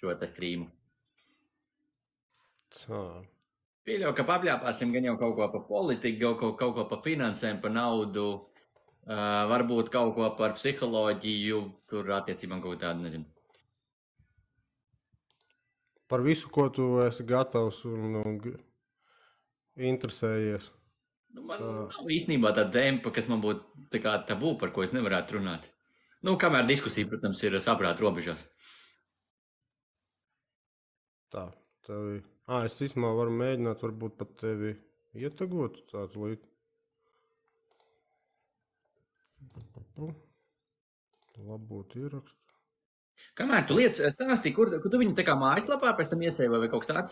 šo te streamu. Tā. Pieļauju, ka papļāpāsim gan jau kaut ko pa politiku, kaut ko pa finansēm, pa naudu, varbūt kaut ko par psiholoģiju, tur attiecībām kaut tādu, nezinu. Par visu, ko tu esi gatavs un interesējies. Man nav īstenībā tāda tempa, kas man būtu tā kā tabū, par ko es nevarētu runāt. Kamēr diskusija, protams, ir saprāta robežās. Tā, tevi. Es vismā varu mēģināt varbūt pat tevi ietagot tādu līdzi. Labot ierakstu. Kamēr tu lietas stāstīji, kur tu viņu tā kā mājaslapā pēc tam iesēji vai kaut kas tāds?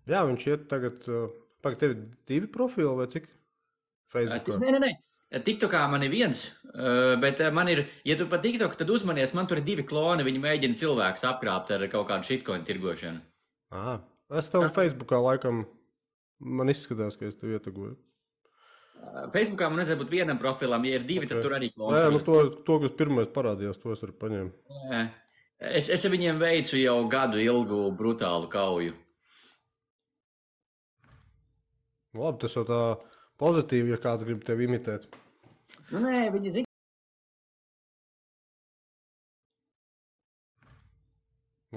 Jā, viņš iet tagad, pagaid, tev 2 profili vai cik? Facebookā? Nē. TikTokā man ir viens, bet man ir, ja tu pa TikTok, tad uzmanies, man tur ir 2 kloni, viņi mēģina cilvēkus apkrāpt ar kaut kādu shitcoin tirgošanu. Es tev Facebookā laikam, man izskatās, ka es tev ietagoju. Facebookā man vajadzētu būt vienam profilam, ja ir 2, tad tur arī klons. Jā, to, kas pirmais parādījās, to es arī paņēmu. Es viņiem veicu jau gadu ilgu brutālu kauju. Labi, tas jau tā pozitīvi, ja kāds grib tevi imitēt. Nē, viņi zina.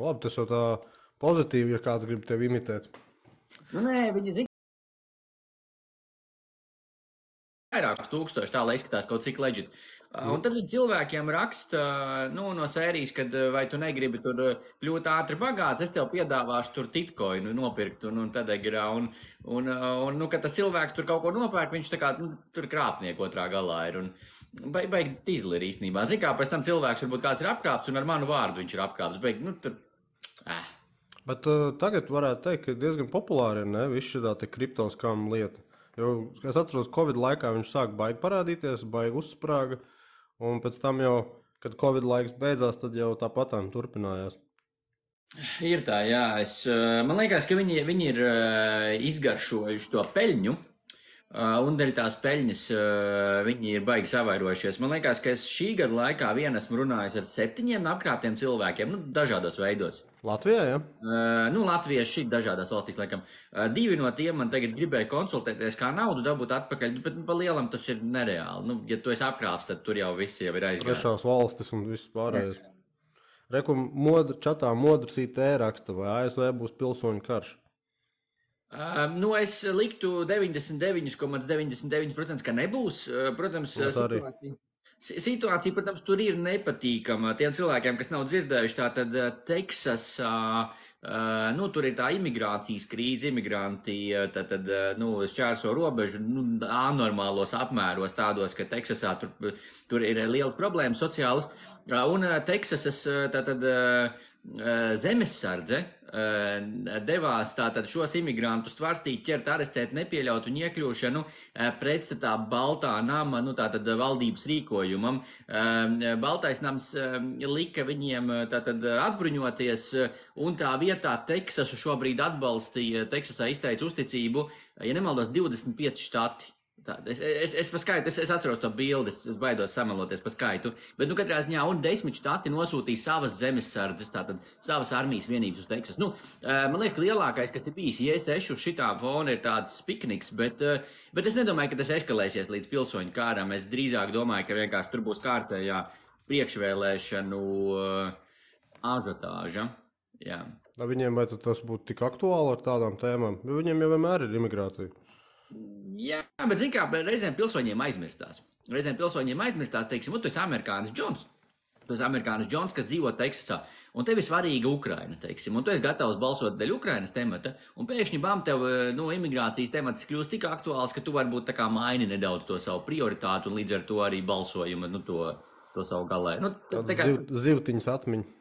Labi, tas jau tā pozitīvi, ja kāds grib tevi imitēt. Nē, viņi zina. Vairākus tūkstoši tā, lai izskatās kaut cik legit. Un tad cilvēkiem raksta, no sērijas, kad vai tu negribi tur kļūt ātri bagāts, es tev piedāvāšu tur titkoinu nopirkt un tad agrā. Un kad tas cilvēks tur kaut ko nopērk, viņš tā kā tur krāpnieku otrā galā ir. Un baigi tīzli ir īstenībā. Zin kā, pēc tam cilvēks varbūt kāds ir apkrāpts un ar manu vārdu viņš ir apkrāpts. Baigi, tur. Bet tagad varētu teikt, ka diezgan populāri ir, ne? Viss šitā te kriptoskām lieta. Jo, es atceros, Covid laikā viņš sāk baigi parādīties, baigi uzsprāga, un pēc tam jau, kad Covid laiks beidzās, tad jau tāpatām turpinājās. Ir tā, jā. Man liekas, ka viņi ir izgaršojuši to peļņu, un dēļ tās peļņas viņi ir baigi savairojušies. Man liekas, ka es šī gada laikā esmu runājis ar 7 apkrāptiem cilvēkiem, dažādos veidos. Latvijā, jā? Latvijā šī dažādās valstīs, laikam. 2 no tiem man tagad gribēja konsultēties, kā naudu dabūt atpakaļ, bet pa lielam tas ir nereāli. Ja tu esi apkrāps, tad tur jau viss jau ir aizgājis. Trešās valstis un viss pārējais. Reku čatā modrs IT raksta, vai ASV būs pilsoņu karš? Es liktu 99,99%, ka nebūs. Protams, situācija, protams, tur ir nepatīkama tiem cilvēkiem, kas nav dzirdējuši. Tātad Teksasā, tur ir tā imigrācijas krīze, imigranti šķērso robežu anormālos apmēros tādos, ka Teksasā tur ir lielas problēmas sociālas. Un Teksasas zemesardze devās tātad šos imigrantus tvarstīt, ķert, arestēt, nepieļaut viņu iekļūšanu pretstatā Baltā nama, tātad valdības rīkojumam. Baltais nams lika viņiem tātad atbruņoties, un tā vietā Teksasu šobrīd atbalstīja, Teksasā izteica uzticību, ja nemaldos, 25 štati. Es atceros to bildi, es baidos samaloties par skaitu, bet katrā ziņā un 10 štati nosūtīja savas zemesardzes, tātad savas armijas vienības uz Teksasu. Man liekas, lielākais, kas ir bijis J6 uz šitā fona, ir tāds pikniks, bet es nedomāju, ka tas eskalēsies līdz pilsoņu kāram. Es drīzāk domāju, ka vienkārši tur būs kārtējā priekšvēlēšanu ažiotāža. Jā. Viņiem vai tas būtu tik aktuāli ar tādām tēmām? Jo viņiem jau vienmēr ir imigrācija. Jā, bet zin kā, reizēm pilsoņiem aizmirstās. Teiksim, tu esi amerikānis Džons. Tu esi amerikānis Džons, kas dzīvo Teksasā, un tev ir svarīga Ukraina, teiksim, un tu esi gatavs balsot dēļ Ukrainas temata, un pēkšņi bam tev, imigrācijas temats kļūst tik aktuāls, ka tu varbūt tā kā maini nedaudz to savu prioritātu, un līdz ar to arī balsojumu, to savu galē. Zivtiņas atmiņu.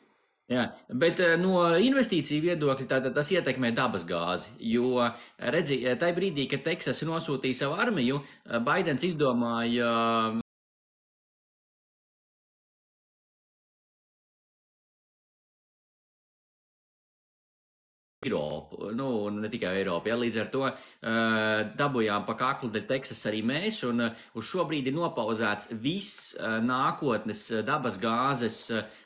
Jā, bet no investīciju viedokļa tas ietekmē dabas gāzi, jo, redzi, tajā brīdī, kad Teksas nosūtīja savu armiju, Baidens izdomāja Eiropu, un ne tikai Eiropu. Ja, līdz ar to dabujām pa kaklu dēļ Teksas arī mēs, un uz šo brīdi ir nopauzēts viss nākotnes dabas gāzes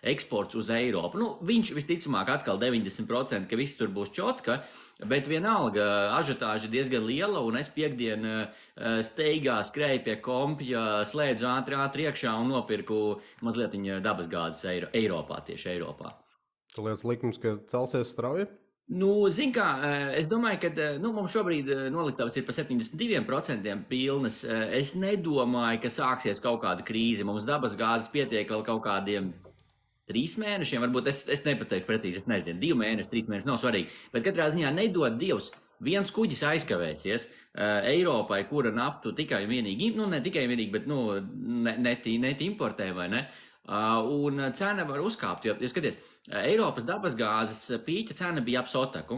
eksports uz Eiropu. Viņš visticamāk atkal 90%, ka viss tur būs čotka, bet vienalga ažiotāža ir diezgan liela, un es piekdien steigā skrēju pie kompja, slēdzu ātri iekšā un nopirku mazliet dabas gāzes Eiropā, tieši Eiropā. Tu liekas likums, ka celsies strauji? Zin kā, es domāju, ka mums šobrīd noliktavas ir pa 72% pilnas. Es nedomāju, ka sāksies kaut kāda krīze. Mums dabas gāzes pietiek vēl kaut kādiem 3 mēnešiem. Varbūt es nepateikšu precīzi, es nezinu, 2 mēneši, 3 mēneši, nav svarīgi. Bet katrā ziņā nedod Dievs, viens kuģis aizkavēsies Eiropai, kura naftu tikai un vienīgi, ne tikai un vienīgi, bet net importē, vai ne? Un cena var uzkāpt, jo, skaties, Eiropas dabasgāzes pīķa cena bija ap sotaku.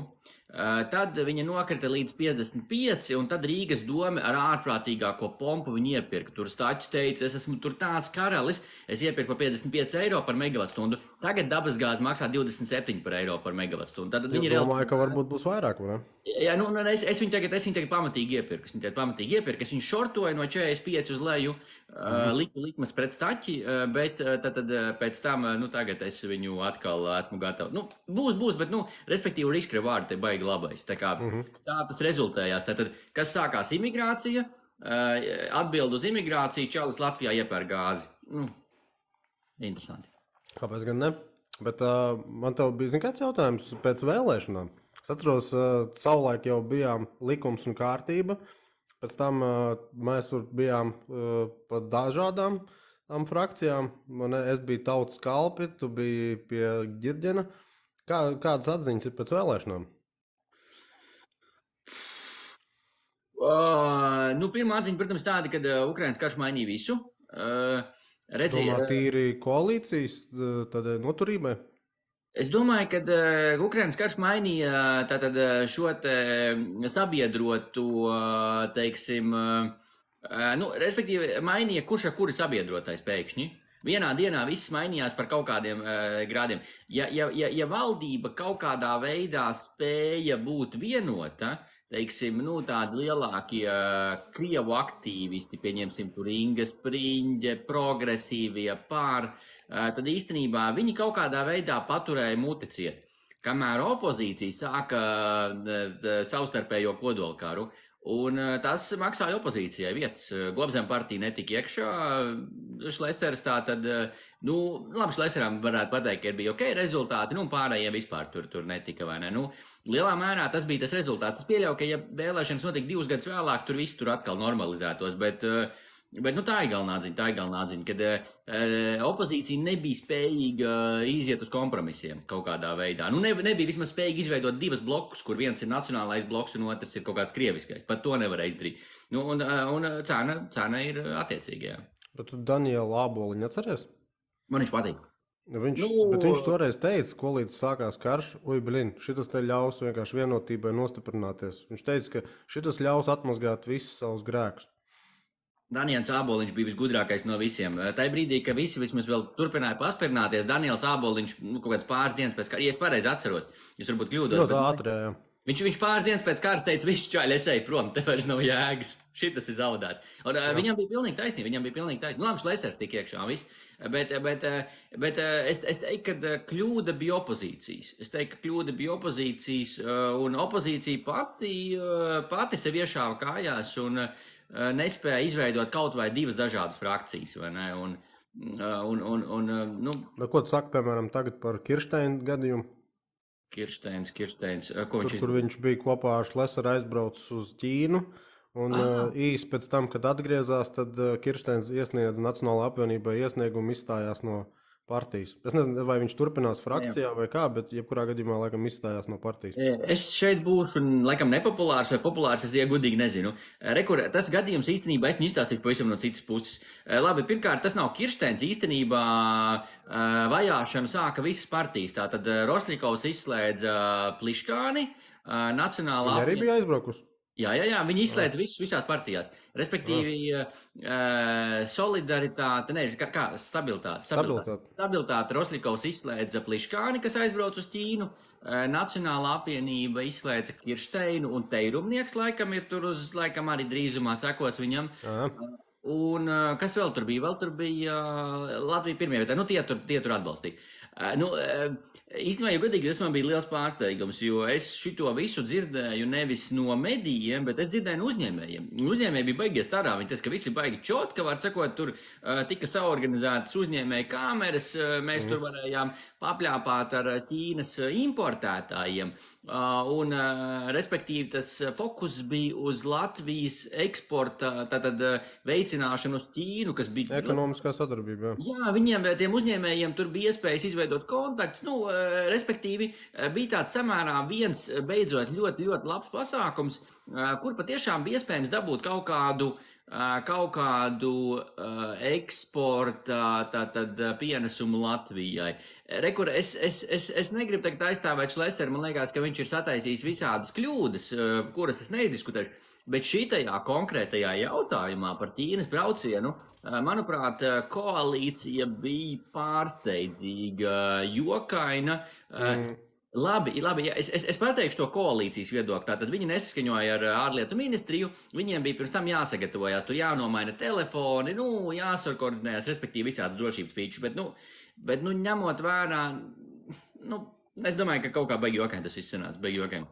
Tad viņa nokrita līdz 55, un tad Rīgas doma ar ārprātīgāko pompu viņu iepirka. Tur Staķis teica, es esmu tur tāds karalis, es iepirku par 55 eiro par megavatstundu. Tagad dabasgāze maksā 27 par eiro par megavatstundu. Tad viņi domāju, ka varbūt būs vairāk, vai ne? Jā, es viņu tagad pamatīgi iepirku. Es viņu šortoju no 45 uz leju, likmes pret Staķi, bet tad pēc tam, tagad es viņu atkal esmu gatavs. Būs, bet, respektīvi riska reward te baigi labais. Tā kā tā tas rezultējās. Tātad, kas sākās imigrācija, atbild uz imigrāciju, čalis Latvijā iepēr gāzi. Interesanti. Kāpēc gan ne? Bet man tev bija, kāds jautājums pēc vēlēšanām. Es atceros, savulaik jau bijām likums un kārtība. Pēc tam mēs tur bijām pa dažādām frakcijām. Es biju Tautas kalpi, tu biji pie Ģirģena. Kādas atziņas ir pēc vēlēšanām? Pirmā atziņa, protams, tāda, ka Ukrainas karš mainīja visu. Domā, tīri koalīcijas noturībai? Es domāju, ka Ukrainas karš mainīja tātad šo te sabiedrotu, teiksim, respektīvi mainīja kurš ar kuri sabiedrotais pēkšņi. Vienā dienā viss mainījās par kaut kādiem grādiem. Ja valdība kaut kādā veidā spēja būt vienota, teiksim, tādi lielākie Krievu aktīvisti, pieņemsim tur Inga Spriņģe, progresīvie tad īstenībā viņi kaut kādā veidā paturēja muti ciet. Kamēr opozīcija sāka savstarpējo kodolkaru, un tas maksāja opozīcijai vietas. Globzem partija netika iekšā, Šlesers tātad, labi, Šleseram varētu pateikt, ka bija ok rezultāti, pārējiem vispār tur netika, vai ne? Lielā mērā tas bija tas rezultāts. Es pieļauju, ka ja vēlēšanas notika 2 gadus vēlāk, tur viss tur atkal normalizētos, bet tā ir galvenā atziņa, kad opozīcija nebija spējīga iziet uz kompromisiem kaut kādā veidā. Nebija vismaz spējīga izveidot 2 blokus, kur viens ir nacionālais bloks un otrs ir kaut kāds krieviskais. Pat to nevarēja izdarīt. Un cena ir attiecīgajā. Bet tu Danielu Āboliņu atceries? Man viņš patīk. Bet viņš toreiz teica, ko līdz sākās karš, šitas te ļaus vienkārši vienotībai nostiprināties. Viņš teica, ka šitas ļaus atmazgāt visus savus grēkus. Daniels Āboliņš bija visgudrākais no visiem. Tajā brīdī, ka visi vismaz vēl turpināja paspirnāties, Daniels Āboliņš kaut kāds pāris dienas pēc kara, ja es pareizi atceros, es varbūt kļūdos. Ļoti ātri, jā. Viņš pāris dienas pēc kāras teica, visi čaļi, es eju prom, te vairs nav jēgas. Šitas ir zaudēts. Un viņam bija pilnīgi taisnība, Labi, Šlesers tik iekšā un viss. Bet es teiktu, ka kļūda bija opozīcijas. Un opozīcija pati sev iešāva kājās un nespēja izveidot kaut vai 2 dažādas frakcijas, vai ne? Ko tu saki, piemēram, tagad par Kirsteina gadījumu? Kirsteins. Kur viņš bija kopā ar Šleseru aizbraucis uz Ķīnu, un īsi pēc tam, kad atgriezās, tad Kirsteins iesniedza Nacionālajai apvienībai iesniegumu, izstājās no partijas. Es nezinu, vai viņš turpinās frakcijā vai kā, bet jebkurā gadījumā laikam izstājās no partijas. Es šeit būšu laikam nepopulārs vai populārs, es godīgi nezinu. Tas gadījums īstenībā es izstāstīšu pavisam no citas puses. Labi, pirmkārt, tas nav Kirsteins. Īstenībā vajāšanu sāka visas partijas. Tātad Rosļikovs izslēdza Pliškāni, Nacionālā Viņa arī bija aizbraukusi? Jā, viņi izslēdz visus visās partijās. Respektīvi, solidaritāte, stabilitāte. Rosļikovs izslēdza Pliškāni, kas aizbrauc uz Ķīnu. Nacionālā apvienība izslēdza Kiršteinu un Teirumnieks, laikam arī drīzumā sekos viņam. Un kas vēl tur bija? Vēl tur bija Latvija pirmajā vietā. Tie tur atbalstīja. Īstenībā, ja godīgi, tas man bija liels pārsteigums, jo es šito visu dzirdēju nevis no medijiem, bet es dzirdēju no uzņēmējiem. Uzņēmēji bija baigies tādā, viņi teica, ka visi baigi čot, ka var sakot, tur tika saorganizētas uzņēmēju kameras, mēs tur varējām papļāpāt ar Ķīnas importētājiem. Respektīvi, tas fokus bija uz Latvijas eksporta veicināšanu uz Ķīnu, kas bija ekonomiskā sadarbība. Jā, viņiem, tiem uzņēmējiem, tur bija iespējas izveidot kontaktus. Respektīvi, bija tāds samērā viens beidzot ļoti, ļoti labs pasākums, kur patiešām bija iespējams dabūt kaut kādu eksporta pienesumu Latvijai. Rekur, es negribu tagad aizstāvēt Šleseru, man liekas, ka viņš ir sataisījis visādas kļūdas, kuras es neizdiskutēšu, bet šitajā konkrētajā jautājumā par Ķīnas braucienu, manuprāt, koalīcija bija pārsteidzīga, jokaina. Labi, jā, es pateikšu to koalīcijas viedokli. Tātad viņi nesaskaņoja ar ārlietu ministriju, viņiem bija pirms tam jāsagatavojās, tur jānomaina telefoni, jāsorkoordinējas, respektīvi visādas drošības features, bet ņemot vērā, es domāju, ka kaut kā baigi jokaini tas viss sanāca, baigi jokaini.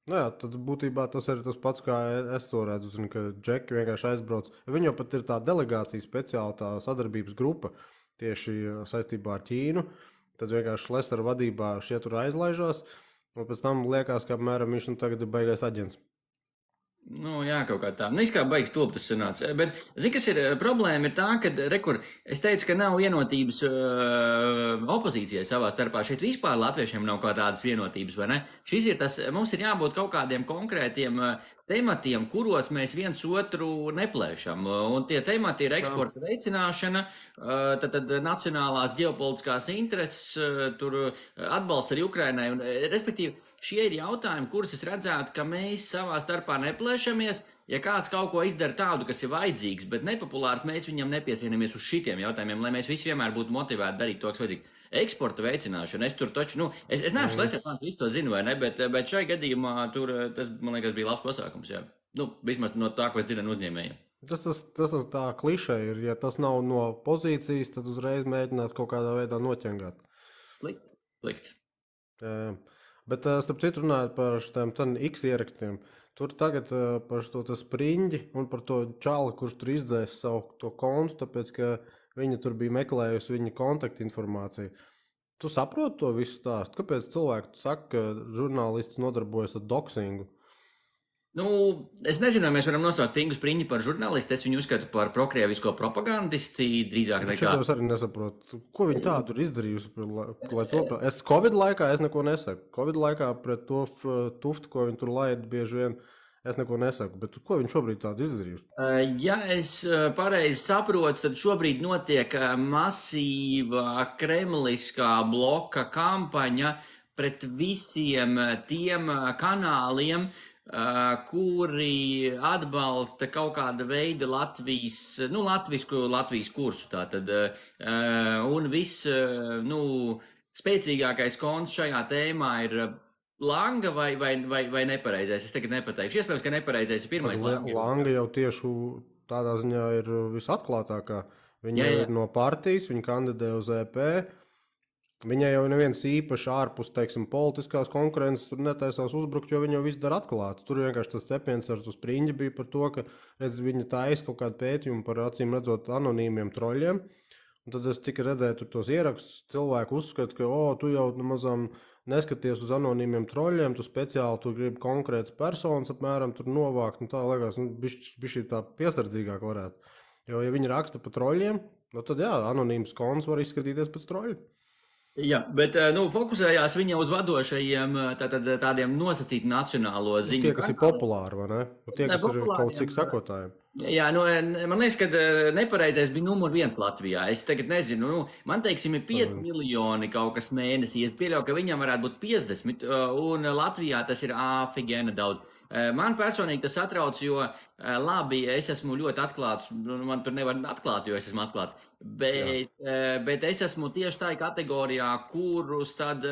Jā, tad būtībā tas ir tas pats, kā es to redzu, ka džeki vienkārši aizbrauc. Viņam pat ir tā delegācija speciāla, tā sadarbības grupa tieši saistībā ar Ķīnu. Tad vienkārši Šlesera vadībā šie tur aizlaižās, un pēc tam liekas, ka apmēram viņš tagad ir baigais aģents. Jā, kaut kā tā. Kā baigs tulp tas sanāca. Bet, kas ir problēma, ir tā, ka, es teicu, ka nav vienotības opozīcijai savā starpā. Šeit vispār latviešiem nav kā tādas vienotības, vai ne? Šis ir tas, mums ir jābūt kaut kādiem konkrētiem tematiem, kuros mēs viens otru neplēšam. Un tie temati ir eksporta veicināšana, tad nacionālās ģeopolitiskās intereses, tur atbalsts arī Ukrainai. Un, respektīvi, šie ir jautājumi, kurus es redzētu, ka mēs savā starpā neplēšamies. Ja kāds kaut ko izdara tādu, kas ir vajadzīgs, bet nepopulārs, mēs viņam nepiesienimies uz šitiem jautājumiem, lai mēs visi vienmēr būtu motivēti darīt to, kas vajadzīgs. Eksporta veicināšana, es tur taču, es neesmu Šlesers, man visu to zinu, vai ne, bet šai gadījumā tur, tas, man liekas, bija labs pasākums, jā. Vismaz no tā, ko es dzirdu no uzņēmējiem. Tas tā klišē ir, ja tas nav no pozīcijas, tad uzreiz mēģināt kaut kādā veidā noķengāt. Slikti. Bet, starp citu runājot par šitiem X ierakstiem, tur tagad par to spriņģi un par to čāli, kurš tur izdzēs savu to kontu, tāpēc, ka viņa tur bija meklējusi viņa kontaktinformāciju. Tu saproti to visu stāstu? Kāpēc cilvēki saka, ka žurnālists nodarbojas ar doksingu? Es nezinu, vai mēs varam nosaukt Ingu Spriņģi par žurnālistu. Es viņu uzskatu par prokrievisko propagandisti drīzāk nekā. Es arī nesaprotu. Ko viņi tā tur izdarījusi? Es Covid laikā neko nesaku. Covid laikā pret to tuftu, ko viņi tur laida bieži vien, es neko nesaku, bet ko viņš šobrīd tādu izdarījusi? Ja es pareizi saprotu, tad šobrīd notiek masīva kremliskā bloka kampaņa pret visiem tiem kanāliem, kuri atbalsta kaut kāda veida Latvijas kursu. Tātad, un viss, spēcīgākais konts šajā tēmā ir Langa vai nepareizais? Es tagad nepateikšu. Iespējams, ka nepareizais ir pirmais. Langa jau tieši tādā ziņā ir visatklātākā. Viņa ir no partijas, viņa kandidē uz EP. Viņai jau neviens īpaši ārpus, politiskās konkurences tur netaisās uzbrukt, jo viņa jau visu dara atklāti. Tur vienkārši tas cepiens ar to Spriņģi bija par to, ka viņa taisa kaut kādu pētījumu par acīm redzot anonīmiem troļiem. Un tad es cik redzēju tur tos ierakstus, cilvēku uzskata, ka tu jau mazām neskaties uz anonīmiem troļiem, tu speciāli gribi konkrētas personas apmēram tur novākt. Tā liekas, bišķi tā piesardzīgāk varētu. Jo, ja viņi raksta par troļiem, tad jā, anonīms konts var izskatīties pēc troļu. Jā, bet fokusējās viņa uz vadošajiem tādiem nosacīti nacionālo ziņu. Tie, kas ir populāri, vai ne? Tie, kas ir kaut cik sakotājiem. Jā, man liekas, ka nepareizais bija numur 1 Latvijā. Es tagad nezinu, man ir 5 miljoni kaut kas mēnesī. Es pieļauju, ka viņam varētu būt 50, un Latvijā tas ir āfigēna daudz. Man personīgi tas satrauc, jo labi, es esmu ļoti atklāts, man tur nevar atklāt, jo es esmu atklāts, bet es esmu tieši tā kategorijā, kurus tad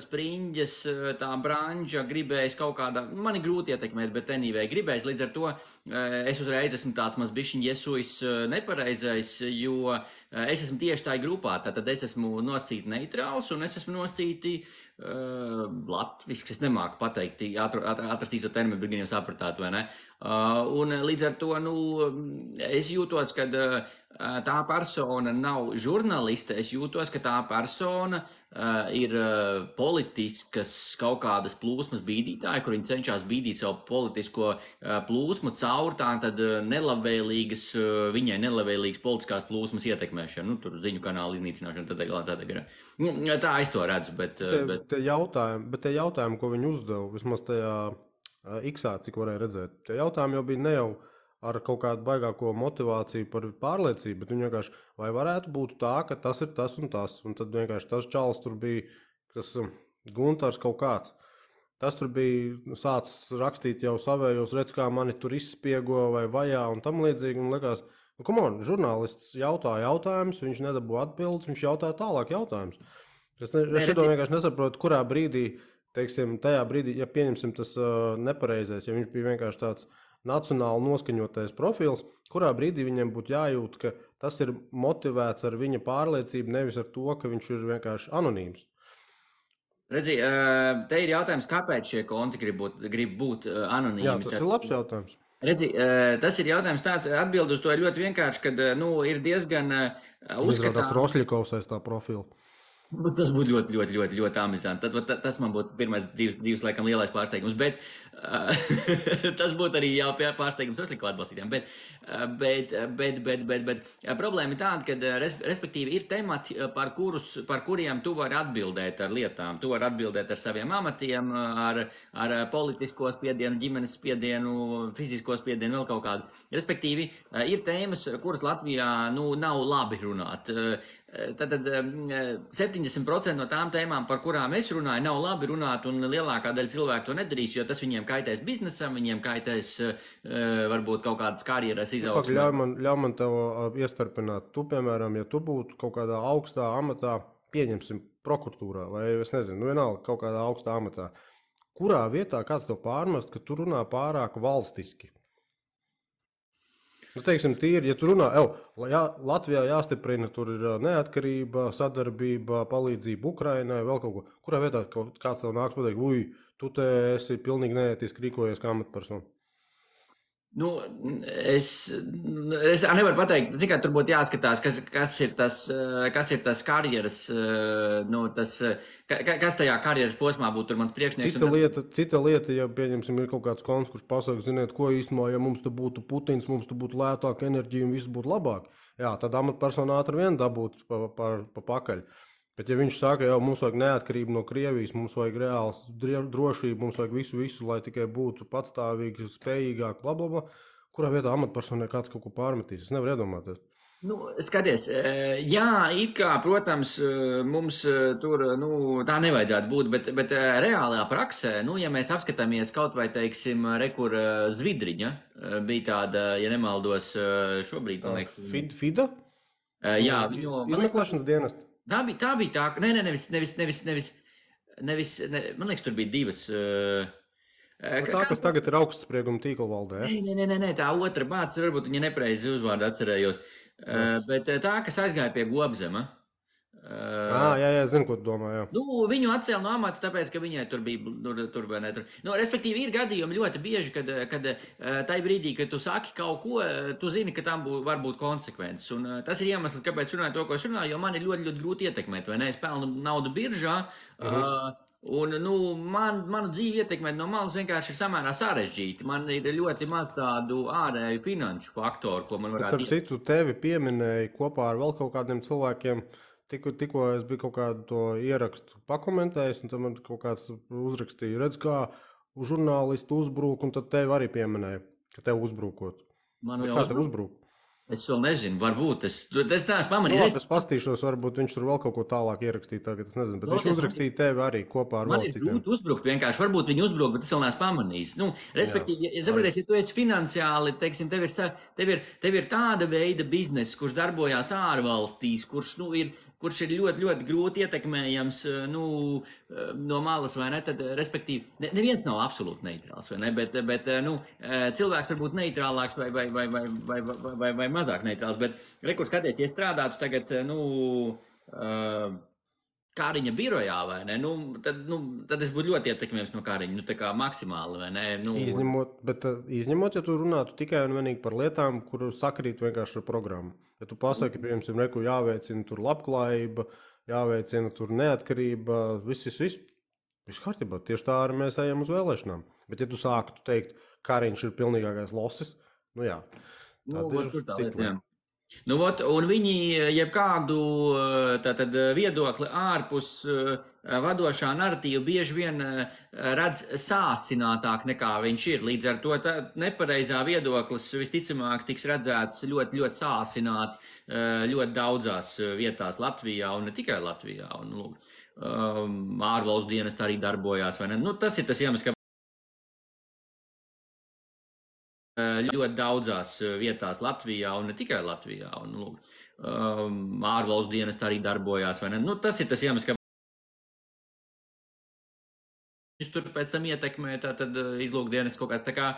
spriņģes tā branža gribējis kaut kādā, man ir grūti ietekmēt, bet anyway gribējis, līdz ar to es uzreiz esmu tāds maz bišķiņ iesuis nepareizais, jo es esmu tieši tā grupā, tātad es esmu nosacīti neitrāls un es esmu nosacīti latviski, es nemāku pateikt, atrast īsto terminu, bet gan jau sapratāt, vai ne? Un līdz ar to, es jūtos, ka tā persona nav žurnaliste, es jūtos, ka tā persona ir politiskas kaut kādas plūsmas bīdītāja, kur viņi cenšas bīdīt savu politisko plūsmu caur tātad viņai nelabvēlīgas politiskās plūsmas ietekmēšanu, tur ziņu kanālu iznīcināšanu, tā es to redzu, bet tie jautājumi, ko viņi uzdeva, vismaz tajā X-ā, cik varēja redzēt, tie jautājumi jau bija ne jau ar kaut kādu baigāko motivāciju par pārliecību, bet viņi vienkārši, vai varētu būt tā, ka tas ir tas un tas, un tad vienkārši tas čalis tur bija, tas Guntars kaut kāds, tas tur bija sācis rakstīt jau savējos, redz, kā mani tur izspiego vai vajā un tam līdzīgi, un likās, come on, žurnālists jautā jautājumus, viņš nedabū atbildes, viņš jautā tālāk jautājumus. Es šito vienkārši nesaprotu, kurā brīdī, teiksim, tajā brīdī, ja pieņemsim tas nepareizais, ja viņš bija vienkārši tāds nacionāli noskaņotais profils, kurā brīdī viņiem būtu jājūt, ka tas ir motivēts ar viņa pārliecību, nevis ar to, ka viņš ir vienkārši anonīms. Redzi, te ir jautājums, kāpēc šie konti grib būt anonīmi? Jā, tas ir labs jautājums. Redzi, tas ir jautājums tāds, atbild uz to ir ļoti vienkārši, kad, ir diezgan uzskatām. Rosļikovs aiz tā profila. Tas būtu ļoti amizanti. Tas man būtu pirmais divs laikam lielais pārsteigums, bet tas būtu arī jau pārsteigums Rosļikova atbalstītājiem. Bet problēma ir tāda, ka respektīvi ir temati, par kuriem tu vari atbildēt ar lietām. Tu vari atbildēt ar saviem amatiem, ar politisko spiedienu, ģimenes spiedienu, fizisko spiedienu, vēl kaut kādu. Respektīvi, ir tēmas, kuras Latvijā nav labi runāt. Tad 70% no tām tēmām, par kurām es runāju, nav labi runāt, un lielākā daļa cilvēku to nedarīs, jo tas viņiem kaitēs biznesam, viņiem kaitēs varbūt kaut kādas karjeras izaugsmē. Ļauj man tev iestarpināt. Tu, piemēram, ja tu būtu kaut kādā augstā amatā, pieņemsim prokuratūrā, vai es nezinu, vienalga kaut kādā augstā amatā, kurā vietā kāds tev pārmest, ka tu runā pārāk valstiski? Teiksim, tīri, ja tu runā, Latvijā jāstiprina, tur ir neatkarība, sadarbība, palīdzība Ukrainai, vēl kaut ko. Kurā vietā kāds tev nāks pateikt, tu te esi pilnīgi neētiski rīkojies kā amatpersona? Es nevaru pateikt, cik tur būtu jāskatās, kas ir tas karjeras, kas tajā karjeras posmā būtu tur mans priekšnieks. Cita lieta, ja pieņemsim, ir kaut kāds kons, kurš pasaka, ziniet, ko īstenībā, ja mums te būtu Putins, mums te būtu lētāka enerģija un viss būtu labāk. Jā, tad amatpersonā ātri vien dabūt pa pakaļ. Bet ja viņš saka, mums vajag neatkarību no Krievijas, mums vajag reāls drošību, mums vajag visu, lai tikai būtu patstāvīgi, spējīgāk, blablabla, kurā vietā amatpersonai kāds kaut ko pārmetīs? Es nevaru iedomāties. Skaties, jā, it kā, protams, mums tur, tā nevajadzētu būt, bet reālajā praksē, ja mēs apskatāmies kaut vai, teiksim, rekur Zvidriņa, bija tāda, ja nemaldos, šobrīd, man liekas. FIDA? Jā, izmeklēšanas dienesti. Tā bija tā, nevis, man liekas, tur bija divas. Tā, kas tagad ir augstsprieguma tīkla valdē. Nē, tā otra bācis, varbūt viņa nepreizi uzvārdu atcerējos, bet tā, kas aizgāja pie Gobzema. Jā, zinu, ko tu domā, jā. Viņu atcēla no amata, tāpēc, ka viņai tur bija, tur vai ne tur. Respektīvi, ir gadījumi ļoti bieži, kad tai brīdī, kad tu saki kaut ko, tu zini, ka tam var būt konsekvences. Un tas ir iemesls, kāpēc runāju to, ko es runāju, jo man ir ļoti grūti ietekmēt, vai ne? Es pelnu naudu biržā, un, manu dzīvi ietekmēt no malas vienkārši ir samērā sarežģīti. Man ir ļoti maz tādu ārēju finanšu faktoru, ko man varētu... Es citu tevi pieminēju kopā ar vēl kaut kādiem cilvēkiem. Tikko es biju kaut kādu to ierakstu pakomentējis, un tad man kaut kāds uzrakstīja, redz, kā žurnālisti uzbrūk, un tad tevi arī pieminēja, ka tev uzbrūkot. Kā tev uzbrūk? Es vēl nezinu, varbūt es neesmu Nu, pamanījis. labi, es pastīšos, varbūt viņš tur vēl kaut ko tālāk ierakstīja tagad, es nezinu, bet viņš uzrakstīja tevi arī kopā ar Man vēl ir citiem. grūti uzbrukt, vienkārši varbūt viņi uzbruk, bet es vēl neesmu pamanījis. Nu, respektīvi, ja tu esi finansiāli, teiksim, tev ir tāda veida bizness, kurš darbojās ārvalstīs, kurš ir ļoti, ļoti grūti ietekmējams no malas, vai ne? Tad, respektīvi, neviens nav absolūti neitrāls, vai ne? Bet cilvēks var būt neitrālāks vai mazāk neitrāls. Bet, kur skaties, ja strādātu tagad, Kāriņa birojā, vai ne? Tad es būtu ļoti ietekmējams no Kāriņa, tā kā maksimāli, vai ne? Izņemot, ja tu runātu tikai un vienīgi par lietām, kur sakrīt vienkārši ar programmu. Ja tu pasaki, piemēram, reku jāveicina tur labklājība, jāveicina tur neatkarība, viss kārtībā. Tieši tā arī mēs ejam uz vēlēšanām. Bet ja tu sāktu teikt, Kāriņš ir pilnīgākais losis, jā. Tad ir cita lieta. Un viņi jebkādu viedokli ārpus vadošā narratīva bieži vien redz sāsinātāk nekā viņš ir. Līdz ar to nepareizā viedoklis visticamāk tiks redzēts ļoti, ļoti sāsināti ļoti daudzās vietās Latvijā un ne tikai Latvijā. Ārvalstu dienesti arī darbojās, vai ne? Tas ir tas iemesls, ka ļoti daudzās vietās Latvijā un ne tikai Latvijā. Ārvalstu dienesti arī darbojās, vai ne? Tas ir tas iemesls, ka viņš tur pēc tam ietekmē izlūkdienests kaut kāds tā kā,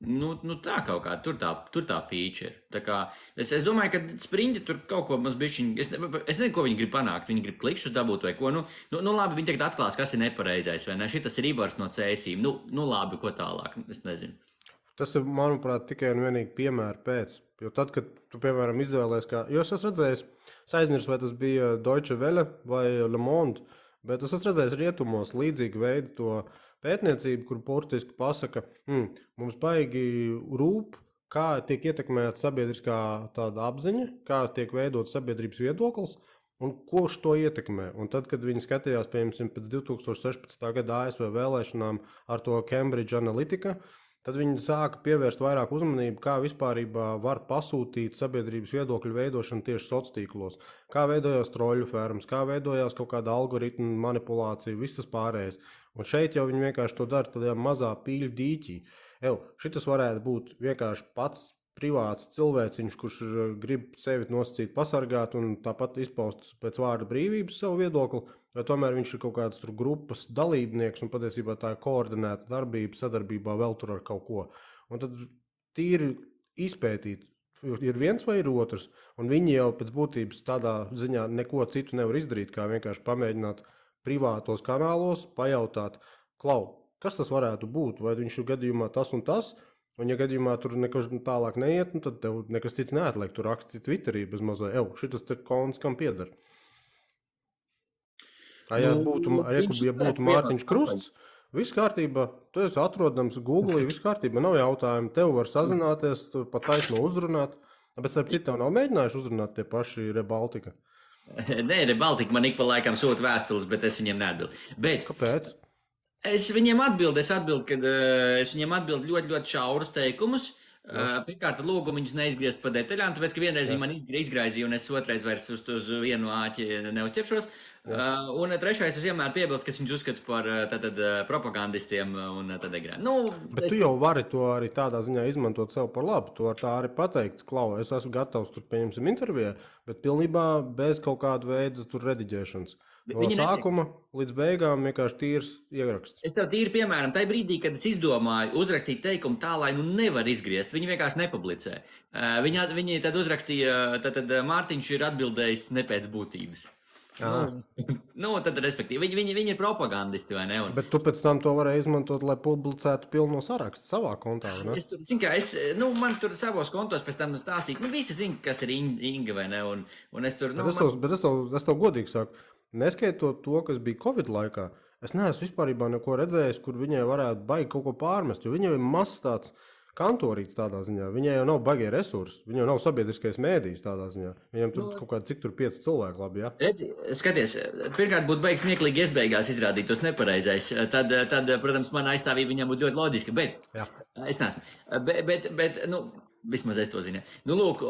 tā kaut kā, tur tā feature. Tā kā, es domāju, ka Spriņģi tur kaut ko maz bišķiņ, es nezinu, ko viņi grib panākt, viņi grib klikšus dabūt vai ko, labi, viņi tagad atklās, kas ir nepareizais, vai ne, šitas ir Ibars no cēsīm, labi, ko tālāk, es nezinu. Tas ir, manuprāt, tikai un vienīgi piemēra pēc. Jo tad, kad tu, piemēram, izvēlējies, jo es esmu redzējis, es aizmirsu, vai tas bija Deutsche Welle vai Le Monde, bet es esmu redzējis rietumos līdzīgu veidu to pētniecību, kur burtiski pasaka, mums baigi rūp, kā tiek ietekmēta sabiedriskā tāda apziņa, kā tiek veidot sabiedrības viedoklis un kurš to ietekmē. Un tad, kad viņi skatījās, piemēram, pēc 2016. gada ASV vēlēšanām ar to Cambridge Analytica, tad viņi sāka pievērst vairāk uzmanību, kā vispārībā var pasūtīt sabiedrības viedokļu veidošanu tieši sociālos tīklos. Kā veidojās troļu fermas, kā veidojās kaut kāda algoritma manipulācija, viss tas pārējais. Un šeit jau viņi vienkārši to dara tādā mazā pīļu dīķī. Šitas varētu būt vienkārši pats privāts cilvēciņš, kurš grib sevi nosacīt pasargāt un tāpat izpaust pēc vārda brīvības savu viedokli, vai tomēr viņš ir kaut kāds tur grupas dalībnieks un patiesībā tā ir koordinēta darbība, sadarbībā vēl tur ar kaut ko. Un tad tīri izpētīt, ir viens vai ir otrs, un viņi jau pēc būtības tādā ziņā neko citu nevar izdarīt, kā vienkārši pamēģināt privātos kanālos pajautāt, kas tas varētu būt, vai viņš ir gadījumā tas un tas, un ja gadījumā tur nekas tālāk neiet, tad tev nekas cits neatliek, tu raksti Twitterī bez mazā, šitas te konts kam pieder. Ja būtu Mārtiņš Krusts, viss kārtībā, tu esi atrodams Google, viss kārtībā, nav jautājumu, tev var sazināties, pat taisno uzrunāt, bet starp citu tev nav mēģinājuši uzrunāt tie paši Rebaltika? Nē, Rebaltika man ik pa laikam sūta vēstules, bet es viņiem neatbildu. Kāpēc? Es viņiem atbildu, kad es viņiem atbildu ļoti, ļoti šaurus teikumus. Pirmkārt, lūgu viņus neizgriezt pa detaļām, tāpēc, ka vienreiz viņi man izgraizīja, un es otrais vairs uz vienu āķi neuzķeršos. Un trešais, es vienmēr piebilstu, ka viņus uzskatu par propagandistiem un tad egrēm. Bet tu jau vari to arī tādā ziņā izmantot sev par labu. Tu vari tā arī pateikt, es esmu gatavs tur pieņemsim intervijā, bet pilnībā bez kaut kāda veida tur rediģēšanas. No sākuma līdz beigām vienkārši tīrs ieraksts. Es tev tīri piemēram, tajā brīdī, kad es izdomāju uzrakstīt teikumu tā, lai nevar izgriezt, viņi vienkārši nepublicē. Viņi tad uzrakstīja, tad Mārtiņš ir atbildējis ne pēc būtības. Tad, respektīvi, viņi ir propagandisti, vai ne? Bet tu pēc tam to varēji izmantot, lai publicētu pilno sarakstu savā kontā, vai ne? Man tur savos kontos pēc tam stāstīt, visi zina, kas ir Inga, vai ne? Un es tur, bet es tev godīgi saku, neskaitot to, kas bija Covid laikā, es neesmu vispārībā neko redzējis, kur viņai varētu baigi kaut ko pārmest, jo viņai ir mazs tāds kantorīts tādā ziņā. Viņai jau nav baigie resursi, viņai jau nav sabiedriskais mēdījis tādā ziņā. Viņam tur kaut kādi cik tur 5 cilvēki labi, ja? Redzi, skaties, pirmkārt būtu baigs smieklīgi iesbeigās izrādīt tos nepareizais. Tad, protams, mana aizstāvība viņam būtu ļoti loģiska, bet es neesmu. Bet Vismaz es to zinu. Nu, lūk,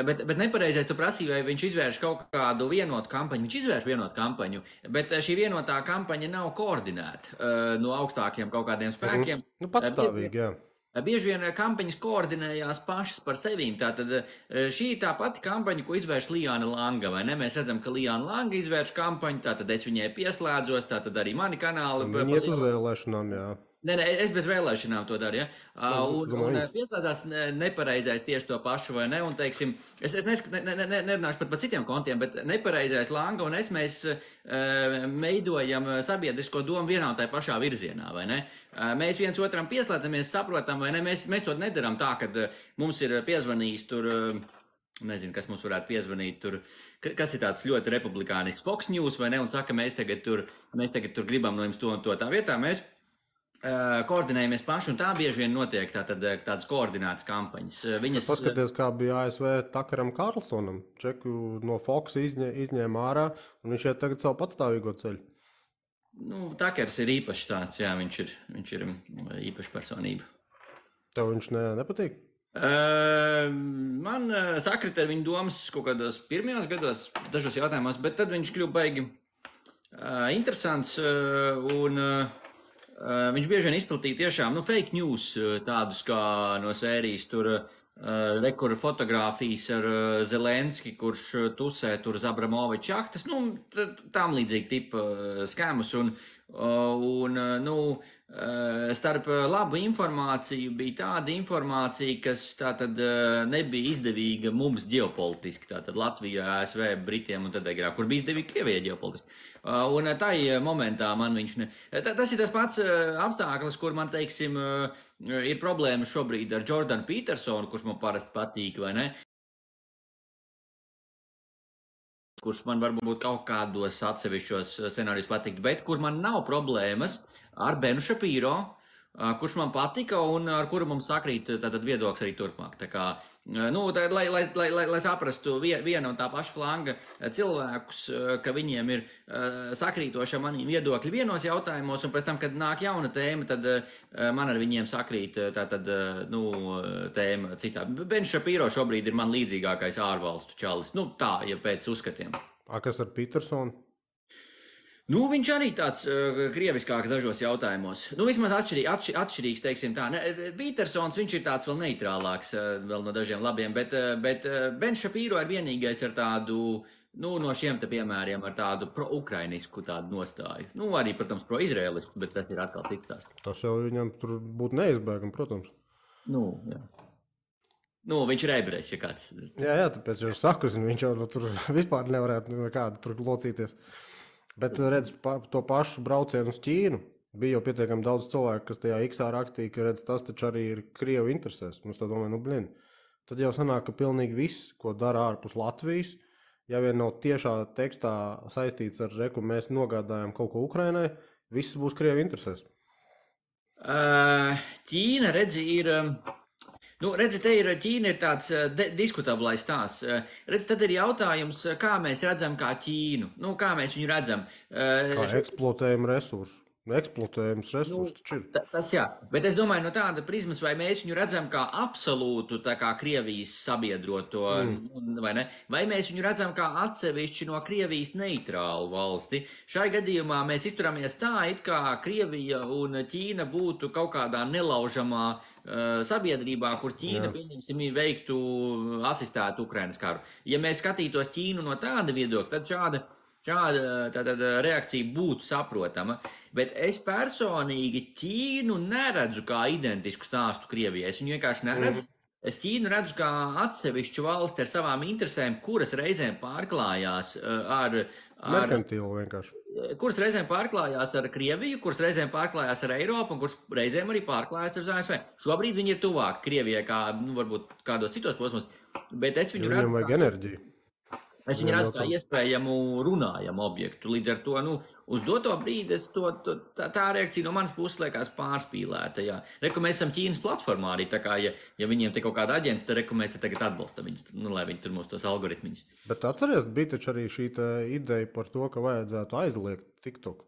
bet nepareizais tu prasīji, vai viņš izvērš kaut kādu vienotu kampaņu. Viņš izvērš vienotu kampaņu, bet šī vienotā kampaņa nav koordinēta no augstākiem kaut kādiem spēkiem. Nu, patstāvīgi, jā. Bieži vien kampaņas koordinējās pašas par sevīm. Tātad šī ir tā pati kampaņa, ko izvērš Lijāna Langa, vai ne? Mēs redzam, ka Lijāna Langa izvērš kampaņu, tātad es viņai pieslēdzos, tātad arī mani kanāli. Viņi iet uz vēlēšanām, jā. Nē, es bez vēlēšanām to daru, ja? Un pieslēdzās nepareizais tieši to pašu, vai ne? Un, teiksim, es nerunāšu pat par citiem kontiem, bet nepareizais Langa un mēs veidojam sabiedrisko domu vienā un tajā pašā virzienā, vai ne? Mēs viens otram pieslēdzamies, saprotam, vai ne? Mēs to nedaram tā, kad mums ir piezvanījis tur, nezinu, kas mums varētu piezvanīt tur, kas ir tāds ļoti republikānisks Fox News, vai ne? Un saka, mēs tagad tur gribam no jums to un to tā vietā. Mēs koordinējamies paši, un tā bieži vien notiek tādas koordinētas kampaņas. Paskaties, kā bija ASV Takaram Karlsonam. Čeku no Fox izņēma ārā, un viņš iet tagad savu patstāvīgo ceļu. Nu, Takers ir īpašs tāds, jā, viņš ir īpaša personība. Tev viņš nepatīk? Man sakrita ar viņu domas kaut kādos pirmajos gados, dažos jautājumos, bet tad viņš kļuva baigi interesants, un viņš bieži vien izplatīja tiešām fake news, tādus kā no sērijas tur rekur fotogrāfijas ar Zelenski, kurš tusē tur Zabramoviča jahtas, tām līdzīgi tipa skēmus, un starp labu informāciju bija tāda informācija, kas tātad nebija izdevīga mums ģeopolitiski, tātad Latvijā, ASV, Britiem un tad agrāk, kur bija izdevīga Krievijai ģeopolitiski. Un tai momentā man viņš tas ir tas pats apstākļus, kur man, teiksim, ir problēma šobrīd ar Jordanu Petersonu, kurš man parasti patīk, vai ne? Kurš man varbūt kaut kādos atsevišķos scenārijos patikt, bet kur man nav problēmas ar Benu Šapīro, kurš man patika un ar kuru mums sakrīt tātad viedoklis arī turpmāk. Tā kā, lai saprastu viena un tā paša flanga cilvēkus, ka viņiem ir sakrītoši manī viedokļi vienos jautājumos, un pēc tam, kad nāk jauna tēma, tad man ar viņiem sakrīt tēma citā. Bens Šapīro šobrīd ir man līdzīgākais ārvalstu čalis. Tā, ja pēc uzskatiem. Kas ar Petersonu? Viņš arī tāds krieviskāks dažos jautājumos. Vismaz atšķirīgs, teiksim tā. Petersons, viņš ir tāds vēl neitrālāks, vēl no dažiem labiem, bet Bens Šapīro ir vienīgais ar tādu, no šiem te piemēriem, ar tādu pro-ukrainisku tādu nostāju. Arī, protams, pro-izraēlisku, bet tas ir atkal cits tās. Tas jau viņam tur būtu neizbēgam, protams. Jā. Viņš ir ebrejs, ja kāds. Jā, tāpēc jau saku, viņš jau tur vispār nevarētu nekādu tur locīties. Bet redz, to pašu braucienu uz Ķīnu bija jau pietiekami daudz cilvēku, kas tajā X-ā rakstīja, ka redz, tas taču arī ir Krievu interesēs. Mums tā domāja, tad jau sanāk, ka pilnīgi viss, ko dara ārpus Latvijas, ja vien nav tiešā tekstā saistīts ar reku, mēs nogādājam kaut ko Ukrainai, viss būs Krievu interesēs. Ķīna, redzi, ir... Ķīna ir tāds diskutablais stāsts. Tad ir jautājums, kā mēs redzam kā Ķīnu. Kā mēs viņu redzam. Kā eksploatējam resursus. Eksploatējums resursus taču ir. Tas jā, bet es domāju no tāda prizmas, vai mēs viņu redzam kā absolūtu, tā kā Krievijas sabiedroto, vai ne? Vai mēs viņu redzam kā atsevišķi no Krievijas neitrālu valsti. Šai gadījumā mēs izturamies tā, it kā Krievija un Ķīna būtu kaut kādā nelaužamā sabiedrībā, kur Ķīna, pieņemsim, veiktu asistētu Ukrainas karu. Ja mēs skatītos Ķīnu no tāda viedokļa, tad šāda reakcija būtu saprotama, bet es personīgi Ķīnu neredzu kā identisku stāstu Krievijai. Es viņu vienkārši neredzu. Es Ķīnu redzu kā atsevišķu valsti ar savām interesēm, kuras reizēm pārklājās ar merkantīlu vienkārši. Kuras reizēm pārklājās ar Krieviju, kuras reizēm pārklājās ar Eiropu un kuras reizēm arī pārklājās ar ASV. Šobrīd viņi ir tuvāk Krievijai kā, varbūt kādos citos posmos, bet es viņu redzu. Viņam vajag enerģiju. Es viņu redzu kā iespējamu runājamu objektu. Līdz ar to, uz doto brīdi tā reakcija no manas puses liekas pārspīlēta. Jā. Reku mēs esam Ķīnas platformā arī, tā kā, ja viņiem te kaut kāda aģenta, tad reku mēs te tagad atbalstam viņus, lai viņi tur mūs tos algoritmiņus. Bet atceries, bija taču arī šī ideja par to, ka vajadzētu aizliegt TikTok.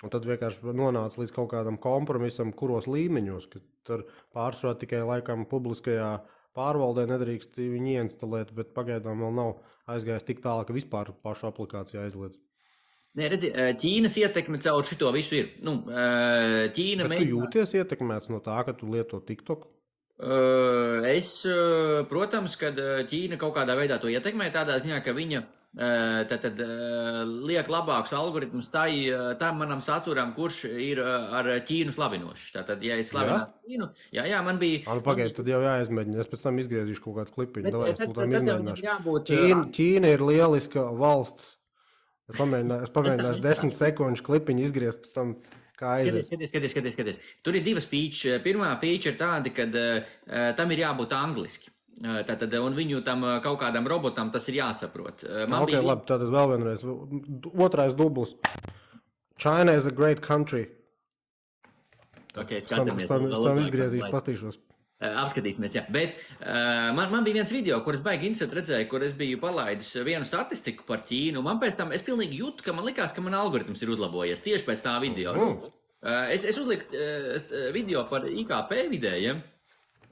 Un tad vienkārši nonāca līdz kaut kādam kompromisam, kuros līmeņos, ka tur pārsvarā tikai laikam publiskajā pārvaldē nedrīkst viņu ieinstalēt, bet pagaidām vēl nav aizgājis tik tālu, ka vispār pašu aplikāciju aizliedz. Nē, redzi, Ķīnas ietekme caur šito visu ir. Ķīna Bet tu jūties ietekmēts no tā, ka tu lieto TikTok? Protams, kad Ķīna kaut kādā veidā to ietekmē, tādā ziņā, ka viņa liek labākus algoritmus tam manam saturam, kurš ir ar Ķīnu slavinošs. Tātad, ja es slavinātu Ķīnu, jā, man bija... Pagaid, tad jau jāizmēģina. Es pēc tam izgriezīšu kaut kādu klipiņu. Davai, es tam izmēģināšu. Jābūt, Ķīna ir lieliska valsts. Es pamēģināšu 10 sekundžu klipiņu izgriezt pēc tam, kā aizies. Skaties. Tur ir divas feature. Pirmā feature ir tāda, kad tam ir jābūt angliski. Tātad, un viņu tam kaut kādam robotam tas ir jāsaprot. Labi, tātad vēl vienreiz. Otrais dubls. China is a great country. Skatāmies. Tam izgriezīšu, pastīšos. Apskatīsimies, jā. Bet man bija viens video, kur es baigi interesanti redzēju, kur es biju palaidis vienu statistiku par Ķīnu. Man pēc tam, es pilnīgi jūtu, ka man likās, ka man algoritms ir uzlabojies tieši pēc tā video. Es uzliku video par IKP vidējiem.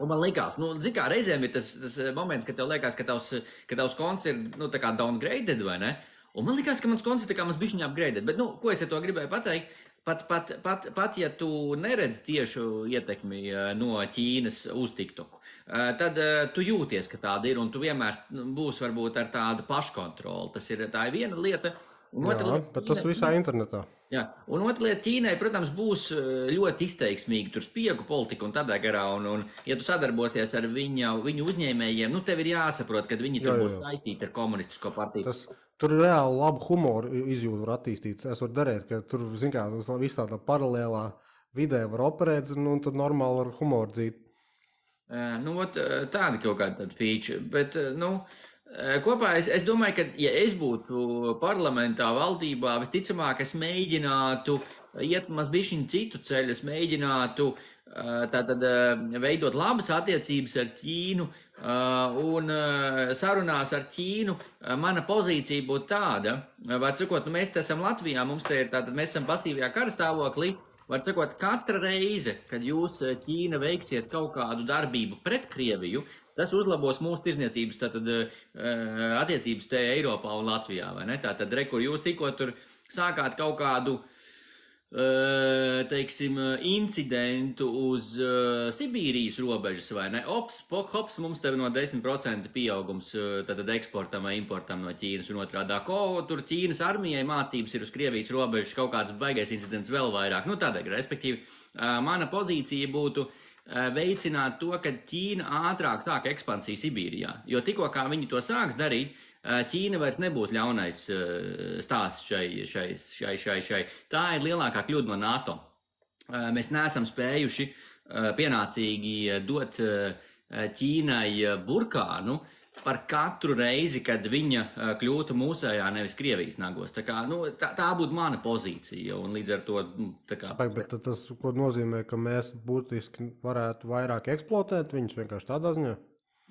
Un man likās, zin kā reizēm ir tas moments, kad tev liekas, ka tavs konts ir, tā kā downgraded, vai ne? Un man likās, ka mans konts ir tā kā mans bišķiņā upgraded. Bet, ko es ar to gribēju pateikt? Pat ja tu neredz tiešu ietekmi no Ķīnas uz TikToku, tad tu jūties, ka tāda ir, un tu vienmēr būsi varbūt ar tādu paškontroli. Tā ir viena lieta. Bet tas visā internetā. Jā, un otra lieta, Ķīnai, protams, būs ļoti izteiksmīgi tur spiegu politika un tādā garā, un ja tu sadarbosies ar viņu uzņēmējiem, tev ir jāsaprot, ka viņi tur būs saistīti ar komunistisko partiju. Tur reāli labu humoru izjūtu var attīstīt. Es varu darīt, ka tur, zin kā, visā tā paralēlā vidē var operēt, un tad normāli var humoru dzīt. Tāda kaut kāda feature, bet, kopā es domāju, ka, ja es būtu parlamentā, valdībā, visticamāk, es mēģinātu iet mazbišķiņu citu ceļu, es mēģinātu veidot labas attiecības ar Ķīnu, un sarunās ar Ķīnu mana pozīcija būtu tāda, var sakot, mēs esam Latvijā, mēs esam pasīvajā karastāvoklī, var sakot, katra reize, kad jūs Ķīna veiksiet kaut kādu darbību pret Krieviju, tas uzlabos mūsu tirzniecības attiecības te Eiropā un Latvijā, vai ne? Tātad, kur jūs tikko tur sākāt kaut kādu, teiksim, incidentu uz Sibīrijas robežas, vai ne? Hops, mums tev no 10% pieaugums tātad eksportam vai importam no Ķīnas un otrādā. Tur Ķīnas armijai mācības ir uz Krievijas robežas kaut kāds baigais incidents vēl vairāk. Tādēļ, respektīvi, mana pozīcija būtu veicināt to, ka Ķīna ātrāk sāk ekspansiju Sibīrijā. Jo tikko kā viņi to sāks darīt, Ķīna vairs nebūs ļaunais stāsts šai. Tā ir lielākā kļūda no NATO. Mēs neesam spējuši pienācīgi dot Ķīnai burkānu par katru reizi, kad viņa kļūtu mūsējā, nevis Krievijas nagos. Tā būtu mana pozīcija, un līdz ar to... Bet tas, ko nozīmē, ka mēs būtiski varētu vairāk eksploatēt viņus vienkārši tādā ziņā?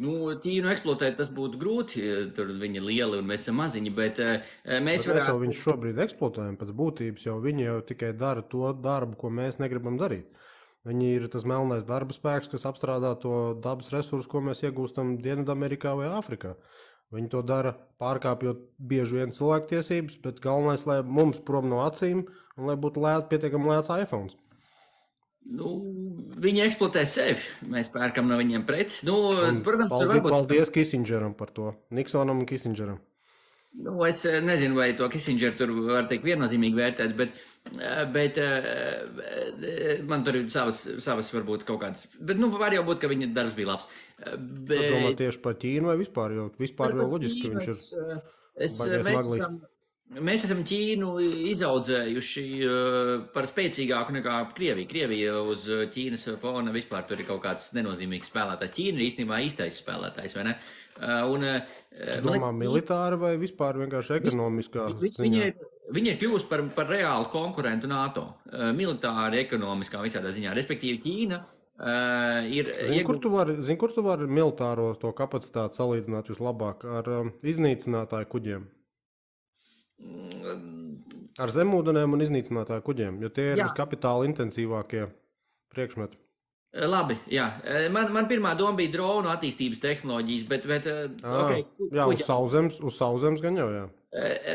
Ķīnu eksploatēt tas būtu grūti, tur viņi ir lieli un mēs esam maziņi, bet mēs varētu... Mēs jau viņus šobrīd eksploatējam pēc būtības, jo viņi jau tikai dara to darbu, ko mēs negribam darīt. Viņi ir tas melnais darba spēks, kas apstrādā to dabas resursu, ko mēs iegūstam Dienvidamerikā vai Āfrikā. Viņi to dara pārkāpjot bieži vien cilvēktiesības, bet galvenais, lai mums prom no acīm un lai būtu pietiekami lēts iPhones. Viņi eksploatē sevi. Mēs pērkam no viņiem preces. Protams, paldies Kissingeram par to. Niksonam un Kissingeram. Es nezinu, vai to Kissingeru tur var teikt viennozīmīgi vērtēt, bet man tur ir savas varbūt kaut kādas. Bet var jau būt, ka viņa darbs bija labs. Tu domā tieši par Ķīnu vai vispār? Jo vispār jau loģiski, ka viņš ir baigais maglīgs. Mēs esam Ķīnu izaudzējuši par spēcīgāku nekā Krieviju. Krievija uz Ķīnas fona vispār tur ir kaut kāds nenozīmīgs spēlētājs. Ķīna ir īstenībā īstais spēlētājs, vai ne? Tu domā militāri vai vispār vienkārši ekonomiskā ziņā? Viņa ir kļuvusi par reālu konkurentu NATO. Militāri, ekonomiskā visādā ziņā. Respektīvi Ķīna ir... Zini, kur tu vari militāro to kapacitāti salīdzināt vislabāk ar iznīcinātāju kuģiem? Ar zemūdenēm un iznīcinātāju kuģiem, jo tie ir viskapitāla intensīvākie priekšmeti. Labi, jā. Man pirmā doma bija dronu attīstības tehnoloģijas, bet okay, Jā, uz sauszemes gan jau, jā.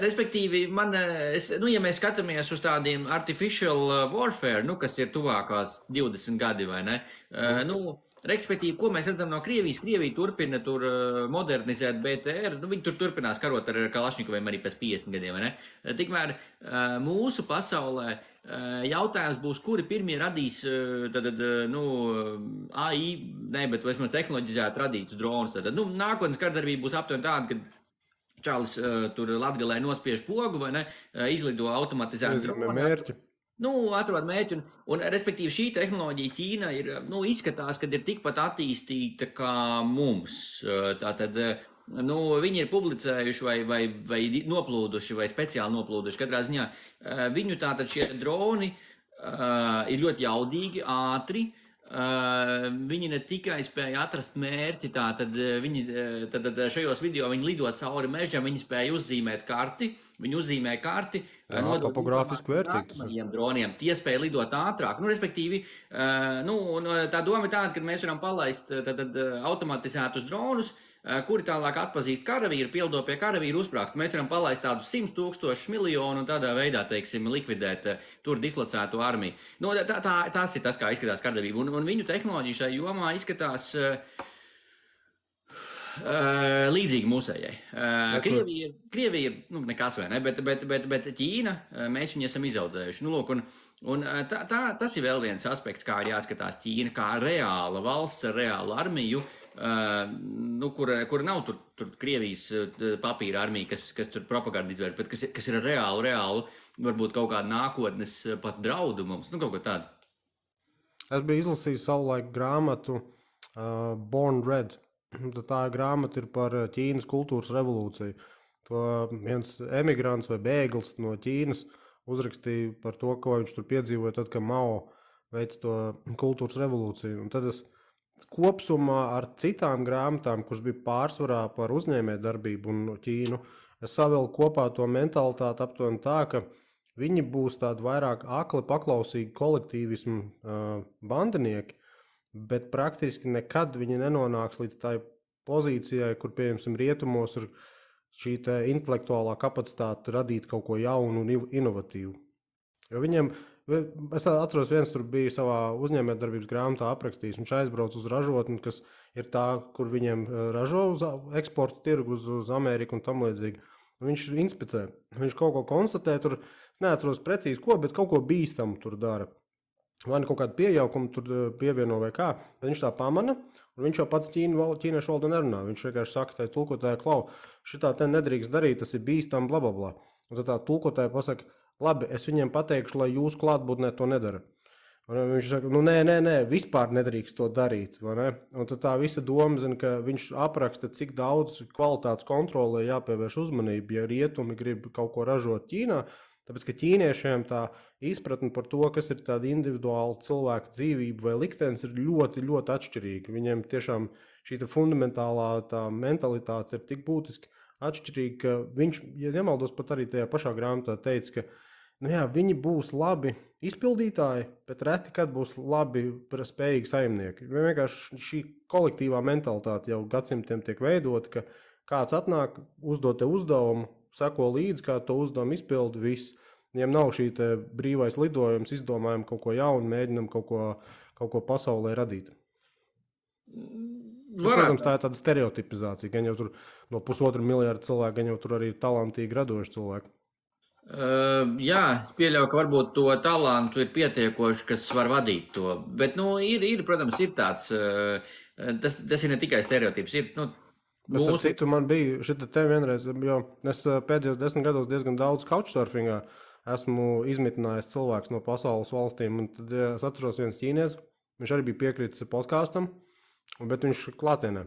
Respektīvi, ja mēs skatāmies uz tādiem artificial warfare, kas ir tuvākās 20 gadi, vai ne? Respektīvi, ko mēs redzam no Krievijas? Krievija turpina tur modernizēt BTR, viņi tur turpinās karot ar Kalašņikoviem arī pēc 50 gadiem, vai ne? Tikmēr mūsu pasaulē jautājums būs, kuri pirmie radīs AI, bet vismaz tehnoloģizēt radītus dronus. Nākotnes kardarbība būs aptuveni tāda, ka čalis tur Latgalē nospiež pogu, vai ne, izlido automatizētu dronu. Mērķi. Atrod mērķi, un respektīvi šī tehnoloģija Ķīna ir, izskatās, ka ir tikpat attīstīta kā mums. Tātad, viņi ir publicējuši vai noplūduši, vai speciāli noplūduši. Katrā ziņā viņu tātad šie droni ir ļoti jaudīgi, ātri. Viņi ne tikai spēja atrast mērķi, tātad šajos video viņi lido cauri mežam, viņi spēja uzzīmēt karti. Viņi uzzīmē karti, topogrāfiski vērtīgi. Droniem. Tie spēja lidot ātrāk. Respektīvi, tā doma ir tāda, ka mēs varam palaist automatizētus dronus, kuri tālāk atpazīst karavīru, pildo pie karavīru uzsprāgstu. Mēs varam palaist tādus 100 000 miljonu un tādā veidā, teiksim, likvidēt tur dislocētu armiju. Tas ir tas, kā izskatās kardarbība. Un viņu tehnoloģija šai jomā izskatās līdzīgi mūsējai. Krievija ir nekas vai ne, bet Ķīna, mēs viņu esam izaudzējuši. Tas ir vēl viens aspekts, kā ir jāskatās Ķīna, kā reāla valsts ar reālu armiju, kura nav tur Krievijas papīra armija, kas tur propagandu izvērš, bet kas ir reālu, varbūt kaut kādu nākotnes pat draudu mums, kaut ko tādu. Es biju izlasījis savulaik grāmatu Born Red. Tā grāmata ir par Ķīnas kultūras revolūciju. To viens emigrants vai bēglis no Ķīnas uzrakstīja par to, ko viņš tur piedzīvoja, tad, kad Mao veica to kultūras revolūciju. Un tad es kopsumā ar citām grāmatām, kuras bija pārsvarā par uzņēmējdarbību un Ķīnu, es savilku kopā to mentalitāti aptuveni tā, ka viņi būs tādi vairāk akli paklausīgi kolektīvismu bandinieki, bet praktiski nekad viņi nenonāks līdz tai pozīcijai, kur, piemēram, rietumos ir šī intelektuālā kapacitāte radīt kaut ko jaunu un inovatīvu. Jo viņiem, es atceros, viens tur bija savā uzņēmējdarbības grāmatā aprakstījis, viņš aizbrauc uz ražotni, kas ir tā, kur viņiem ražo uz eksporta tirgu uz Ameriku un tam līdzīgi. Viņš inspicē, viņš kaut ko konstatē, tur, es neatceros precīzi ko, bet kaut ko bīstamu tur dara. Vai ne kaut kādu pieaugumu tur pievieno vai kā, bet viņš tā pamana, un viņš jau pats ķīniešu valodā nerunā. Viņš vienkārši saka, tai tulkotāji, klau, šitā te nedrīkst darīt, tas ir bīstam, blablabla. Un tad tā tulkotāji pasaka, labi, es viņiem pateikšu, lai jūs klātbūtnē to nedara. Un viņš saka, nē, vispār nedrīkst to darīt. Ne? Un tad tā visa doma, zina, ka viņš apraksta, cik daudz kvalitātes kontrolē jāpievērš uzmanību, ja rietumi grib kaut ko ražot Ķīnā. Tāpēc, ka ķīniešiem tā izpratne par to, kas ir tāda individuāla cilvēka dzīvība vai liktenis, ir ļoti, ļoti atšķirīga. Viņiem tiešām šī fundamentālā tā mentalitāte ir tik būtiski atšķirīga, ka viņš, ja nemaldos, pat arī tajā pašā grāmatā teica, ka viņi būs labi izpildītāji, bet reti kad būs labi spējīgi saimnieki. Vienkārši šī kolektīvā mentalitāte jau gadsimtiem tiek veidota, ka kāds atnāk, uzdod te uzdevumu, seko līdzi, kā to uzdevumu izpildi, viss. Viņiem nav šī brīvais lidojums, izdomājam kaut ko jaunu, mēģinam kaut ko pasaulē radīt. Protams, tā ir tāda stereotipizācija, gan jau tur no 1,5 miljārda cilvēku, gan jau tur arī talantīgi radoši cilvēki. Jā, es pieļauju, ka varbūt to talantu ir pietiekoši, kas var vadīt to, bet, protams, ir tāds, tas ir ne tikai stereotips, ir, Starp citu, man bija šita te vienreiz, jo es pēdējos 10 gados diezgan daudz couchsurfingā esmu izmitinājis cilvēks no pasaules valstīm, un tad es atceros viens ķīnietis, viņš arī bija piekritis podkāstam, bet viņš klātienē.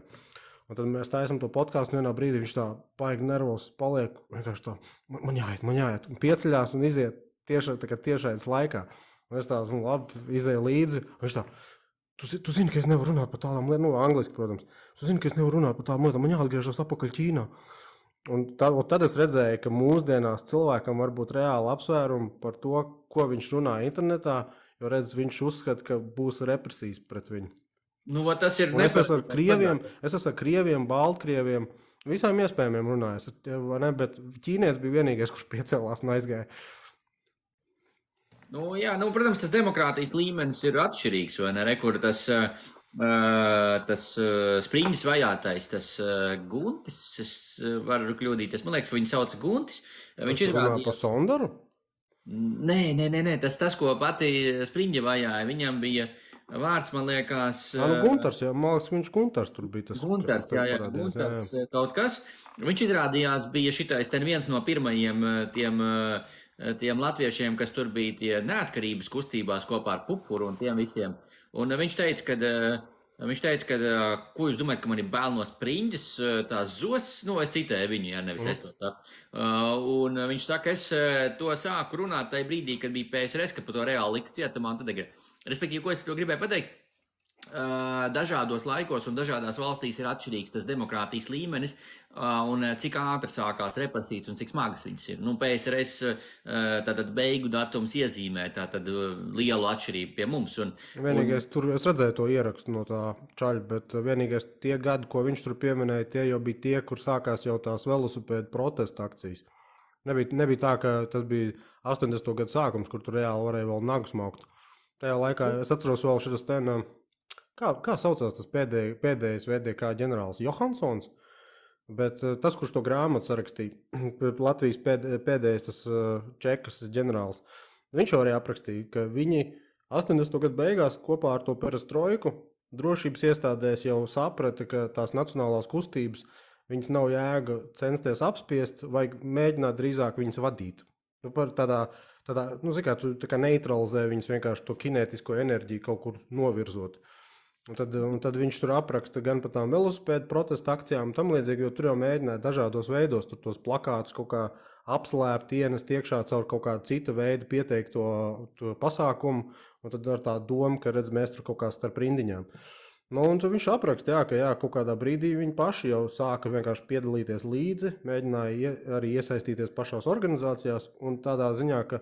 Un tad mēs taisam to podkāstu, vienā brīdī viņš tā paigi nervos paliek, vienkārši tā, man jāiet, un pieceļās un iziet tiešais laikā. Un es tā, labi, izēju līdzi, un viņš tā, tu zini, ka es nevaru runāt par tādām lietām, angliski, protams. Tu zini, ka es nevaru runāt par tādām lietām, man jāatgriežas atpakaļ Ķīnā. Un tad es redzēju, ka mūsdienās cilvēkam var būt reāli apsvērumi par to, ko viņš runā internetā, jo redz, viņš uzskata, ka būs represijas pret viņu. Nu, tas ir Es esmu ar krieviem, baltkrieviem, visām iespējamiem runājis, bet ķīnietis bija vienīgais, kurš piecēlās un aizgāja. Nu, jā, protams, tas demokrātijas līmenis ir atšķirīgs, vai ne? Kur tas Spriņģis vajātais, tas Guntis, es varu kļūdīties, man liekas, ka viņu sauc Guntis. Viņš izrādījās par Sondaru? Nē, tas, ko pati Spriņģa vajāja, viņam bija vārds, man liekas... Guntars, jā, man liekas, viņš Guntars tur bija tas. Guntars, jā, Guntars kaut kas. Viņš izrādījās bija šitais ten viens no pirmajiem tiem latviešiem, kas tur bija tie neatkarības kustībās kopā ar Pupuru un tiem visiem. Un viņš teica, ka ko jūs domājat, ka man ir bail no Spriņģes, tās zos, es citēju viņu, ja nevis es to saku. Un viņš saka, es to sāku runāt tajā brīdī, kad bija PSRS, kad par to reāli lika cietumā. Respektīvi, ko es to gribēju pateikt? Dažādos laikos un dažādās valstīs ir atšķirīgs tas demokrātijas līmenis un cik ātri sākās represijas un cik smagas viņas ir. PSRS tātad beigu datums iezīmē tātad lielu atšķirību pie mums. Vienīgais, tur es redzēju to ierakstu no tā čaļa, bet vienīgais tie gadi, ko viņš tur pieminēja, tie jau bija tie, kur sākās jau tās velosipēdu protesta akcijas. Nebija tā, ka tas bija 80. gadu sākums, kur tur reāli varēja vēl nagu smaukt. Tajā laikā es atceros vēl šitas kā saucās tas pēdējais VDK ģenerālis Johansons, bet tas, kurš to grāmatu sarakstīja, Latvijas pēdējais tas čekas ģenerālis, viņš arī aprakstīja, ka viņi 80. gadu beigās kopā ar to perestroiku drošības iestādēs jau saprata, ka tās nacionālās kustības viņas nav jēga censties apspiest, vai mēģināt drīzāk viņas vadīt. Tā kā neutralizē viņas vienkārši to kinētisko enerģiju kaut kur novirzot. Un tad viņš tur apraksta gan par tām velosipēdu protesta akcijām un tam līdzīgi, jo tur jau mēģināja dažādos veidos tur tos plakātus kaut kā apslēpt, ienest iekšā caur kaut kādu cita veidu pieteikto to pasākumu, un tad ar tā domu, ka redz, mēs tur kaut kā starp rindiņām. Un tad viņš apraksta, ka kaut kādā brīdī viņi paši jau sāka vienkārši piedalīties līdzi, mēģināja arī iesaistīties pašās organizācijās un tādā ziņā, ka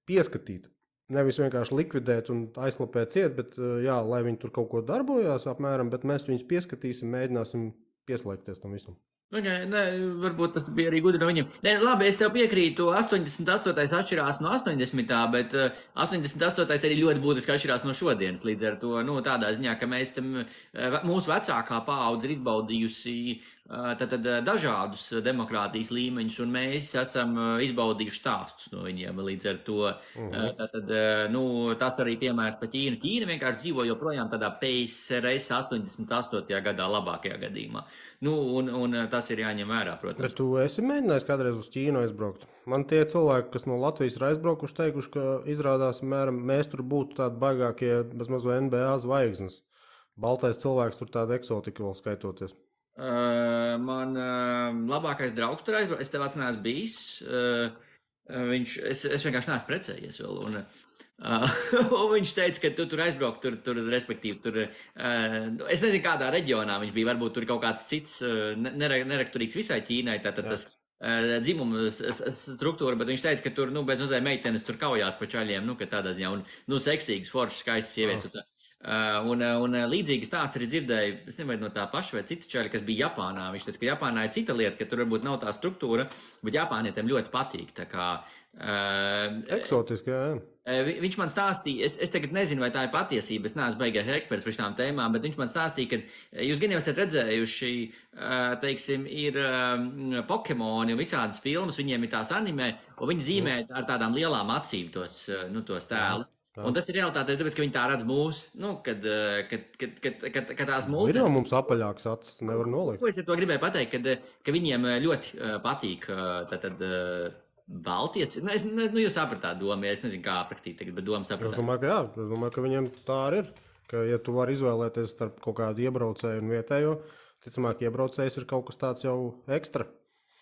pieskatīt. Nevis vienkārši likvidēt un aizklapēt ciet, bet lai viņi tur kaut ko darbojās apmēram, bet mēs viņus pieskatīsim, mēģināsim pieslēgties tam visam. Varbūt tas bija arī gudri no viņiem. Labi, es tev piekrītu, 88. atšķirās no 80. bet 88. arī ļoti būtiski atšķirās no šodienas. Līdz ar to tādā ziņā, ka mēs esam, mūsu vecākā paudze ir izbaudījusi dažādus demokrātijas līmeņus, un mēs esam izbaudījuši stāstus no viņiem. Līdz ar to tas arī piemērs par Ķīnu. Ķīna vienkārši dzīvo joprojām tādā PSRS 88. gadā labākajā gadījumā. Un tas ir jāņem vērā, protams. Bet tu esi mēģinājis kādreiz uz Ķīnu aizbraukt? Man tie cilvēki, kas no Latvijas ir aizbraukuši, teikuši, ka izrādās, mēs tur būtu tādi baigākie bezmaz NBA zvaigznes. Baltais cilvēks tur tāda eksotika vēl skaitoties. Man labākais draugs tur aizbraukt, es tev neesmu bijis. Es vienkārši neesmu precējies vēl. Un viņš teica, ka tu tur aizbraukt, respektīvi, es nezinu, kādā reģionā viņš bija, varbūt tur kaut kāds cits neraksturīgs visai Ķīnai, tātad tas dzimuma struktūra, bet viņš teica, ka tur, bez mazai meitenes tur kaujās pa čaļiem, ka tādā ziņā, un seksīgas, foršas, skaistas sievietes. Un līdzīgi stāsti arī dzirdēju, es nezinu, no tā paša vai cita čaļa, kas bija Japānā. Viņš teica, ka Japānā ir cita lieta, ka tur varbūt nav tā struktūra, bet Japānietiem ļoti patīk. Eksotiski, jā. Viņš man stāstīja, es tagad nezinu, vai tā ir patiesība, es neesmu beigais eksperts par šām tēmām, bet viņš man stāstīja, ka jūs gan jau esat redzējuši, teiksim, ir Pokemoni un visādas filmas, viņiem ir tās anime, un viņi zīmē ar tādām lielām acīm tos tēlus. Un tas ir realitāte, tāpēc, ka viņi tā redz mūsu, kad tās mūsu... Ir jau mums apaļāks acis, nevar nolikt. Ko es ar to gribēju pateikt, ka viņiem ļoti patīk Baltieci. Jūs sapratāt domu, ja es nezinu, kā aprakstīt tagad, bet domu sapratāt. Es domāju, ka jā, es domāju, ka viņiem tā arī ir, ka ja tu vari izvēlēties starp kaut kādu iebraucēju un vietējo, ticamāk, iebraucējs ir kaut kas tāds jau ekstra.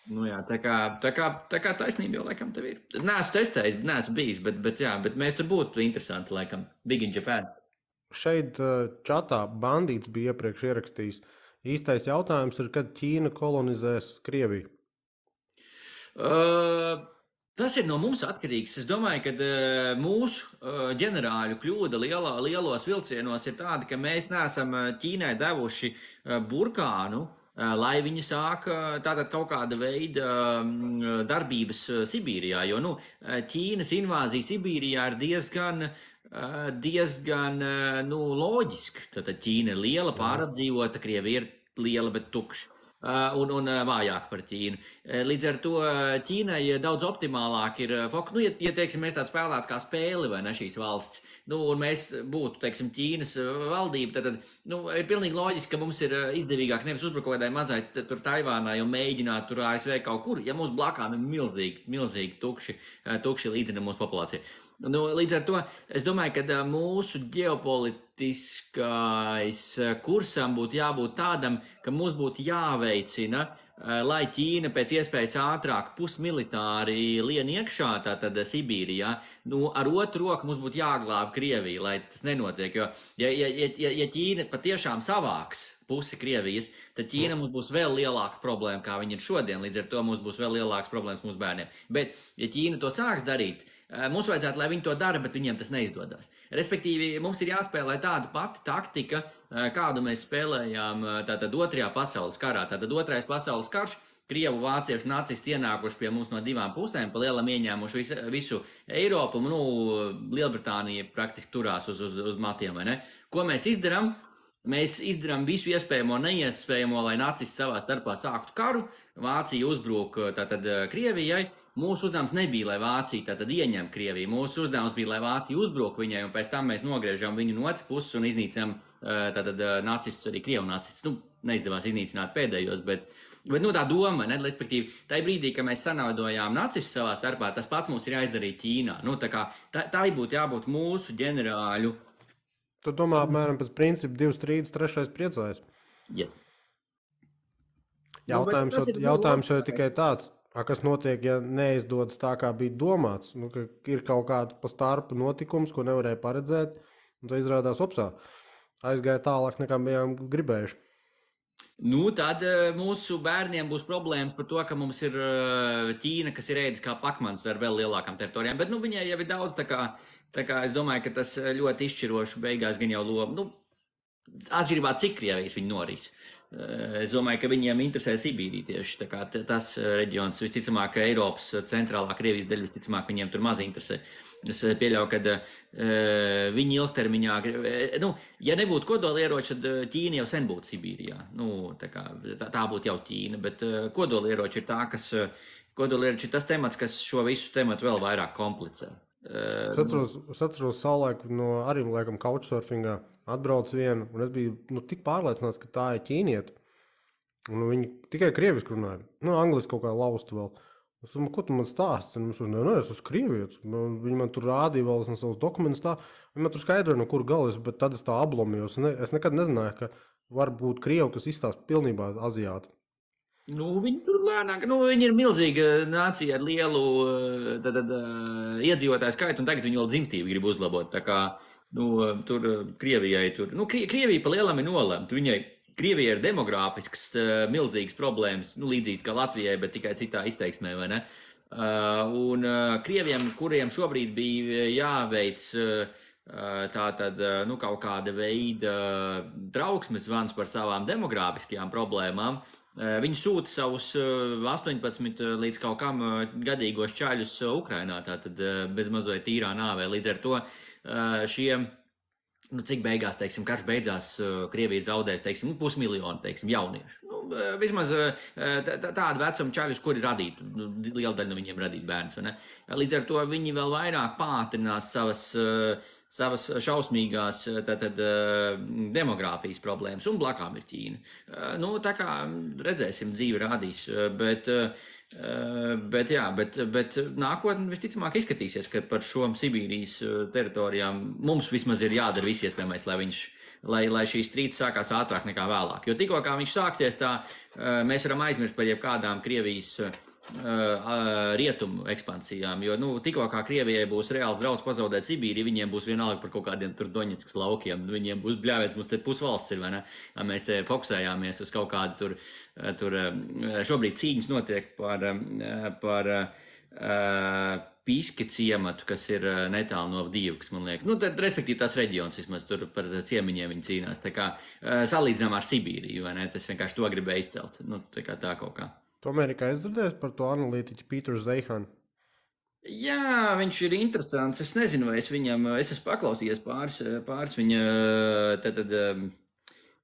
Jā, tā kā taisnība jau laikam tev ir. Neesmu testējis, neesmu bijis, bet mēs tur būtu interesanti, laikam, Big in Japan. Šeit čatā bandīts bija iepriekš ierakstījis. Īstais jautājums ir, kad Ķīna kolonizēs Krieviju? Tas ir no mums atkarīgs. Es domāju, ka mūsu ģenerāļu kļūda lielos vilcienos ir tāda, ka mēs neesam Ķīnai devuši burkānu, lai viņi sāk tātad kaut kāda veida darbības Sibīrijā, jo, Ķīnas invāzija Sibīrijā ir diezgan loģiski. Tātad Ķīna ir liela, pārapdzīvota, Krievija ir liela, bet tukša. Un vājāk par Ķīnu. Līdz ar to Ķīnai daudz optimālāk ir fokus. Ja teiksim, mēs tādu spēlētu kā spēli, vai ne, šīs valsts, un mēs būtu, teiksim, Ķīnas valdība, tad ir pilnīgi loģiski, ka mums ir izdevīgāk nevis uzbrukt kādai mazai tur Taivānai un mēģināt tur ASV kaut kur, ja mums blakām ir milzīgi tukši līdzina mūsu populācija. Līdz ar to es domāju, ka mūsu ģeopolitiskais kursam būtu jābūt tādam, ka mums būtu jāveicina, lai Ķīna pēc iespējas ātrāk pusmilitāri lien iekšā, tātad Sibīrijā, ar otru roku mums būtu jāglāb Krieviju, lai tas nenotiek, jo ja Ķīna patiešām savāks pusi Krievijas, tad Ķīna mums būs vēl lielāka problēma, kā viņi ir šodien, līdz ar to mums būs vēl lielākas problēmas mūsu bērniem. Bet, ja Ķīna to sāks darīt, mums vajadzētu, lai viņi to dara, bet viņiem tas neizdodas. Respektīvi, mums ir jāspēlē tāda pati taktika, kādu mēs spēlējām tātad otrajā pasaules karā. Tātad otrais pasaules karš, Krievu, vāciešu, nacisti ienākuši pie mums no divām pusēm, pa lielam ieņēmuši visu Eiropu, Lielbritānija praktiski turās uz matiem, vai ne? Ko mēs izdarām? Mēs izdarām visu iespējamo, neiespējamo, lai nacisti savā starpā sāktu karu. Vācija uzbruk tātad Krievijai. Mūsu uzdevums nebija, lai Vācija tātad ieņem Krieviju. Mūsu uzdevums bija, lai Vācija uzbruk viņai, un pēc tam mēs nogriežam viņu no otras puses un iznīcam tātad nacistus, arī Krievu nacistus. Neizdevās iznīcināt pēdējos, bet tā doma, ne, respektīvi, tajā brīdī, kad mēs sanaudojām nacistus savā starpā, tas pats mums ir jāizdarīt Ķīnā. Tā būtu jābūt mūsu ģenerāļu. Tu domā, apmēram pēc principa 2 strīdus, 3 priecājas? Yes. Jautājums jau ir tikai tāds, kas notiek, ja neizdodas tā, kā bija domāts. Ka ir kaut kāda pa starpu notikums, ko nevarēja paredzēt, un tā izrādās opsā. Aizgāja tālāk, nekā bijām gribējuši. Tad mūsu bērniem būs problēmas par to, ka mums ir Ķīna, kas ir ēdis kā pakmans ar vēl lielākām teritorijām, bet viņai jau ir daudz, tā kā es domāju, ka tas ļoti izšķiroši beigās gan jau lomu, atšķirībā cik Krievijas viņi norīs. Es domāju, ka viņiem interesē Sibīrija tieši, tā kā tas reģions, visticamāk, Eiropas centrālā Krievijas daļa, visticamāk, viņiem tur maz interesē. Es pieļauju, ka viņi ilgtermiņā, ja nebūtu kodolieroči, tad Ķīna jau sen būtu Sibīrijā. Tā būtu jau Ķīna, bet kodolieroči ir kodolieroči ir tas temats, kas šo visu tematu vēl vairāk komplicē. Es atceros savulaik no arī, laikam, couchsurfingā atbrauc vienu, un es biju tik pārliecināts, ka tā ir ķīnieta. Un viņi tikai krieviski runāja. Angliski kaut kā laustu vēl. Es domāju, ko tu man stāsti? Es esmu krievietis. Viņi man tur rādīja vēl savus dokumentus tā. Viņi man tur skaidroja, no kur galas, bet tad es tā ablomījos. Es nekad nezināju, ka var būt krievi, kas izstāsta pilnībā aziāti. Viņi tur lēnāk, viņi ir milzīga nācija ar lielu iedzīvotāju skaitu, un tagad viņi vēl dzimstību grib uzlabot. Tā kā, tur Krievijai tur, Krievija pa lielam ir nolemta. Krievijai ir demogrāfisks milzīgas problēmas, līdzīgas kā Latvijai, bet tikai citā izteiksmē, vai ne? Un Krieviem, kuriem šobrīd bija jāveic kaut kāda veida trauksmes zvans par savām demogrāfiskajām problēmām, viņi sūta savus 18 līdz kaut kam gadīgos čaļus Ukrainā, tātad bez mazliet tīrā nāvē. Līdz ar to šiem, cik beigās, teiksim, karš beidzās, Krievija zaudēs, teiksim, 500 000, jauniešu. Vismaz tādu vecumu čaļus, kuri radītu, liela daļa no viņiem radīt bērns. Līdz ar to viņi vēl vairāk pātrinās savas šausmīgās demogrāfijas problēmas, un blakām ir Ķīna. Tā kā redzēsim, dzīve rādīs, bet nākotnē visticamāk izskatīsies, ka par šo Sibīrijas teritorijām mums vismaz ir jādara viss iespējamais, lai šīs strīds sākās ātrāk nekā vēlāk. Jo tikko kā viņš sāksies, tā mēs varam aizmirst par jebkādām Krievijas rietumu ekspansijām, jo tikko kā Krievijai būs reāls draudz pazaudēt Sibīriju, viņiem būs vienalga par kaut kādiem tur Doņetskas laukiem, viņiem būs bļāvēts, mums te pusvalsts ir, vai ne? Mēs te fokusējāmies uz kaut kādu tur šobrīd cīņas notiek par Piski ciematu, kas ir netālu no Dīvkas, man liekas. Nu, tad, respektīvi, tās reģions vismaz tur par ciemiņiem viņi cīnās. Tā kā salīdzinām ar Sibīriju, vai ne? Tas vienkārši to gribēja izcelt. Nu, tā kaut kā. Tu Amerikā izdzirdēsi par to analītiķu Pīteru Zeihanu? Jā, viņš ir interesants. Es nezinu, vai es esmu paklausījies pāris viņa,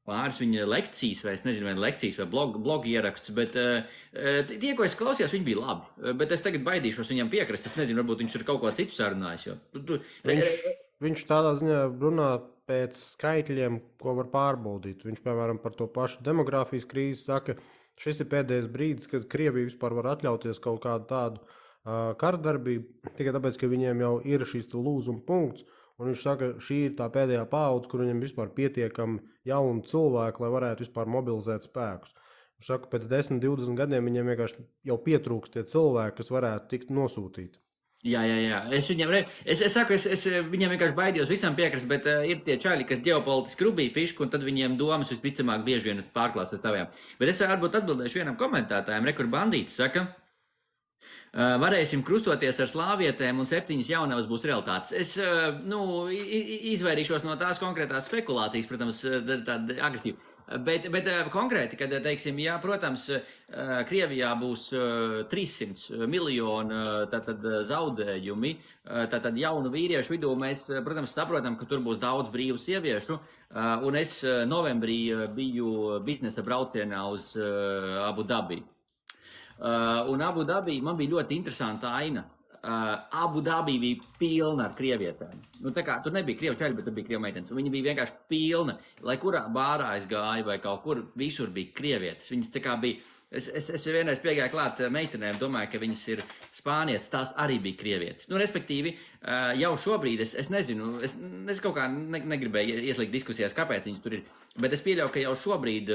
pāris viņa lekcijas, vai es nezinu, vai lekcijas vai blogu ierakstus, bet tie, ko es klausījos, viņi bija labi. Bet es tagad baidīšos viņam piekrist. Es nezinu, varbūt viņš ir kaut ko citu sarunājis. Viņš tādā ziņā runā pēc skaitļiem, ko var pārbaudīt. Viņš, piemēram, par to pašu demogrāfijas krīzi saka, šis ir pēdējais brīdis, kad Krievija vispār var atļauties kaut kādu tādu karadarbību, tikai tāpēc, ka viņiem jau ir šis lūzuma punkts. Un viņš saka, šī ir tā pēdējā paudze, kur viņam vispār pietiekami jauni cilvēki, lai varētu vispār mobilizēt spēkus. Viņš saka, pēc 10, 20 gadiem viņiem vienkārši jau pietrūkst tie cilvēki, kas varētu tikt nosūtīti. Jā. Es saku, es viņiem vienkārši baidījos visam piekrist, bet ir tie čaļi, kas ģeopolitiski rubīja fišku, un tad viņiem domas visticamāk bieži vien pārklās ar taviem. Bet es varbūt atbildēšu vienam komentētājam, kur bandītis saka, varēsim krustoties ar slāvietēm un 7 jaunavas būs realitātes. Es izvairīšos no tās konkrētās spekulācijas, protams, tāda agresīva. Bet konkrēti, kad, teiksim, jā, protams, Krievijā būs 300 miljoni zaudējumi, tātad jaunu vīriešu vidū mēs, protams, saprotam, ka tur būs daudz brīvu sieviešu, un es novembrī biju biznesa braucienā uz Abu Dabi. Un Abu Dabī man bija ļoti interesanta aina. Abu Dabī bija pilna ar krievietēm. Nu, tā kā tur nebija krievu čaļi, bet tur bija krievu meitenes. Viņa bija vienkārši pilna. Lai kurā bārā es gāju vai kaut kur, visur bija krievietes. Viņas tā kā bija, es vienreiz piegāju klāt meitenēm, domāju, ka viņas ir spānietes, tās arī bija krievietes. Nu, respektīvi, jau šobrīd es nezinu, es kaut kā negribēju ieslīgt diskusijās, kāpēc viņas tur ir, bet es pieļauju, ka jau šobrīd,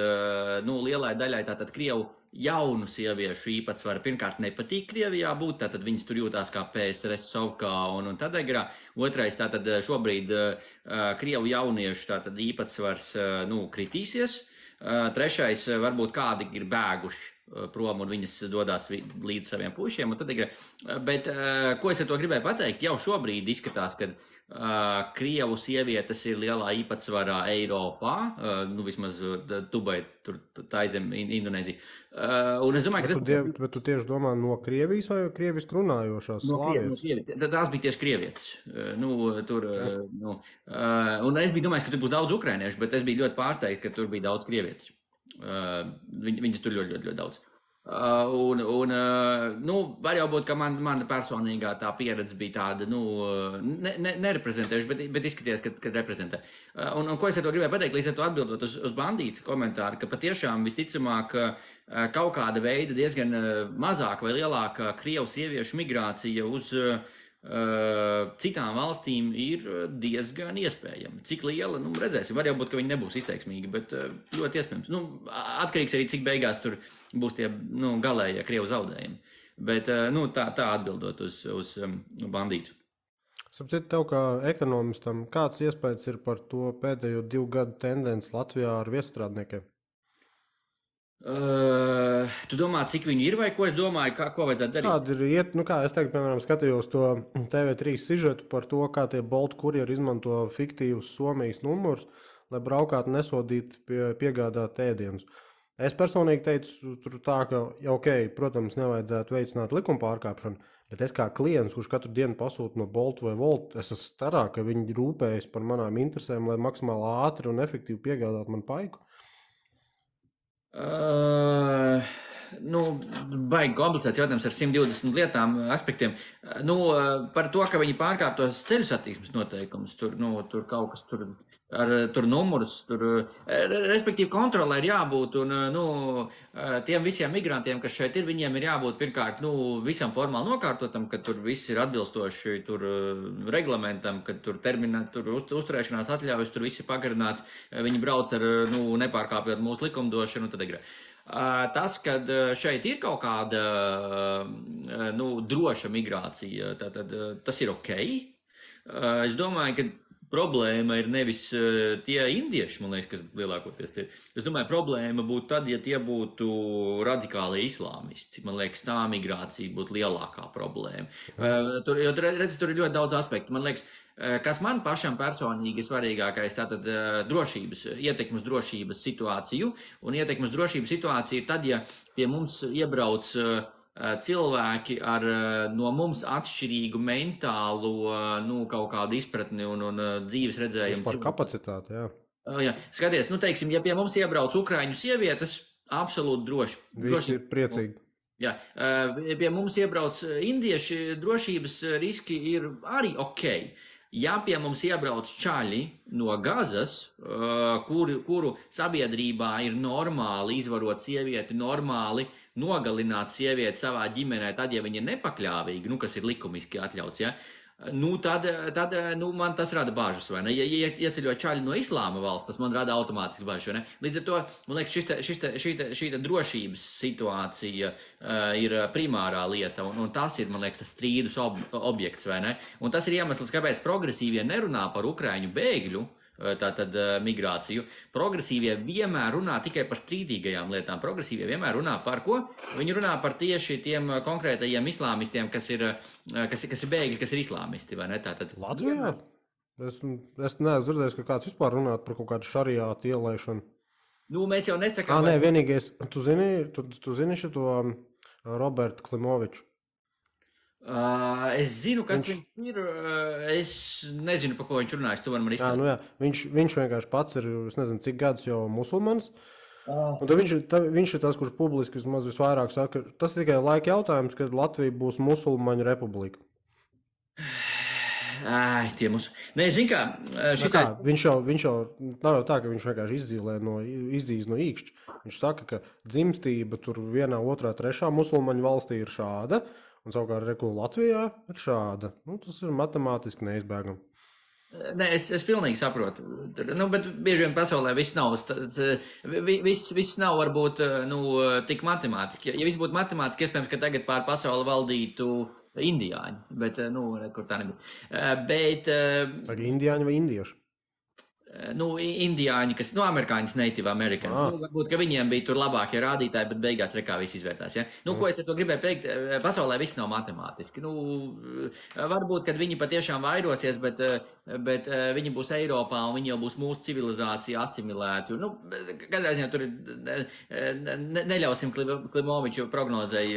lielai daļai tātad krievu jaunu sieviešu īpatsvaru pirmkārt nepatīk Krievijā būt, tātad viņas tur jūtās kā PSRS Sovkā un Tadegrā. Otrais, tātad šobrīd krievu jauniešu tātad īpatsvars, kritīsies. Trešais, varbūt kādi ir bēguši prom un viņas dodās līdz saviem puišiem un Tadegrā. Bet, ko es ar to gribēju pateikt, jau šobrīd izskatās, ka krievu sievietes ir lielā īpatsvarā Eiropā, vismaz Dubai, tur taizem Indonēzija. Un es domāju, ka bet tu tieši domā no Krievijas vai krieviski runājošās slāvietes? Tās bija tieši krievietes. Un es biju domājis, ka tur būs daudz ukrainiešu, bet es biju ļoti pārsteigts, ka tur bija daudz krievietes. Viņas tur ļoti, ļoti, ļoti daudz. Var jau būt, ka mana personīgā tā pieredze bija tāda, nereprezentējuša, bet izskaties, ka reprezentē. Un ko es ar to gribēju pateikt, līdz ar to atbildot uz bandītu komentāru, ka patiešām visticamāk kaut kāda veida diezgan mazāka vai lielāka krievu sieviešu migrācija uz citām valstīm ir diezgan iespējama. Cik liela, redzēsim. Var jau būt, ka viņi nebūs izteiksmīgi, bet ļoti iespējams. Atkarīgs arī, cik beigās tur būs tie galējie krievu zaudējumi. Bet tā atbildot uz bandītu. Sapcīt tev kā ekonomistam, kāds iespējas ir par to pēdējo 2 gadu tendenci Latvijā ar viesstrādniekiem? Tu domā, cik viņi ir vai ko es domāju, ko vajadzētu darīt? Kāda ir iet, kā es teiktu, piemēram, skatījos to TV3 sižetu par to, kā tie Bolt kurjeri izmanto fiktīvus Somijas numurus, lai braukātu nesodīt piegādāt ēdienus. Es personīgi teicu, tur tā, ka, protams, nevajadzētu veicināt likuma pārkāpšanu, bet es kā klients, kurš katru dienu pasūta no Bolt vai Volt, es esmu starā, ka viņi rūpējas par manām interesēm, lai maksimāli ātri un efektīvi piegādātu man paiku. Baigi komplicēts jautājums ar 120 lietām, aspektiem. Par to, ka viņi pārkāptos ceļu satiksmes noteikumus, tur kaut kas tur numurus, respektīvi kontrolē ir jābūt, un tiem visiem migrantiem, kas šeit ir, viņiem ir jābūt pirmkārt, visam formāli nokārtotam, ka tur viss ir atbilstoši tur reglamentam, ka tur uzturēšanās atļaujas, tur viss ir pagarināts, viņi brauc ar, nepārkāpjot mūsu likumdošanu, tad ir. Tas, kad šeit ir kaut kāda droša migrācija, tad tas ir ok. Es domāju, ka problēma ir nevis tie indieši, man liekas, kas lielākoties tie. Es domāju, problēma būtu tad, ja tie būtu radikāli islāmisti. Man liekas, tā migrācija būtu lielākā problēma. Tur ir ļoti daudz aspektu. Man liekas, kas man pašam personīgi ir svarīgākais, tātad ietekmes drošības situāciju. Un ietekmes drošības situācija ir tad, ja pie mums iebrauc cilvēki ar no mums atšķirīgu mentālu, kaut kādu izpratni un dzīves redzējumu. Par kapacitāti, jā. Jā. Skaties, teiksim, ja pie mums iebrauc ukraiņu sievietes, absolūti droši. Visi ir priecīgi. Jā, pie mums iebrauc indieši, drošības riski ir arī ok. Ja pie mums iebrauc čaļi no Gazas, kuru sabiedrībā ir normāli izvarot sievieti, normāli nogalināt sievieti savā ģimenē, tad, ja viņa ir nepakļāvīga, kas ir likumiski atļauts, ja, tad man tas rada bažas, vai ne? Ja ieceļo čaļi no islāma valsts, tas man rada automātiski bažas, vai ne? Līdz ar to, man liekas, šī drošības situācija ir primārā lieta, un tas ir, man liekas, tas strīdus objekts, vai ne? Un tas ir iemesls, kāpēc progresīvie nerunā par ukraiņu bēgļu, tātad migrāciju. Progresīvie vienmēr runā tikai par strīdīgajām lietām. Progresīvie vienmēr runā par ko? Viņi runā par tieši tiem konkrētajiem islāmistiem, kas ir bēgļi, kas ir islāmisti, vai ne? Tātad Latvijā? Es neesmu dzirdējis, ka kāds vispār runāt par kaut kādu šariātu ielaišanu. Mēs jau nesakām... Nē, vienīgais, tu zini šito Robertu Klimoviču? Es zinu, kas viņš ir. Es nezinu, par ko viņš runājas. Tu vari man izstāstīt. Viņš vienkārši pats ir, es nezinu, cik gadus jau musulmanis. Un tad viņš ir tas, kurš publiski visvairāk saka, tas ir tikai laika jautājums, kad Latvija būs musulmaņu republika. Tie mūsu... Nē, zin kā, viņš jau nav jau tā, ka viņš vienkārši izdīs no īkšķa. Viņš saka, ka dzimstība tur vienā, otrā, trešā musulmaņu valstī ir šāda, un savukārt Latvijā ir šāda. Tas ir matemātiski neizbēgami. Nē, es pilnīgi saprotu. Bet bieži vien pasaulē viss nav, viss nav varbūt tik matemātiski. Ja viss būtu matemātiski, iespējams, ka tagad pār pasauli valdītu indiāņi, bet, kur tā nebija. Tagad indiāņi vai indieši? Indiāņi, kas, amerikāņas native americans. Varbūt, ka viņiem bija tur labākie rādītāji, bet beigās rekā viss izvērtās, ja? Ko es ar to gribēju teikt, pasaulē viss nav matemātiski. Varbūt, kad viņi patiešām vairosies, bet viņi būs Eiropā un viņi jau būs mūsu civilizācija asimilēti. Katrā ziņā tur neļausim Klimoviču prognozei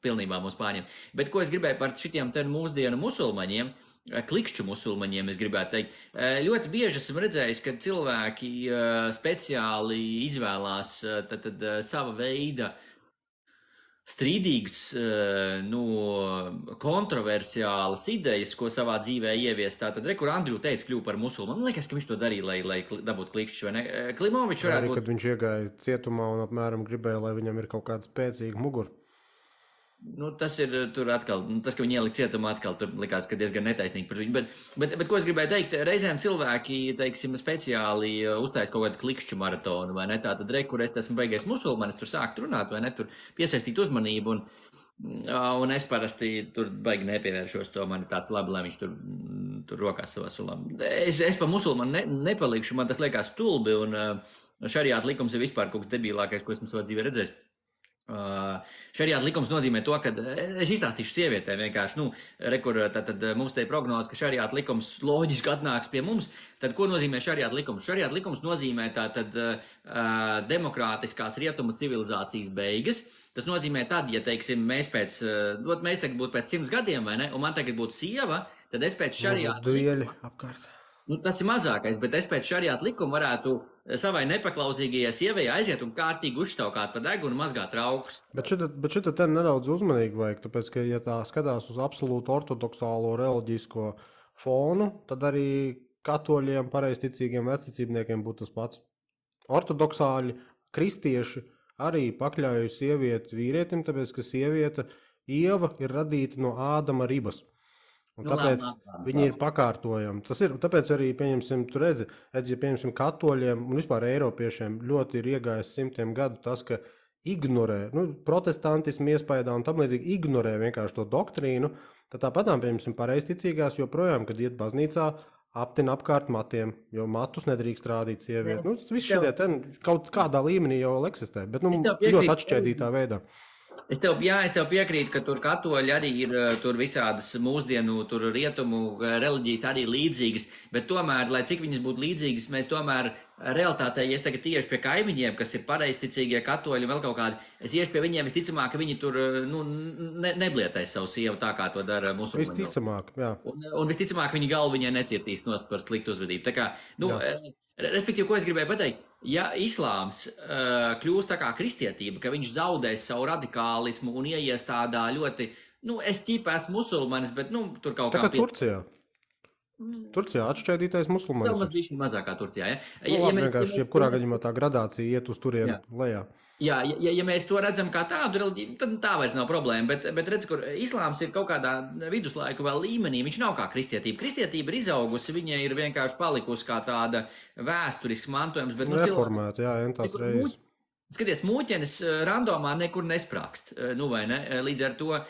pilnībā mūs pārņemt. Bet ko es gribēju par šitiem te mūsdienu musulmaņiem, klikšķu musulmaņiem, es gribētu teikt. Ļoti bieži esmu redzējis, ka cilvēki speciāli izvēlās sava veida strīdīgas, kontroversiālas idejas, ko savā dzīvē ievies. Tātad, kur Andriu teica, kļuva par musulmanu. Man liekas, ka viņš to darīja, lai dabūtu klikšķus, vai ne? Klimovičs varētu būt... Kad viņš iegāja cietumā un apmēram gribēja, lai viņam ir kaut kāda spēcīga mugura. Tas ir tur atkal, tas, ka viņi ielika cietumā atkal, tur likās, ka diezgan netaisnīgi par viņu. Bet ko es gribēju teikt, reizēm cilvēki, teiksim, speciāli uztais kaut kādu klikšķu maratonu, vai ne? Tātad, kur es esmu beigais musulmanis, tur sākt runāt, vai ne? Tur piesaistīt uzmanību, un es parasti tur baigi nepievēršos to, man ir tāds labi, lai viņš tur rokās savā sulā. Es pa musulmanu nepalikšu, man tas liekas stulbi, un šariāta likums ir vispār kaut kas debilākais, ko esmu savā dzīvē redzējis. Šariāta likums nozīmē to, ka es izstāstīšu sievietēm vienkārši, tad mums te ir prognoze, ka šariāta likums loģiski atnāks pie mums. Tad ko nozīmē šariāta likums? Šariāta likums nozīmē demokrātiskās rietumu civilizācijas beigas. Tas nozīmē tad, ja, teiksim, mēs tagad būtu pēc 100 gadiem, vai ne, un man tagad būtu sieva, tad es pēc šariāta dueļi apkārt. Tas ir mazākais, bet es pēc šariāta likuma varētu savai nepaklausīgajai sievai aiziet un kārtīgi uzštaukāt pa degunu un mazgāt traukus. Bet šita te nedaudz uzmanīgi vajag, tāpēc, ka, ja tā skatās uz absolūtu ortodoksālo reliģisko fonu, tad arī katoļiem, pareizticīgiem vecticībniekiem būtu tas pats. Ortodoksāļi, kristieši arī pakļauj sievieti vīrietim, tāpēc, ka sieviete Ieva ir radīta no Ādama ribas. Un tāpēc viņi ir pakārtojami. Tas ir, tāpēc arī, pieņemsim, tu redzi, ja pieņemsim katoļiem un vispār eiropiešiem ļoti ir iegājis 100 gadu tas, ka ignorē, protestantismu iespējā un tam līdzīgi ignorē vienkārši to doktrīnu, tad tāpatām, pieņemsim, pareizticīgās joprojām, kad iet baznīcā, aptina apkārt matiem, jo matus nedrīkst rādīt sievieti. Nu, viss tev- šitie kaut kādā līmenī jau eksistē, bet Es tev piekrītu. ļoti atšķēdītā veidā. Es tev piekrītu, ka tur katoļi arī ir tur visādas mūsdienu, tur rietumu reliģijas arī līdzīgas, bet tomēr, lai cik viņas būtu līdzīgas, mēs tomēr realitātē, ja es tagad tieši pie kaimiņiem, kas ir pareizticīgie katoļi un vēl kaut kādi, es iešu pie viņiem visticamāk, ka viņi tur neblietēs savu sievu tā, kā to dara musulmaņi. Visticamāk, jā. Un visticamāk viņa galva viņai necietīs nost par sliktu uzvedību. Tā kā, respektīvi, ko es gribēju pateikt, ja islāms kļūst tā kā kristietība, ka viņš zaudēs savu radikālismu un ieies tādā ļoti, es ķipa esmu musulmanis, bet, tur kaut kā... Tā kā Turcijā. Turcijā atšķēdītais musulmanis. Vēl bišķi mazākā Turcijā, ja? Vienkārši jebkurā gadījumā tā gradācija iet uz turienu lejā. Jā, ja mēs to redzam kā tādu reliģiju, tad tā vairs nav problēma, bet redz, kur islāms ir kaut kādā viduslaiku vēl līmenī, viņš nav kā kristietība. Kristietība ir izaugusi, viņa ir vienkārši palikusi kā tāda vēsturisks mantojums, bet... Reformēta, jā, entās reizes. Skaties, mūķenis randomā nekur nesprākst, vai ne? Līdz ar to,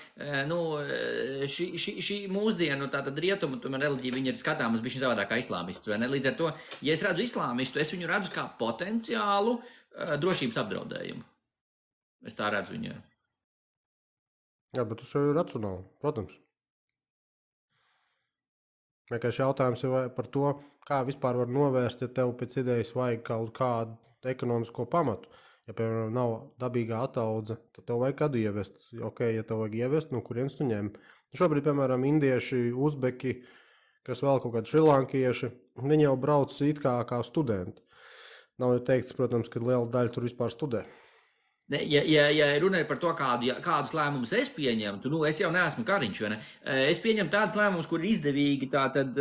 šī mūsdienu, tātad rietumu, reliģija, viņa ir skatāmas bišķi savādāk kā islāmists, vai ne? Līdz ar to, ja es redzu islāmistu, es viņu redzu kā potenciālu drošības apdraudējumu. Es tā redzu viņu. Jā, bet tas jau ir racionāli, protams. Vienkārši jautājums ir par to, kā vispār var novērst, ja tev pēc idejas vajag kaut kādu ekonomisko pamatu. Ja, piemēram, nav dabīgā ataudze, tad tev vajag kādu ievest. Ok, ja tev vajag ievest, kurienes tu ņem. Šobrīd, piemēram, indieši, uzbeki, kas vēl kaut kādi šrilankieši, viņi jau brauc it kā studenti. Nav jau teikts, protams, ka liela daļa tur vispār studē. Ja runāju par to, kādus lēmumus es pieņemtu, es jau neesmu kariņš, vai ne? Es pieņemu tādus lēmumus, kur ir izdevīgi, tātad,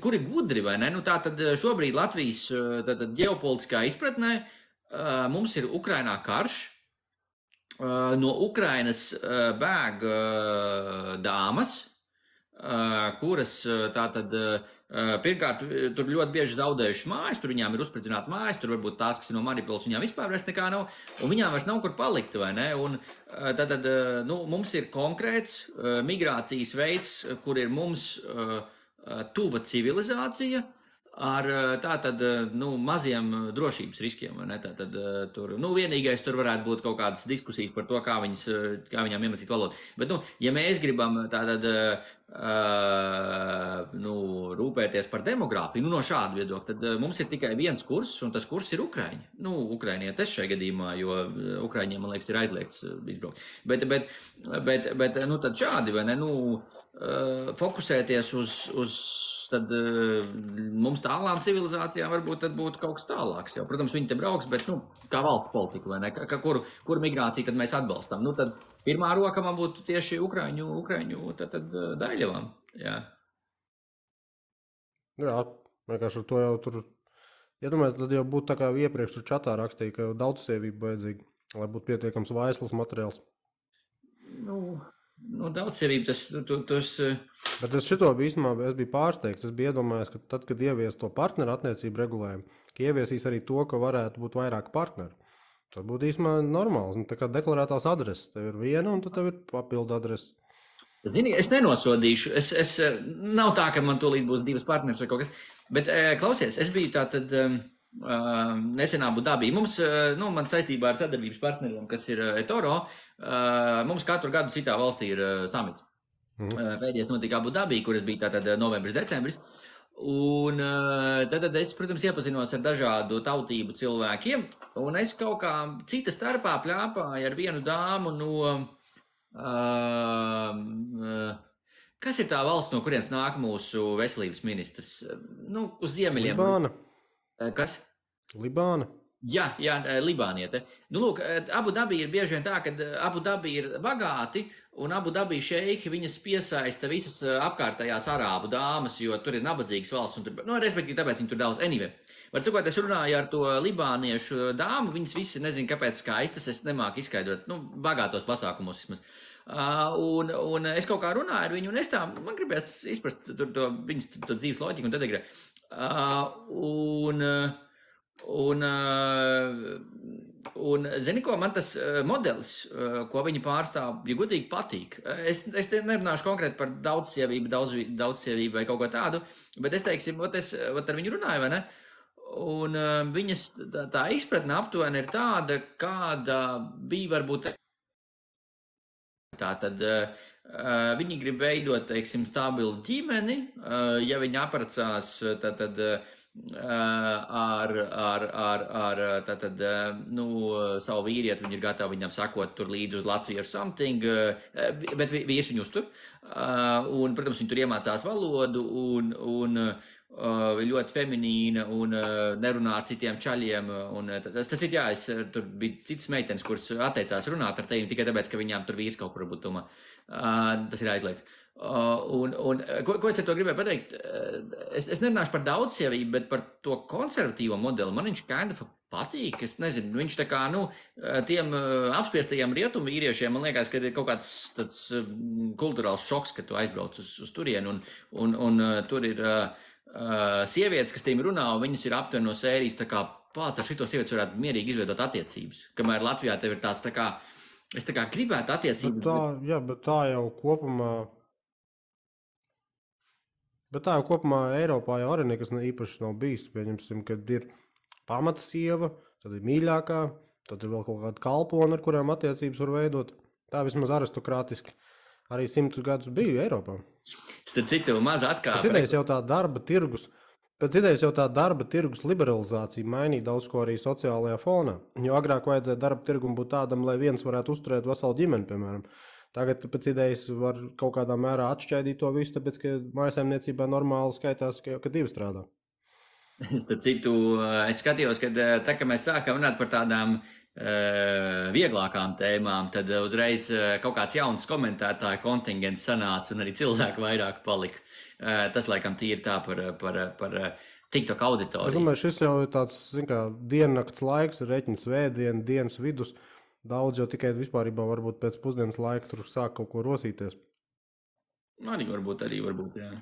kur ir gudri, vai ne? Tātad šobrīd Latvijas ģeopolitiskā izpratnē mums ir Ukrainā karš, no Ukrainas bēg dāmas, kuras tātad pirmkārt tur ļoti bieži zaudējušas mājas, tur viņām ir uzspridzināta mājas, tur varbūt tās, kas ir no Mariupoles, viņām vispār vairs nekā nav, un viņām vairs nav kur palikt, vai ne? Un tātad, mums ir konkrēts migrācijas veids, kur ir mums tuva civilizācija, ar tātad, maziem drošības riskiem, vai ne? Tātad, tur, vienīgais tur varētu būt kaut kādas diskusijas par to, kā viņām iemācīt valodu. Bet, ja mēs gribam tātad, rūpēties par demogrāfiju, no šāda viedokļa, tad mums ir tikai viens kurs, un tas kurs ir Ukraiņi. Ukrainietes šajā gadījumā, jo Ukraiņiem, man liekas, ir aizliegts izbraukt. Bet tad šādi, vai ne, fokusēties uz tad mums tālām civilizācijām varbūt tad būtu kaut kas tālāks jau. Protams, viņi te brauks, bet, kā valsts politika, vai ne, kur migrāciju tad mēs atbalstam. Tad pirmā roka man būtu tieši Ukraiņu tad Daļļavām, jā. Jā, vienkārši ar to jau tur, iedomājies, tad jau būtu tā kā iepriekš tur čatā rakstīja, ka daudzsievība vajadzīga, lai būtu pietiekams vaislas materiāls. Daudzsievība, tas... Bet es šito īstenībā biju pārsteigts. Es biju iedomājies, ka tad, kad ievies to partneru attiecību regulējumu, ka ieviesīs arī to, ka varētu būt vairāk partneru. Tas būtu īstenībā normāls. Tā kā deklarētās adreses. Tev ir viena un tad tev ir papildu adrese. Zini, es nenosodīšu. Es nav tā, ka man tūlīt būs divas partneris vai kaut kas. Bet, klausies, es biju tātad nesen Abu Dabī. Mums, man saistībā ar sadarbības partneriem, kas ir eToro, mums katru gadu citā valstī ir samits. Pēdējais notika Abu Dabī, kuras bija tātad novembris, decembris. Un tad es, protams, iepazinos ar dažādu tautību cilvēkiem. Un es kaut kā cita starpā pļāpāju ar vienu dāmu no... kas ir tā valsts, no kurienes nāk mūsu veselības ministrs? Uz ziemeļiem. Libāna. Kas? Libāna. Jā, Libāniete. Lūk, Abu Dabī ir bieži vien tā, ka Abu Dabī ir bagāti, un Abu Dabī šeiki viņas piesaista visas apkārtējās arābu dāmas, jo tur ir nabadzīgas valsts, un tur, respektīvi, tāpēc viņi tur daudz. Anyway, var cikot, es runāju ar to libāniešu dāmu, viņas visi, nezinu, kāpēc skaistas, es nemāku izskaidrot, bagātos pasākumos vismaz. Un es kaut kā runāju ar viņu, un es tā, man gribēs izprast viņas dzīves loģiku un tad agrē. Un zini, ko man tas modelis, ko viņi pārstāv, ja godīgi patīk. Es te nerunāšu konkrēti par daudzsievību vai kaut ko tādu, bet es teiksim, es ar viņu runāju, vai ne? Un viņas tā izpratne aptuveni ir tāda, kāda bija varbūt. Tātad viņi grib veidot, teiksim, stabilu ģimeni, ja viņi apprecās, tad savu vīrieti, viņi ir gatavi viņam sakot tur līdzi uz Latviju ar something, bet vīrs viņu uztur. Un, protams, viņi tur iemācās valodu un ļoti feminīna un nerunā ar citiem čaļiem. Tur bija citas meitenes, kuras atteicās runāt ar tevi tikai tāpēc, ka viņām tur vīrs kaut kur varbūt domā. Tas ir aizliegts. Ko es ar to gribēju pateikt? Es nerunāšu par daudzsievību, bet par to konservatīvo modeli. Man viņš kind of patīk. Es nezinu, viņš tā kā, tiem apspiestajiem rietumu vīriešiem, man liekas, ka ir kaut kāds tāds kulturāls šoks, ka tu aizbrauc uz turienu un tur ir sievietes, kas tiem runā, un viņas ir aptuveni no sērijas, tā kā pats ar šito sievietes varētu mierīgi izveidot attiecības. Kamēr Latvijā tev ir tāds tā kā, es tā kā gribētu attiecības. Bet tā jau kopumā Eiropā jau arī nekas īpaši nav bijis. Pieņemsim, kad ir pamata sieva, tad ir mīļākā, tad ir vēl kaut kāda kalpona, ar kurām attiecības var veidot. Tā vismaz aristokrātiski arī 100 gadus bija Eiropā. Starp citu, maza atkāpe. Pēc idejas jau tā darba tirgus liberalizācija mainīja daudz ko arī sociālajā fonā. Jo agrāk vajadzēja darba tirgum būt tādam, lai viens varētu uzturēt veselu ģimeni, piemēram. Tagad pēc idejas var kaut kādā mērā atšķaidīt to visu, tāpēc, ka mājasaimniecībā normāli skaitās, ka divi strādā. Starp citu, es skatījos, ka tā, ka mēs sākām runāt par tādām vieglākām tēmām, tad uzreiz kaut kāds jauns komentētāju kontingents sanāca un arī cilvēku vairāk palika. Tas, laikam, tīri tā par TikTok auditoriju. Es domāju, šis jau ir tāds, diennakts laiks, reķina svētdiena, dienas vidus. Daudz jau tikai vispārībā varbūt pēc pusdienas laika tur sāk kaut ko rosīties. Arī varbūt, jā.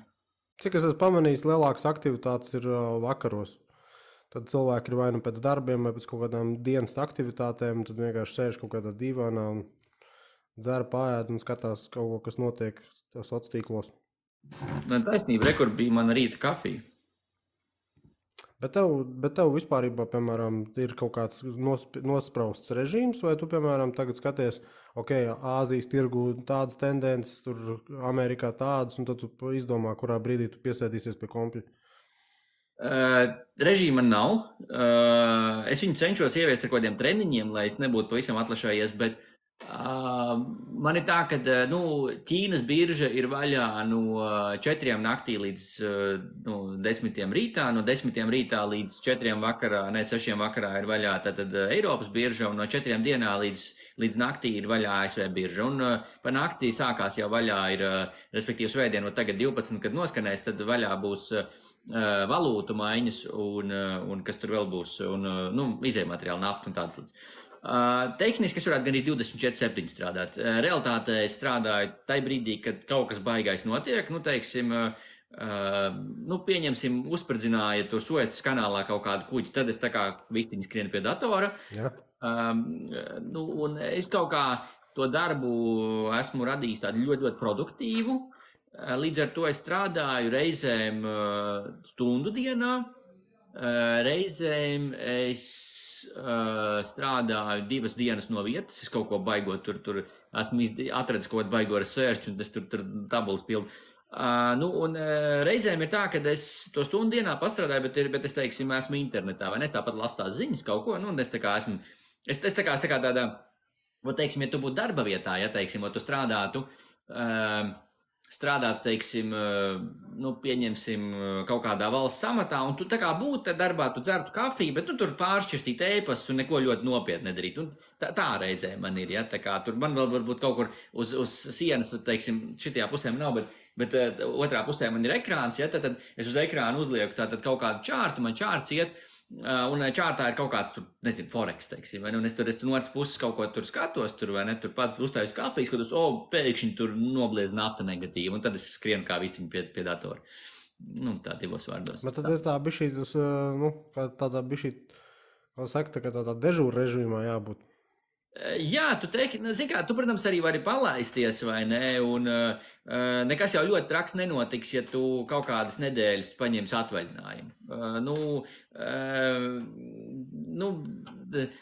Cik es esmu pamanījis, lielākas aktivitātes ir vakaros. Tad cilvēki ir vai nu pēc darbiem, vai pēc kaut kādām dienas aktivitātēm, tad vienkārši sēž kaut kādā divānā un dzer, pāēd un skatās kaut ko, kas notiek sociālos tīklos. Taisnība, rekur bija mana rīta kafija. Bet tev vispārībā, piemēram, ir kaut kāds nosprausts režīms, vai tu, piemēram, tagad skaties, Āzijas tirgu tādas tendences, tur Amerikā tādas, un tad tu izdomā, kurā brīdī tu piesēdīsies pie kompļa? Režīma nav. Es viņu cenšos ieviest ar kaut kādiem treniņiem, lai es nebūtu pavisam atlašājies, bet man ir tā, ka Ķīnas birža ir vaļā no 4 naktī līdz 10 rītā, no 10 rītā līdz 4 vakarā, 6 vakarā ir vaļā tad Eiropas birža, un no 4 dienā līdz naktī ir vaļā ASV birža. Un pa naktī sākās jau vaļā ir, respektīvi svētdien, no tagad 12, kad noskanēs, tad vaļā būs valūtu maiņas un kas tur vēl būs, un izējmateriāli, nafta un tādas lietas. Tehniski es varētu gan arī 24/7 strādāt. Realitātē es strādāju tajā brīdī, kad kaut kas baigais notiek, teiksim, pieņemsim, uzspridzināja tur Suecas kanālā kaut kādu kuģi, tad es tā kā vistiņi skrienu pie datora. Ja. Un es kaut kā to darbu esmu radījis tādu ļoti, ļoti produktīvu. Līdz ar to es strādāju reizēm stundu dienā, reizēm es strādāju 2 dienas no vietas, es kaut ko baigot, tur esmu atradis kaut kādu baigo research, un es tur tabulas pildu. Un reizēm ir tā, ka es to stundu dienā pastrādāju, bet es, teiksim, esmu internetā, vai ne, es tāpat lasu tās ziņas kaut ko, un es tā kā esmu, es tā kā tādā, teiksim, ja tu būtu darba vietā, ja, teiksim, tu strādātu, teiksim, pieņemsim kaut kādā valsts amatā, un tu tā kā būtu darbā, tu dzertu kafiju, bet tu tur pāršķirstīt ēpastus un neko ļoti nopietni nedarīt. Un tā reizē man ir, ja, tā kā tur man vēl varbūt kaut kur uz sienas, teiksim, šitajā pusē nav, bet otrā pusē man ir ekrāns, ja, tad es uz ekrānu uzlieku tātad kaut kādu čārtu, man čārts iet, un čārtā ir kaut kāds, tur, nezinu, forex, teiksim, vai ne, un es tur no otras puses kaut ko tur skatos, tur, vai ne, tur pat uztāju kafiju, skatos, pēkšņi tur nobliez nafta negatīva, un tad es skrienu kā vistiņi pie datora. Nu, tā divos vārdos. Bet tad ir tā bišķī, kā tādā bišķī, kā saka, tā kā tādā dežūra režīmā jābūt. Jā, tu teiksi, zini kā, tu, protams, arī vari palaisties, vai ne, un nekas jau ļoti traks nenotiks, ja tu kaut kādas nedēļas paņemsi atvaļinājumu.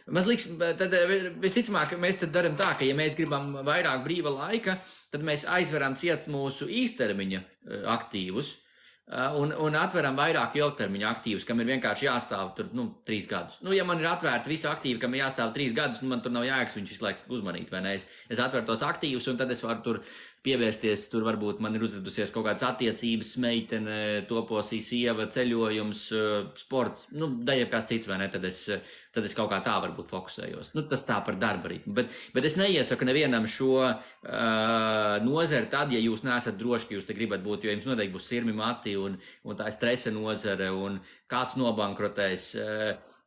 Man liekas, tad visticamāk, mēs tad daram tā, ka, ja mēs gribam vairāk brīva laika, tad mēs aizveram ciet mūsu īstermiņa aktīvus, un atveram vairāk ilgtermiņa aktīvus, kam ir vienkārši jāstāv tur 3 gadus. Ja man ir atvērta visa aktīva, kam ir jāstāv 3 gadus, man tur nav jēgas viņš visu laiku uzmanīt, vai ne? Es atveru tos aktīvus, un tad es varu tur pievērsties, tur varbūt man ir uzvedusies kaut kādas attiecības, meitene, toposī sieva, ceļojums, sports, daļai kāds cits, vai ne? Tad es kaut kā tā varbūt fokusējos. Tas tā par darba ritmu. Bet es neiesaku nevienam šo nozari tad, ja jūs neesat droši, ka jūs te gribat būt, jo jums noteikti būs sirmi mati un tā ir stresa nozare un kāds nobankrotēs.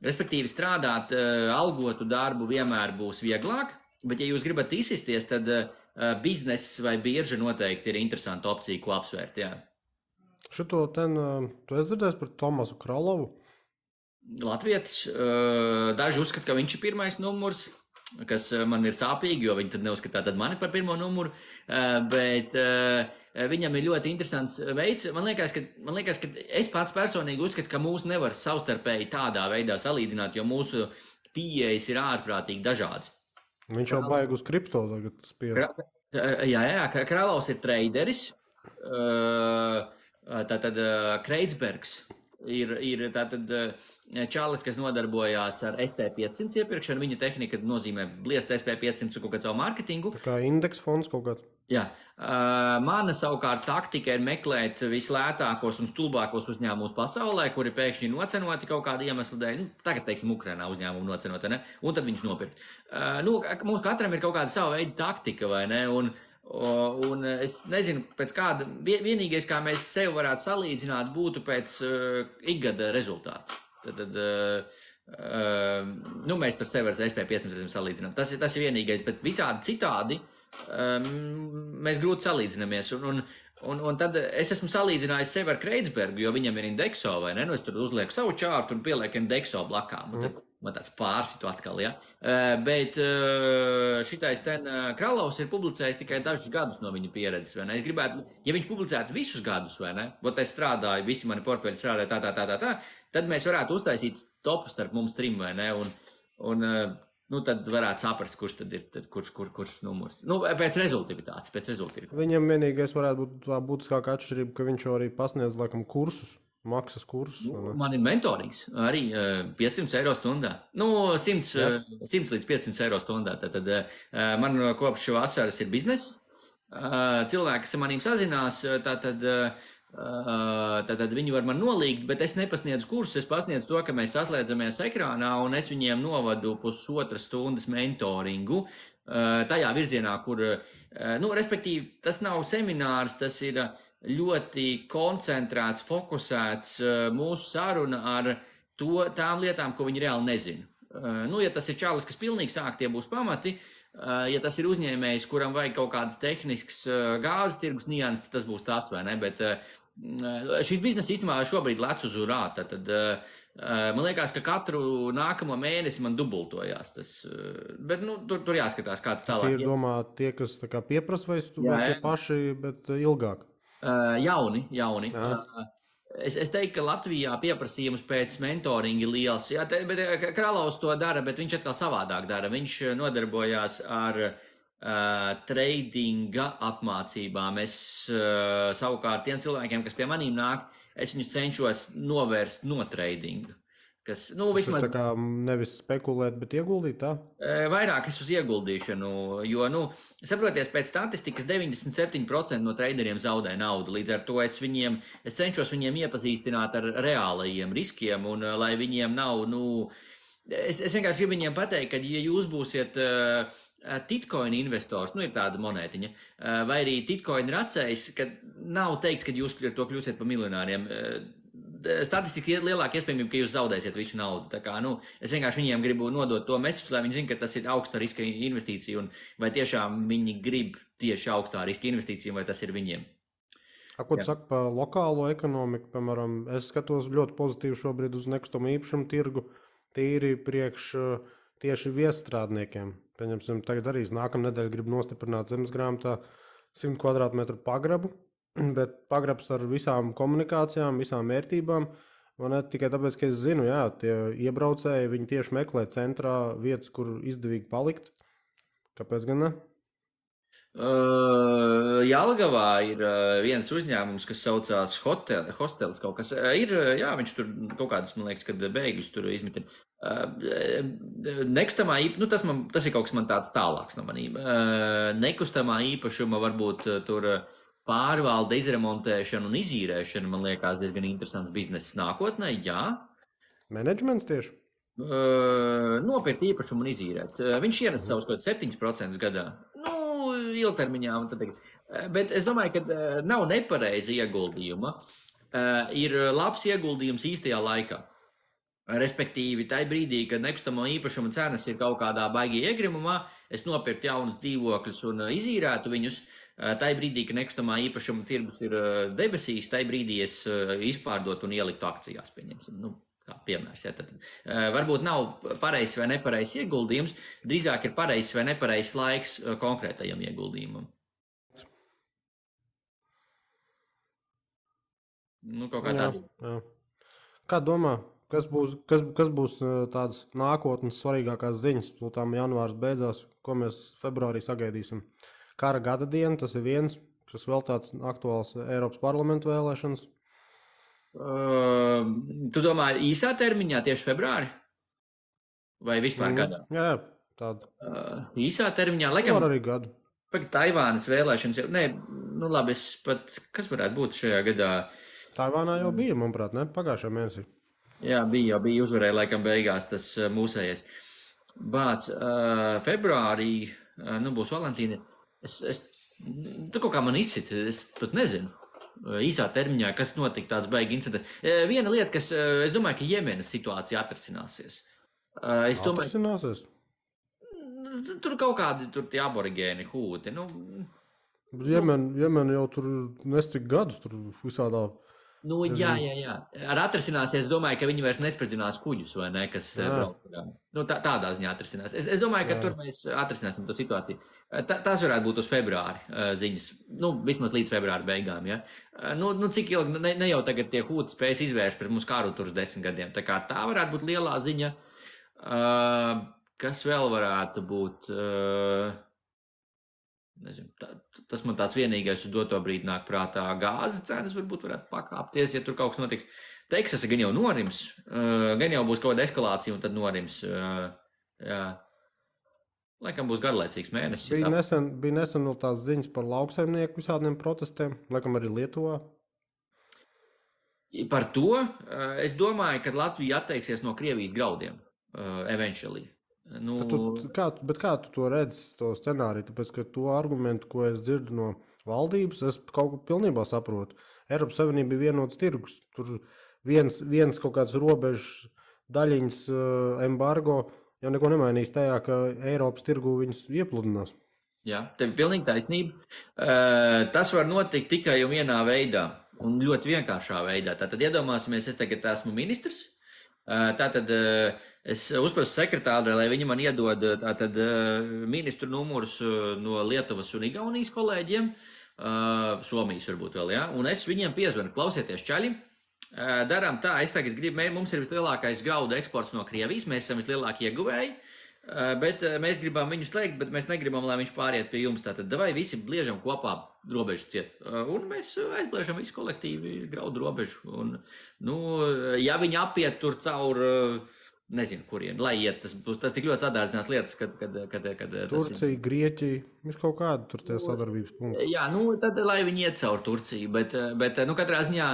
Respektīvi strādāt algotu darbu vienmēr būs vieglāk, bet ja jūs gribat izsisties, tad bizness vai birža noteikti ir interesanta opcija, ko apsvērt, jā. Šito tu esi dzirdējis par Tomasu Kralovu? Latvietis, daži uzskata, ka viņš ir pirmais numurs, kas man ir sāpīgi, jo viņi tad neuzskatā tad mani par pirmo numuru, bet viņam ir ļoti interesants veids. Man liekas, ka es pats personīgi uzskatu, ka mūs nevar savstarpēji tādā veidā salīdzināt, jo mūsu pieejas ir ārprātīgi dažādas. Viņš jau baig uz kripto tagad spiež. Jā, Kralovs ir traderis, tātad Kreitsbergs ir tātad čalis, kas nodarbojās ar SP500 iepirkšanu. Viņa tehnika nozīmē bliest SP500 un kaut kādu savu mārketingu. Tā kā indeks fonds kaut kāds. Jā. Mana savukārt taktika ir meklēt vislētākos un stulbākos uzņēmumus pasaulē, kuri pēkšņi nocenoti kaut kādu iemeslu dēļ. Tagad, teiksim, Ukrainā uzņēmumu nocenoti, ne? Un tad viņus nopirkt. Mums katram ir kaut kāda sava veida taktika, vai ne? Un es nezinu, pēc kāda, vienīgais, kā mēs sevi varētu salīdzināt, būtu pēc ikgada rezultātu. Tad mēs tur sevi ar SP500 salīdzinām. Tas ir vienīgais, bet visādi citādi mēs grūti salīdzinamies. Un tad es esmu salīdzinājis sevi ar Kreitsbergu, jo viņam ir indekso, vai ne? Es tur uzlieku savu čārtu un pielieku indekso blakām. Un tad man tāds pārsitu atkal, ja? Bet šitais Kralovs ir publicējis tikai dažus gadus no viņa pieredzes, vai ne? Es gribētu, ja viņš publicētu visus gadus, vai ne? Vot es strādāju, visi mani portfeļi strādāja tā, tad mēs varētu uztaisīt topu starp mums trim, vai ne? Tad varētu saprast, kurš tad ir, kurš numurs. Pēc rezultātivitātes. Viņam vienīgais varētu būt tā būtiskākā atšķirība, ka viņš arī pasniedz, laikam, kursus, maksas kursus. Man ir mentorings arī 500 eiro stundā. 100 līdz 500 eiro stundā. Tad man kopš vasaras ir bizness. Cilvēki, kas ar manīm sazinās, tad viņi var man nolīgt, bet es nepasniedzu kursus, es pasniedzu to, ka mēs saslēdzamies ekrānā un es viņiem novadu 1,5 stundas mentoringu tajā virzienā, kur, respektīvi, tas nav seminārs, tas ir ļoti koncentrēts, fokusēts mūsu saruna ar tām lietām, ko viņi reāli nezina. Ja tas ir čalis, kas pilnīgi sāk, tie būs pamati. Ja tas ir uzņēmējs, kuram vajag kaut kādas tehniskas gāzes tirgus nianses, tas būs tas, vai ne? Bet šis bizness īstenībā šobrīd lec uz urā. Tad man liekas, ka katru nākamo mēnesi man dubultojās tas. Bet tur jāskatās, kāds tālāk. Tie ir domā tie, kas tā kā pieprasa vai tie paši, bet ilgāk? Jauni. Es teiktu, ka Latvijā pieprasījums pēc mentoringa ir liels. Jā, bet Kralovs to dara, bet viņš atkal savādāk dara. Viņš nodarbojās ar tradinga apmācībām. Es savukārt tiem cilvēkiem, kas pie manīm nāk, es viņus cenšos novērst no tradinga. Tas vismaz... ir tā kā nevis spekulēt, bet ieguldīt tā? Vairāk es uz ieguldīšanu, jo, saproties, pēc statistikas 97% no traderiem zaudē naudu. Līdz ar to es cenšos viņiem iepazīstināt ar reālajiem riskiem, un lai viņiem nav, es vienkārši gribu viņiem pateikt, ka ja jūs būsiet Titcoin investors, ir tāda monētiņa, vai arī Titcoin racējs, ka nav teikts, ka jūs ar to kļūsiet par miljonāriem. Statistiski ir lielāka iespējamība, ka jūs zaudēsiet visu naudu. Tā kā, es vienkārši viņiem gribu nodot to mesiķu, lai viņi zina, ka tas ir augsta riska investīcija, un vai tiešām viņi grib tieši augstā riska investīciju, vai tas ir viņiem. Ko tu saki par lokālo ekonomiku? Piemēram, es skatos ļoti pozitīvi šobrīd uz nekustamo īpašumu tirgu, tīri priekš tieši viestrādniekiem. Pieņemsim, tagad arī nākamā nedēļa grib nostiprināt zemesgrāmatā 100 kvadrātmetru pagrabu, bet pagrabs ar visām komunikācijām, visām vērtībām. Man ne tikai tāpēc, ka es zinu, jā, tie iebraucēji, viņi tieši meklē centrā vietas, kur izdevīgi palikt. Kāpēc gan ne? Jelgavā ir viens uzņēmums, kas saucās Hostels kaut kas. Viņš tur kaut kādas, man liekas, kad bēgļus tur izmitina. Nekustamā īpašuma, tas ir kaut kas man tāds tālāks no manīm. Nekustamā īpašuma varbūt tur pārvalde, izremontēšana un izīrēšana, man liekas, diezgan interesants bizness nākotnē, jā. Menedžments tieši? Nopirkt īpašumu un izīrēt. Viņš ienes savus kaut 7% gadā. Ilgtermiņā. Bet es domāju, ka nav nepareiza ieguldījuma. Ir labs ieguldījums īstajā laikā. Respektīvi, tajā brīdī, kad nekustamo īpašumu cenas ir kaut kādā baigi iegrimumā, es nopirktu jaunus dzīvokļus un izīrētu viņus. Tajā brīdī, kad nekustamā īpašuma tirgus ir debesīs, tajā brīdī es izpārdotu un ieliktu akcijās, pieņemsim. Kā piemērs, ja, tad varbūt nav pareizs vai nepareizs ieguldījums, drīzāk ir pareizs vai nepareizs laiks konkrētajam ieguldījumam. Kaut kā tāds. Jā. Kā domā, kas būs tādas nākotnes svarīgākās ziņas? Tām janvārs beidzās, ko mēs februārī sagaidīsim. Kara gada diena, tas ir viens, kas vēl tāds aktuāls Eiropas parlamentu vēlēšanas. Tu domā īsā termiņā tieši februāri? Vai vispār gadā? Jā, tāda. Īsā termiņā, laikam. Var arī gadu. Taivānas vēlēšanas jau, labi, kas varētu būt šajā gadā? Taivānā jau bija, manuprāt, ne? Pagājušajā mēnesī. Jā, bija uzvarēja laikam beigās tas mūsējies. Bāc, februārī, būs Valentīna. Tu kaut kā man izsit, es pat nezinu. Īsā termiņā, kas notika tāds baigi incidents. Viena lieta, kas, es domāju, ka Jemenas situācija atrisināsies. Atrisināsies? Tur kaut kādi tie aborigēni hūti. Jemen jau tur nescik gadus, tur visādā. Jā. Ar atrisināsies, domāju, ka viņi vairs nespridzinās kuģus, vai ne, kas brauc. Tādā ziņā atrisinās. Es domāju, ka tur mēs atrisināsim to situāciju. Tas varētu būt uz februāri ziņas. Vismaz līdz februāra beigām, ja. Cik ilgi, ne jau tagad tie hūti spējas izvērst pret mums karu tur uz 10 gadiem. Tā kā tā varētu būt lielā ziņa. Kas vēl varētu būt? Nezinu, tas man tāds vienīgais uz doto brīdi nāk prātā. Gāzes cenas varbūt varētu pakāpties, ja tur kaut kas notiks. Teksasa gan jau norims, gan jau būs kaut kāda eskalācija un tad norims. Jā. Laikam būs garlaicīgs mēnesis. Bija nesen vēl tās ziņas par lauksaimnieku visādiem protestiem, laikam arī Lietuvā. Par to es domāju, ka Latvija atteiksies no Krievijas graudiem, eventually. Bet kā tu to redzi, to scenāriju? Tāpēc, ka to argumentu, ko es dzirdu no valdības, es kaut ko pilnībā saprotu. Eiropas Savienība ir vienots tirgus. Tur viens kaut kāds robežs daļiņas embargo jau neko nemainīs tajā, ka Eiropas tirgu viņus iepludinās. Jā, tev ir pilnīgi taisnība. Tas var notikt tikai un vienā veidā, un ļoti vienkāršā veidā. Tātad iedomāsimies, es tagad esmu ministrs. Tātad es uzprasu sekretārai, lai viņi man iedod ministru numurus no Lietuvas un Igaunijas kolēģiem, Somijas varbūt vēl, jā, un es viņiem piezvanu, klausieties čaļi, darām tā, es tagad gribu, mums ir vislielākais graudu eksports no Krievijas, mēs esam vislielākie ieguvēji, bet mēs gribam viņu slēgt, bet mēs negribam, lai viņš pāriet pie jums, tātad vai visi bliežam kopā robežu ciet, un mēs aizbliežam visu kolektīvi graudu robežu, un, ja viņi apiet tur caur, nezinu, kurien, lai iet, tas tik ļoti sadārdzinās lietas, kad Turcija, Grieķija, viss kaut kādu tur tie sadarbības punkti. Jā, tad lai viņi iet caur Turciju, bet katrā ziņā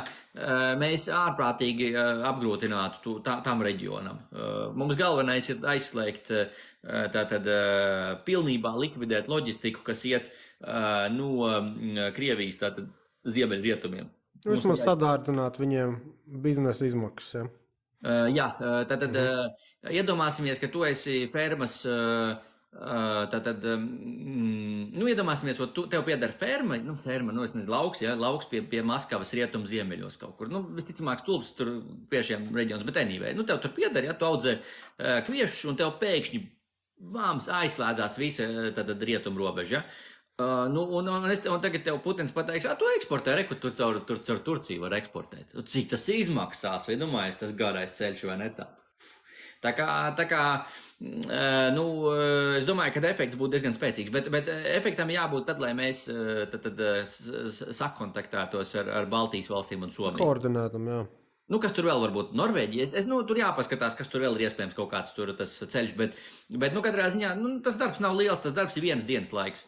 mēs ārprātīgi apgrūtinātu tam reģionam. Mums galvenais ir aizslēgt, tātad pilnībā likvidēt loģistiku, kas iet no Krievijas, tātad ziemeļrietumiem. Vismaz sadārdzināt viņiem biznesa izmaksas, ja? Jā, tātad iedomāsimies, ka tu esi fermas Tātad, iedomāsimies, tev pieder ferma, es nezinu, lauks pie Maskavas rietumu ziemeļos kaut kur. Visticamāk, stulbs tur kviešiem reģions, bet anyway. Tev tur pieder, ja tu audzē kviešus, un tev pēkšņi aizslēdzās visa rietumu robeža. Un tagad tev Putins pateiks, tu eksportē, tur caur Turciju var eksportēt. Cik tas izmaksās, vai domājies, tas garais ceļš vai ne tā? Tā kā es domāju, ka efekts būtu diezgan spēcīgs, bet efektam jābūt tad, lai mēs sakontaktētos ar Baltijas valstīm un Somiju. Koordinētam, jā. Kas tur vēl var būt? Norvēģija. Tur jāpaskatās, kas tur vēl ir iespējams kaut kāds tas ceļš, bet katrā ziņā, tas darbs nav liels, tas darbs ir vienas dienas laiks.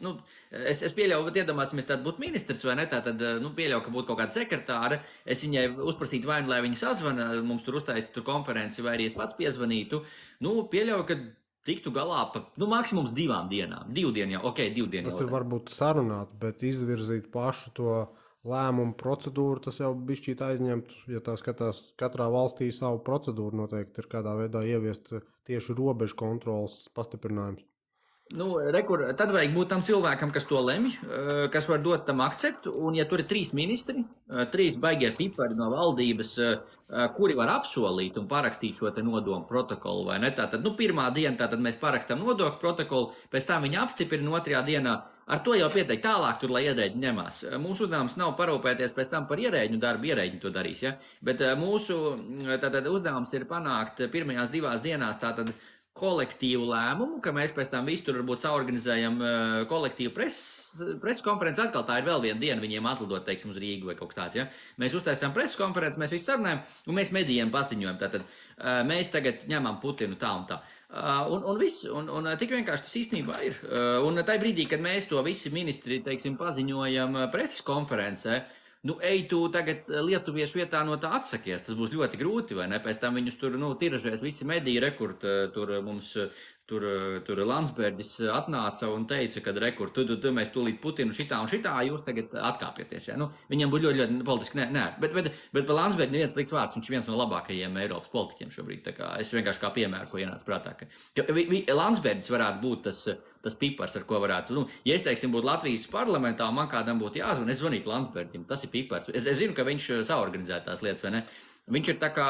Es pieļauju, ka iedomāsimies, tāda būtu ministrs vai ne, tad pieļauju, ka būtu kaut kāda sekretāra. Es viņai uzprasītu vai lai viņa sazvana, mums tur uztaisītu tur konferenci, vai arī es pats piezvanītu. Pieļauju, ka tiktu galā pa, maksimums 2 dienām. 2 dienu jau, 2 dienu jau. Tas ir varbūt sarunāt, bet izvirzīt pašu to lēmumu procedūru, tas jau bišķīt aizņemt, ja tā skatās, katrā valstī savu procedūru noteikti ir kādā veidā ieviest tieši robežu kontrolas pastiprinājums. Tad vajag būt tam cilvēkam, kas to lemj, kas var dot tam akceptu, un ja tur ir 3 ministri, 3 baigie pipari no valdības, kuri var apsolīt un parakstīt šo te nodomu protokolu, vai ne? Tātad, pirmā diena, tātad mēs parakstam nodokļu protokolu, pēc tam viņi apstiprina 2. dienā. Ar to jau pieteikt tālāk, lai ierēģi ņemās. Mūsu uzdevums nav parūpēties pēc tam par ierēģu darbu, ierēģi to darīs, ja? Bet mūsu uzdevums ir panākt pirmajās 2 dienās kolektīvu lēmumu, ka mēs pēc tam visu tur varbūt saorganizējam kolektīvu preses konferenci. Atkal tā ir vēl viena diena viņiem atlidot, teiksim, uz Rīgu vai kaut kas tāds, ja? Mēs uztaisām preses konferenci, mēs visu sarunājam, un mēs medijiem paziņojam. Tātad mēs tagad ņemam Putinu tā un tā. Un viss, un tik vienkārši tas īstenībā ir. Un tajā brīdī, kad mēs to visi ministri, teiksim, paziņojam preses konferencē, ej tu tagad lietuviešu vietā no tā atsakies, tas būs ļoti grūti, vai ne? Pēc tam viņus tur, tiražēs visi mediji, rekurt, tur mums, tur Landsbergis atnāca un teica, ka rekurt, tu mēs tūlīt Putinu šitā un šitā, jūs tagad atkāpieties, ja? Viņam būtu ļoti politiski, nē, bet par Landsbergi neviens liks vārds, viņš ir viens no labākajiem Eiropas politiķiem šobrīd, tā kā es vienkārši kā piemēru, ko ienāca prātā, ka Landsbergis varētu būt tas pipars, ar ko varētu, ja es, teiksim, būtu Latvijas parlamentā, man kādam būtu jāzvan, es zvanītu Landsbergim, tas ir pipars. Es zinu, ka viņš saorganizē tās lietas, vai ne? Viņš ir tā kā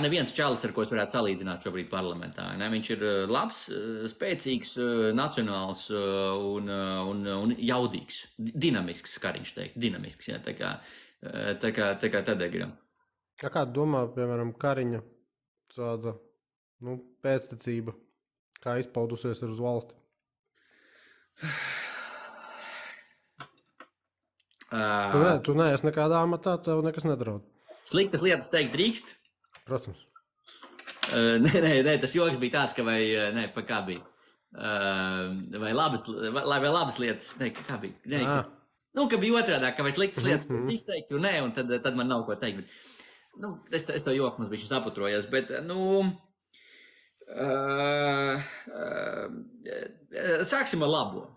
neviens čalis, ar ko es varētu salīdzināt šobrīd parlamentā. Ne? Viņš ir labs, spēcīgs, nacionāls un jaudīgs, dinamisks, kā viņš teikt, dinamisks, jā, tā kā Tadegram. Kā domā, piemēram, Kariņa tāda, pēctecība, kā izpaudusies ir uz valsti? Tu neesi nekādā amatā, tev nekas nedraud. Sliktas lietas teikt drīkst? Protams. Nē, tas joks bija tāds, ka kā bija? Vai labas lietas, kā bija? Nē, ka bija otrādā, ka vai sliktas lietas drīkst teikt, un nē, un tad man nav ko teikt. Bet, es to joku mums bija saputrojos, bet, sāksim ar labo.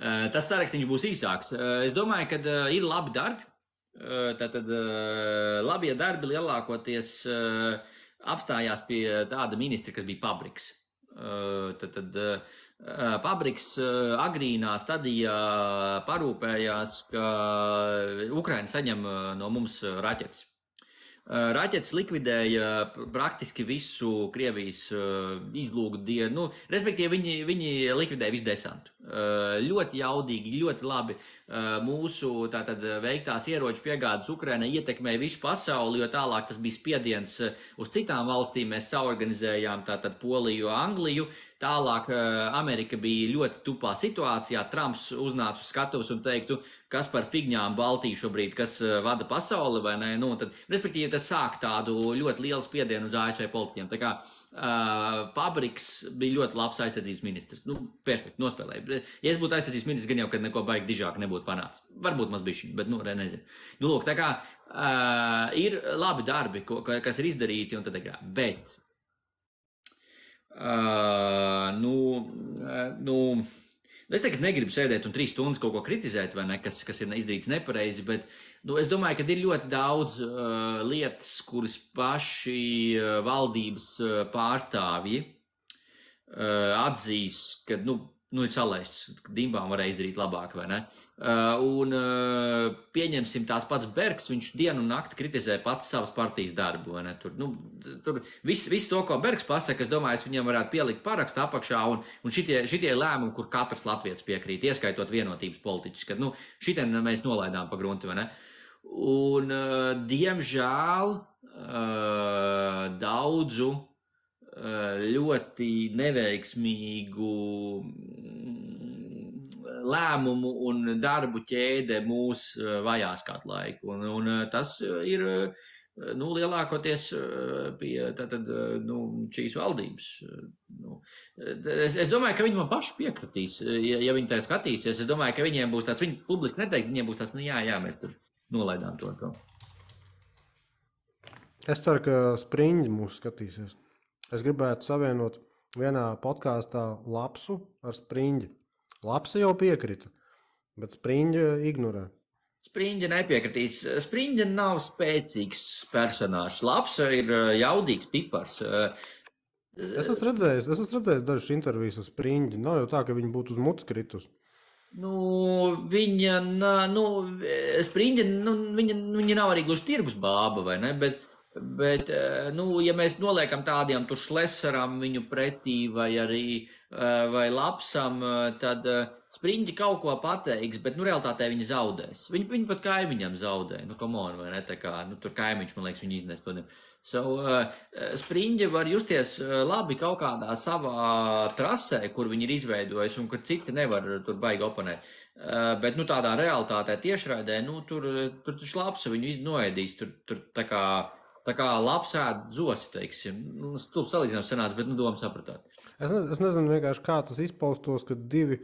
Tas sarakstīns būs īsāks. Es domāju, ka ir labi darbi. Tātad labie darbi lielākoties apstājās pie tāda ministra, kas bija Pabriks. Pabriks agrīnā stadijā parūpējās, ka Ukraina saņem no mums raķetes. Raķetes likvidēja praktiski visu Krievijas izlūgu dienu, respektīvi viņi likvidēja visu desantu. Ļoti jaudīgi, ļoti labi mūsu tātad veiktās ieroču piegādes Ukrainai ietekmēja visu pasauli, jo tālāk tas bija spiediens uz citām valstīm. Mēs saorganizējām tātad Poliju, Angliju. Tālāk Amerika bija ļoti tupā situācijā. Trumps uznāca uz skatuves un teiktu, kas par figņām Baltiju šobrīd, kas vada pasauli, vai ne? Respektīvi, tas sāk tādu ļoti lielu spiedienu uz ASV politiķiem. Tā kā Pabriks bija ļoti labs aizsardzības ministrs. Perfekti, nospēlēja. Ja es būtu aizsardzības ministrs, gan jau, kad neko baigi dižāk nebūtu panācis. Varbūt maz bišķiņ, bet, nezinu. Lūk, tā kā ir labi darbi, kas ir izdarīti un tad agrāk. Bet es tagad negribu sēdēt un 3 stundas kaut ko kritizēt, vai ne, kas ir izdarīts nepareizi, bet es domāju, ka ir ļoti daudz lietas, kuras paši valdības pārstāvji atzīs, ka, ir salaists, ka Dimbām varēja izdarīt labāk, vai ne? Pieņemsim tās pats Bergs, viņš dienu un nakti kritizē pats savas partijas darbu, vai ne? Tur viss to, ko Bergs pasaka, es domāju, es viņam varētu pielikt parakstu apakšā, un šitie lēmumi, kur katrs latvietis piekrīt, ieskaitot vienotības politiķus, kad, šitien mēs nolaidām pa grunti, vai ne? Un, diemžēl, daudzu ļoti neveiksmīgu lēmumu un darbu ķēde mūs vajās kādu laiku. Un tas ir lielākoties pie šīs valdības. Es domāju, ka viņi man paši piekritīs, ja viņi tā skatīsies. Es domāju, ka viņiem būs tāds, viņi publiski neteikt, viņiem būs tāds, jā, mēs tur nolaidām to. Es ceru, ka Spriņģi mūs skatīsies. Es gribētu savienot vienā podkāstā Lapsu ar Spriņģi. Lapsa jau piekrita, bet Spriņģa ignorē. Spriņģa nepiekritīs. Spriņģa nav spēcīgs personāžs. Lapsa ir jaudīgs pipars. Es esmu redzējis dažas intervijas ar Spriņģi. Nav jau tā, ka viņi būtu uz mutes kritus. Spriņģa, viņa nav arī gluži tirgus bāba, vai ne? Bet ja mēs noliekam tādiem tur Šlesaram viņu pretī vai Lapsam, tad Spriņģi kaut ko pateiks, bet realitātē viņi zaudēs. Viņi pat kaimiņam zaudē. Come on, vai ne? Tā kā, tur kaimiņš, man liekas, viņi iznes to. Spriņģi var justies labi kaut kādā savā trasē, kur viņi ir izveidojuši un kur citi nevar tur baigi oponēt. Bet tādā realitātē tiešraidē, tur Lapsa viņu noēdīs, tur tā kā labs ēd zosi, teiksim. Stulbs salīdzinājums sanāca, bet doma sapratāt. Es nezinu vienkārši, kā tas izpaustos, kad divi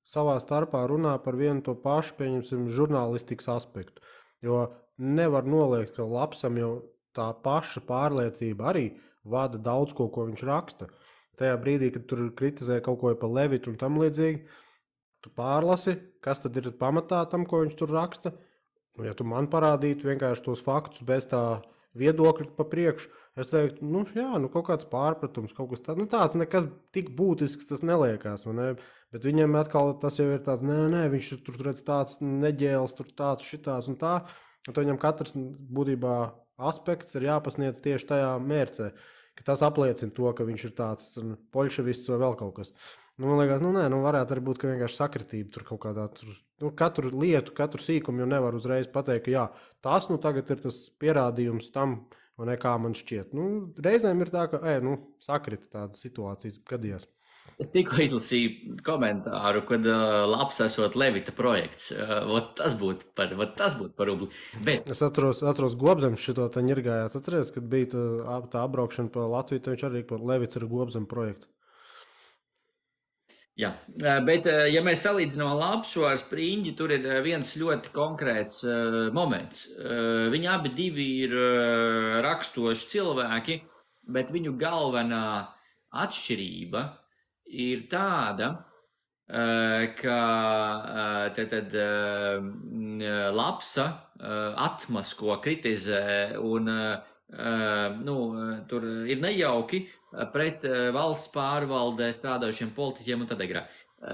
savā starpā runā par vienu to pašu, pieņemsim, žurnālistikas aspektu. Jo nevar noliegt, ka Lapsam jau tā paša pārliecība arī vada daudz ko viņš raksta. Tajā brīdī, kad tur kritizē kaut ko par Levitu un tam līdzīgi, tu pārlasi, kas tad ir pamatā tam, ko viņš tur raksta. Ja tu man parādītu vienkārši tos faktus bez tā viedokļi pa priekšu, es teiktu, kaut kāds pārpratums, kaut kas tāds, tāds nekas tik būtisks tas neliekās, ne? Bet viņiem atkal tas jau ir tāds, nē, viņš tur redz tāds neģēls, tur tāds, šitāds un tā, un viņam katrs būtībā aspekts ir jāpasniedz tieši tajā mērcē, ka tas apliecina to, ka viņš ir tāds poļševists vai vēl kaut kas. Man liekas, varētu arī būt, ka vienkārši sakritība tur kaut kādā, katru lietu, katru sīkumu jau nevar uzreiz pateikt, ka jā, tas tagad ir tas pierādījums tam, un kā man šķiet. Reizēm ir tā, ka, sakrita tāda situācija gadījās. Es tikko izlasīju komentāru, kad labs esot Levita projekts. Tas būtu par rubli. Bet... Es atceros Gobzems šito te ņirgājās. Atceries, kad bija tā apbraukšana pa Latviju, tad viņš arī par Levits ir Gobzem projekts. Jā, bet ja mēs salīdzinām Lapsu ar Spriņģi, tur ir viens ļoti konkrēts moments. Viņi abi divi ir rakstoši cilvēki, bet viņu galvenā atšķirība ir tāda, ka Lapsa atmasko, kritizē un tur ir nejauki pret valsts pārvaldē strādājušiem politiķiem un tad agrā.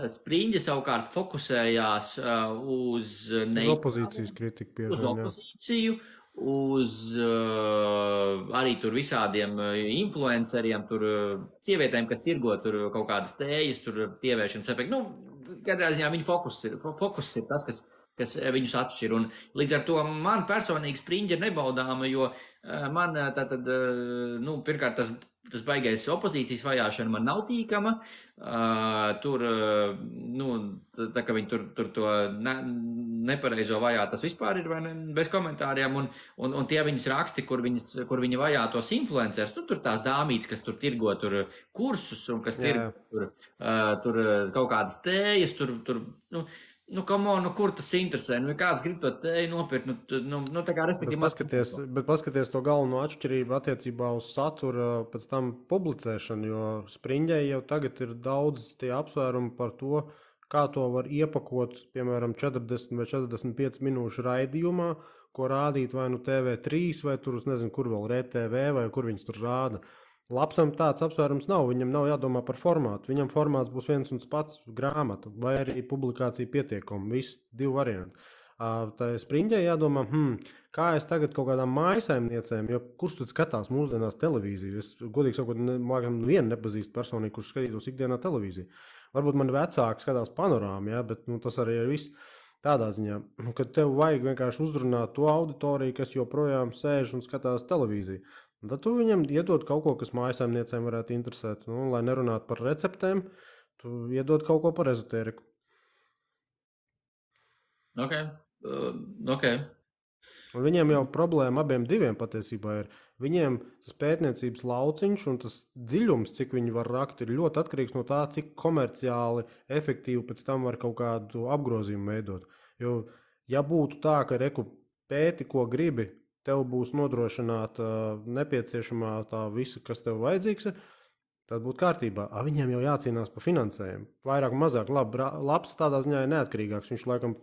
Spriņģi savukārt fokusējās uz opozīcijas kritiku, uz opozīciju, uz arī tur visādiem influenceriem, tur sievietēm, kas tirgo tur kaut kādas tējas, tur pievēršanas efekti. Katrā ziņā viņa fokus ir tas, kas viņus atšķir. Un līdz ar to man personīgi Spriņģi ir nebaudāma, jo man pirmkārt tas baigais opozīcijas vajāšana man nav tīkama. Tur, tā kā viņi tur to nepareizo vajā, tas vispār ir bez komentāriem. Un tie viņas raksti, kur viņi vajā tos influencers, tur tās dāmītes, kas tur tirgo tur kursus un kas tirgo tur kaut kādas tējas, kur tas interesē? Kāds grib to tēju nopirkt? Tā kā respektīvi... Bet paskaties to galveno atšķirību attiecībā uz satura pēc tam publicēšanu, jo Spriņģai jau tagad ir daudz tie apsvērumi par to, kā to var iepakot, piemēram, 40 vai 45 minūšu raidījumā, ko rādīt vai TV3 vai tur, es nezinu, kur vēl RTV vai kur viņas tur rāda. Lapsam tāds apsvērums nav. Viņam nav jādomā par formātu. Viņam formāts būs viens un tas pats grāmata vai arī publikācija pietiekuma. Visi divi varianti. Tā Spriņģē jādomā, kā es tagad kaut kādām mājasaimniecēm, jo kurš tad skatās mūsdienās televīziju? Es godīgi sakot, vienu nepazīstu personīgi, kurš skatītos ikdienā televīziju. Varbūt man vecāki skatās panorāmu, ja, bet tas arī ir viss tādā ziņā, kad tev vajag vienkārši uzrunāt to auditoriju, kas joprojām sēž un skatās televīziju. Tad tu viņam iedod kaut ko, kas mājasaimniecēm varētu interesēt. Lai nerunātu par receptēm, tu iedod kaut ko par ezotēriku. Ok. Un viņiem jau problēma abiem diviem patiesībā ir. Viņiem tas pētniecības lauciņš un tas dziļums, cik viņi var rakt, ir ļoti atkarīgs no tā, cik komerciāli efektīvi pēc tam var kaut kādu apgrozījumu veidot. Jo, ja būtu tā, ka pēti, ko gribi, tev būs nodrošināta nepieciešamā tā visa, kas tev vajadzīgs, tad būtu kārtībā. Viņiem jau jācīnās par finansējumu. Vairāk un mazāk labs tādā ziņā ir neatkarīgāks. Viņš laikam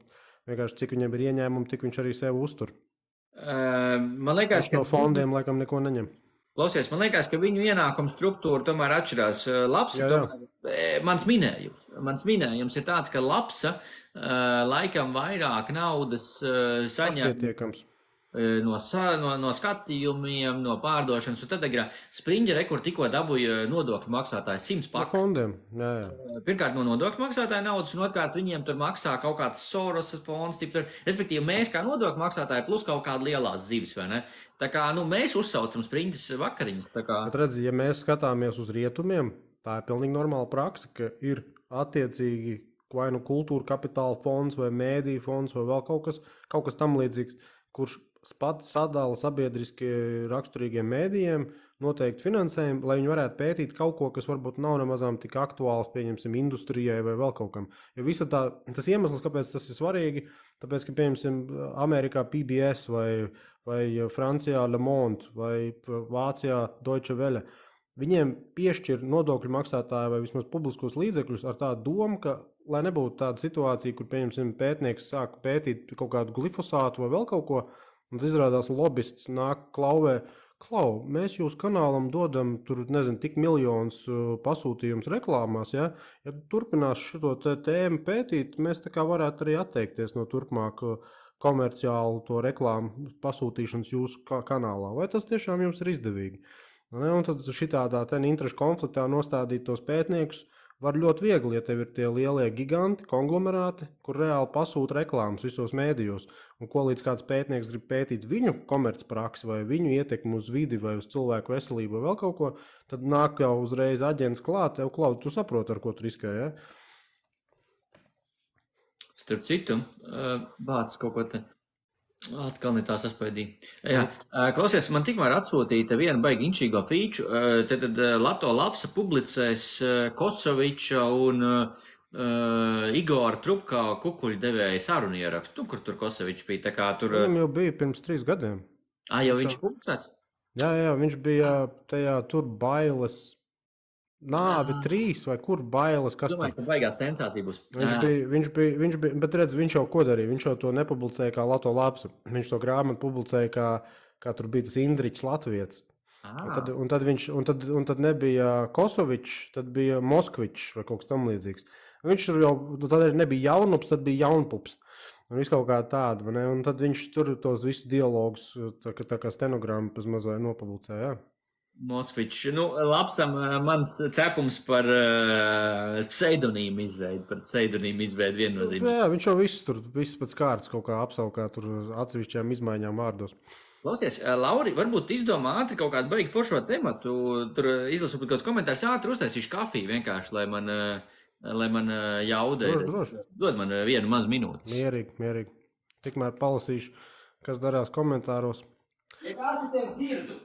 vienkārši, cik viņam ir ieņēmumi, tik viņš arī sevi uztur. Man liekas, ka no fondiem laikam neko neņem. Klausies, man liekas, ka viņu ienākumu struktūra tomēr atšķirās. Lapsa, mans minējums ir tāds, ka lapsa laikam vairāk naudas saņem no skatījumiem, no pārdošanas. Un tad Spriņģere, kur tikko dabūja nodokļu maksātājs 100 pakas. No fondiem, jā. Pirmkārt no nodokļu maksātāja naudas, un otrkārt viņiem tur maksā kaut kāds Soros fonds, respektīvi mēs kā nodokļu maksātāji plus kaut kāda lielās zivis, vai ne? Tā kā, mēs uzsaucam Spriņģes vakariņas. Tā kā... Bet redzi, ja mēs skatāmies uz rietumiem, tā ir pilnīgi normāla praksa, ka ir attiecīgi vai nu kultūra kapitāla fonds vai mēdīju fonds vai vēl kaut kas tam līdzīgs, kurš pats sadala sabiedriski raksturīgiem mēdījiem noteikti finansējumu, lai viņi varētu pētīt kaut ko, kas varbūt nav nemazām tik aktuāls, pieņemsim, industrijai vai vēl kaut kam. Jo visa tas iemesls, kāpēc tas ir svarīgi, tāpēc, ka, pieņemsim, Amerikā PBS vai Francijā Le Monde vai Vācijā Deutsche Welle, viņiem piešķir nodokļu maksātāji vai vismaz publiskos līdzekļus ar tādu domu, ka, lai nebūtu tāda situācija, kur, pieņemsim, pētnieks sāk pētīt kaut kādu glifosātu vai vēl kaut ko, un tas izrādās lobists nāk klauvē, mēs jūsu kanālam dodam tur, tik miljonus pasūtījums reklāmās, ja turpinās šo tēmu pētīt, mēs tā kā varētu arī atteikties no turpmāk komerciālu to reklāmu pasūtīšanas jūsu kanālā. Vai tas tiešām jums ir izdevīgi? Un tad šitādā interešu konfliktā nostādīt tos pētniekus var ļoti viegli, ja tev ir tie lielie giganti, konglomerāti, kur reāli pasūta reklāmas visos mēdījos. Un ko līdz kāds pētnieks grib pētīt viņu komercpraksi vai viņu ietekmi uz vidi vai uz cilvēku veselību vai vēl kaut ko, tad nāk jau uzreiz aģents klāt, tu saproti, ar ko tu riskē, ja? Starp citu, bāc kaut ko te. Atkal ne tā saspaidīja. Jā, klausies, man tikmēr atsūtīja vienu baigi inčīgo fīču. Tad Lato Lapsa publicēs Kosoviča un Igora Trubka kukuļu devēja sarunu ierakstu, kur tur Kosovičs bija. Tā kā tur... Viņam jau bija pirms 3 gadiem. Jau viņš publicēts? Jā, viņš bija tajā tur bailes... Nāvi 3 vai kur bailes, kas tur? Domāju, ka baigās sensācija būs. Viņš bija, bet redz, viņš jau ko darīja? Viņš jau to nepublicēja kā Lato Lapsa. Viņš to grāmatu publicēja kā tur bija tas Indriķis Latvietis. Un tad nebija Kosovičs, tad bija Moskvičs vai kaut kas tam līdzīgs. Viņš tur jau, tad arī nebija jaunups, tad bija jaunpups. Un viss kaut kā tāda, vai ne? Un tad viņš tur tos visus dialogus, tā kā stenogrammu pēc mazai nopublicēja, jā. Moskvičs. Lapsam mans cepums par pseidonīmu izveidu viennozīmīgi. Jā, viņš jau viss pēc kārtas kaut kā apsaukā tur atsevišķām izmaiņām vārdos. Klausies, Lauri, varbūt izdomā ātri kaut kādu baigi foršo tematu, tur izlasu kaut kāds komentārs, ātri uztaisīšu kafiju vienkārši, lai man jaudē. Droši. Dod man vienu mazu minūti. Mierīgi. Tikmēr palasīšu, kas darās komentāros. Ja kāds es tevi dzirdu?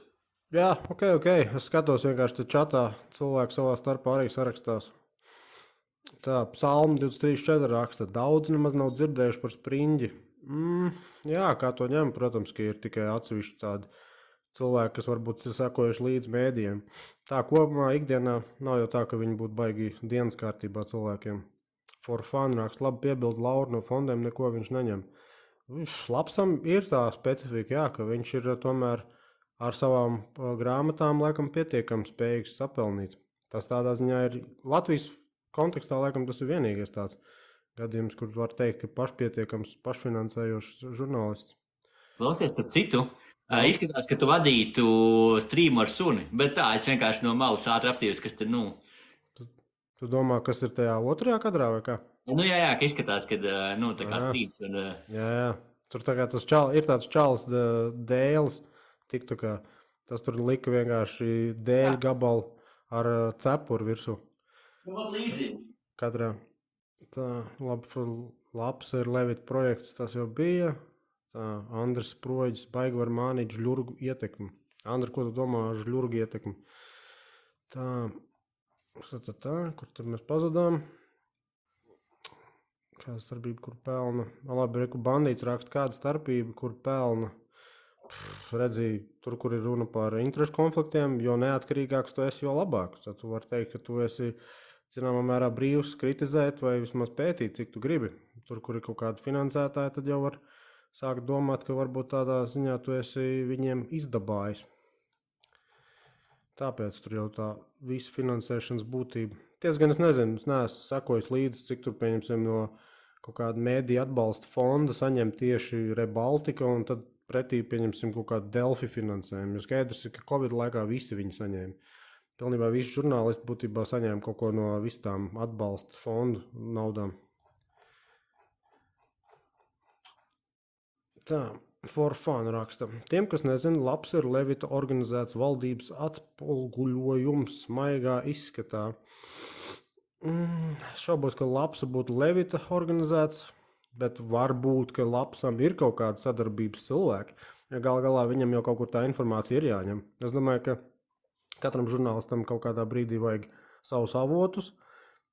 Jā, ok. Es skatos vienkārši te čatā, cilvēki savā starpā arī sarakstās. Tā, Psalma 23.4 raksta, daudz nemaz nav dzirdējuši par Spriņģi. Jā, kā to ņem, protams, ka ir tikai atsevišķi tādi cilvēki, kas varbūt ir sekojuši līdz mēdījiem. Tā kopumā ikdienā nav jau tā, ka viņi būtu baigi dienas kārtībā cilvēkiem. For fun raksta, labi piebildu Lauru, no fondiem neko viņš neņem. Lapsam ir tā specifika, jā, ka viņš ir tomēr ar savām grāmatām laikam pietiekami spējīgs sapelnīt. Tas tādā ziņā ir Latvijas kontekstā, laikam tas ir vienīgais tāds gadījums, kur var teikt, ka pašpietiekams, pašfinansējošs žurnālists. Klausies, starp citu, izskatās, ka tu vadītu streamu ar suni, bet tā, es vienkārši no malas ātri apstījos, kas te, Tu domā, kas ir tajā otrajā kadrā vai kā? Jā, ka izskatās, ka, tā kā streams. Un, Jā. Tur tā kā ir tāds čalis dēlis, tas tur lika vienkārši dēļu gabalu ar cepuru virsū. Līdzīgi. Katrā. Tā, labs ir Levita projekts, tas jau bija. Tā, Andris Sproģis, baigi var mānīt žļurgu ietekmi. Andri, ko tu domā ar žļurgu ietekmi? Tā, kur tur mēs pazudām? Kāda starpība, kur pelna? Labi, reku bandīts raksta, kāda starpība, kur pelna. Redzīju, tur, kur ir runa par interešu konfliktiem, jo neatkarīgāks tu esi, jo labāk. Tad tu vari teikt, ka tu esi, zināmā mērā, brīvs kritizēt vai vismaz pētīt, cik tu gribi. Tur, kur ir kaut kāda finansētāja, tad jau var sākt domāt, ka varbūt tādā ziņā tu esi viņiem izdabājis. Tāpēc tur jau tā visa finansēšanas būtība. Tiesgan es nezinu, es neesmu sekojis līdzi, cik tur pieņemsim no kaut kāda mēdija atbalsta fonda saņem tieši Rebaltika un tad pretī pieņemsim kaut kādu Delfi finansējumu. Jo skaidrs ir, ka Covid laikā visi viņi saņēma. Pilnībā visi žurnālisti būtībā saņēma kaut ko no visām atbalsta fondu naudām. Tā. For fun raksta. Tiem, kas nezina, labs ir Levita organizēts valdības atpulguļojums maigā izskatā. Šaubos, ka labs būtu Levita organizēts, bet varbūt, ka labsam ir kaut kāda sadarbības cilvēki. Ja galā viņam jau kaut kur tā informācija ir jāņem. Es domāju, ka katram žurnālistam kaut kādā brīdī vajag savus avotus.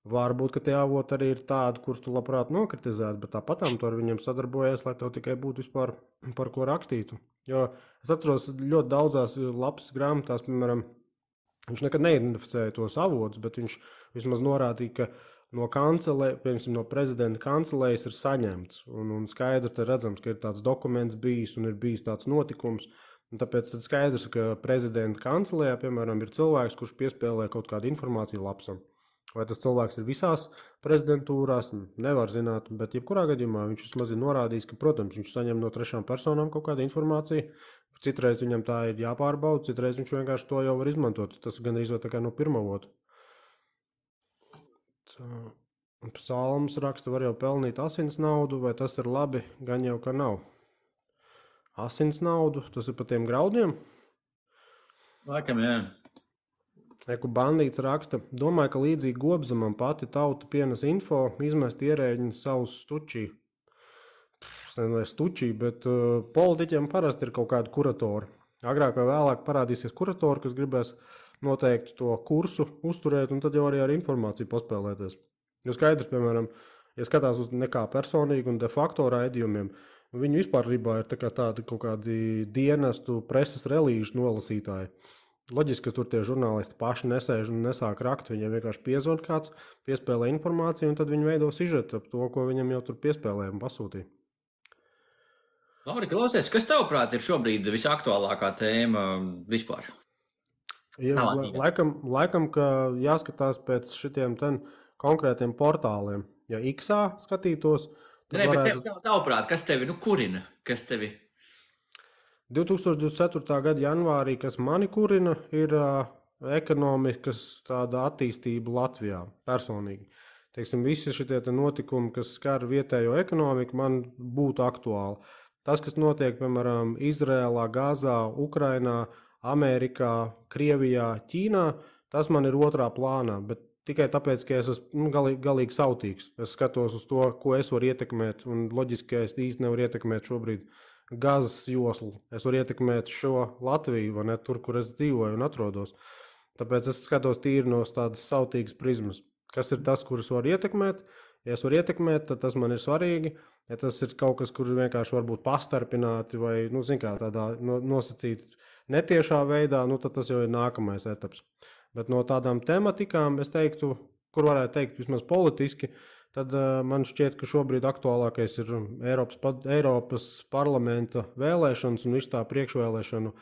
Varbūt, ka tie avoti arī ir tādi, kurus tu labprāt nokritizētu, bet tāpatām tu ar viņiem sadarbojies, lai tev tikai būtu vispār par ko rakstītu. Jo es atceros ļoti daudzās lapas grāmatās, piemēram, viņš nekad neidentificēja tos avotus, bet viņš vismaz norādīja, ka no piemēram, no prezidenta kancelējas ir saņemts. Un skaidri te redzams, ka ir tāds dokuments bijis un ir bijis tāds notikums. Un tāpēc tad skaidrs, ka prezidenta kancelējā, piemēram, ir cilvēks, kurš piespēlē kaut kādu informāciju lapsam. Vai tas cilvēks ir visās prezidentūrās, nevar zināt, bet jebkurā gadījumā viņš vismaz ir norādījis, ka, protams, viņš saņem no trešām personām kaut kādu informāciju. Citreiz viņam tā ir jāpārbauda, citreiz viņš vienkārši to jau var izmantot. Tas gan izvēl tā kā no pirmā avotu. Psalms raksta, var jau pelnīt asins naudu, vai tas ir labi, gan jau ka nav. Asins naudu, tas ir pa tiem graudiem? Laikam, jā. Eku bandīts raksta, domāju, ka līdzīgi Gobzemam pati tauta pienes info, izmest ierēģi savus stučī. Es nezinu, vai stučī, bet politiķiem parasti ir kaut kādi kuratori. Agrāk vai vēlāk parādīsies kuratori, kas gribēs noteikti to kursu uzturēt, un tad jau arī ar informāciju paspēlēties. Jo skaidrs, piemēram, ja skatās uz nekā personīgi un de facto raidījumiem, viņu vispārībā ir tādi kaut kādi dienestu preses relīžu nolasītāji. Loģiski, ka tur tie žurnālisti paši nesēž un nesāk rakt, viņiem vienkārši piezvan kāds, piespēlē informāciju un tad viņi veido sižetu ap to, ko viņam jau tur piespēlēja un pasūtīja. Lauri, klausies, kas tavuprāt ir šobrīd visaktuālākā tēma vispār? Ja, laikam, ka jāskatās pēc šitiem konkrētiem portāliem. Ja X-ā skatītos, tad varētu... Tavuprāt, kas tevi kurina? Kas tevi... 2024. gada janvārī, kas mani kurina, ir ekonomikas tāda attīstība Latvijā personīgi. Teiksim, visi šitie notikumi, kas skar vietējo ekonomiku, man būtu aktuāli. Tas, kas notiek, piemēram, Izrēlā, Gazā, Ukrainā, Amerikā, Krievijā, Ķīnā, tas man ir otrā plānā, bet tikai tāpēc, ka es esmu galīgi sautīgs. Es skatos uz to, ko es varu ietekmēt, un loģiski, ka es īsti nevaru ietekmēt šobrīd Gazas joslu. Es varu ietekmēt šo Latviju, vai ne, tur, kur es dzīvoju un atrodos. Tāpēc es skatos tīri no tādas sautīgas prizmas. Kas ir tas, kurus var ietekmēt? Ja es varu ietekmēt, tad tas man ir svarīgi. Ja tas ir kaut kas, kur vienkārši var būt pastarpināti vai, tādā nosacīti netiešā veidā, tad tas jau ir nākamais etaps. Bet no tādām tematikām, es teiktu, kur varētu teikt vismaz politiski, tad man šķiet, ka šobrīd aktuālākais ir Eiropas parlamenta vēlēšanas un visu tā priekšvēlēšanu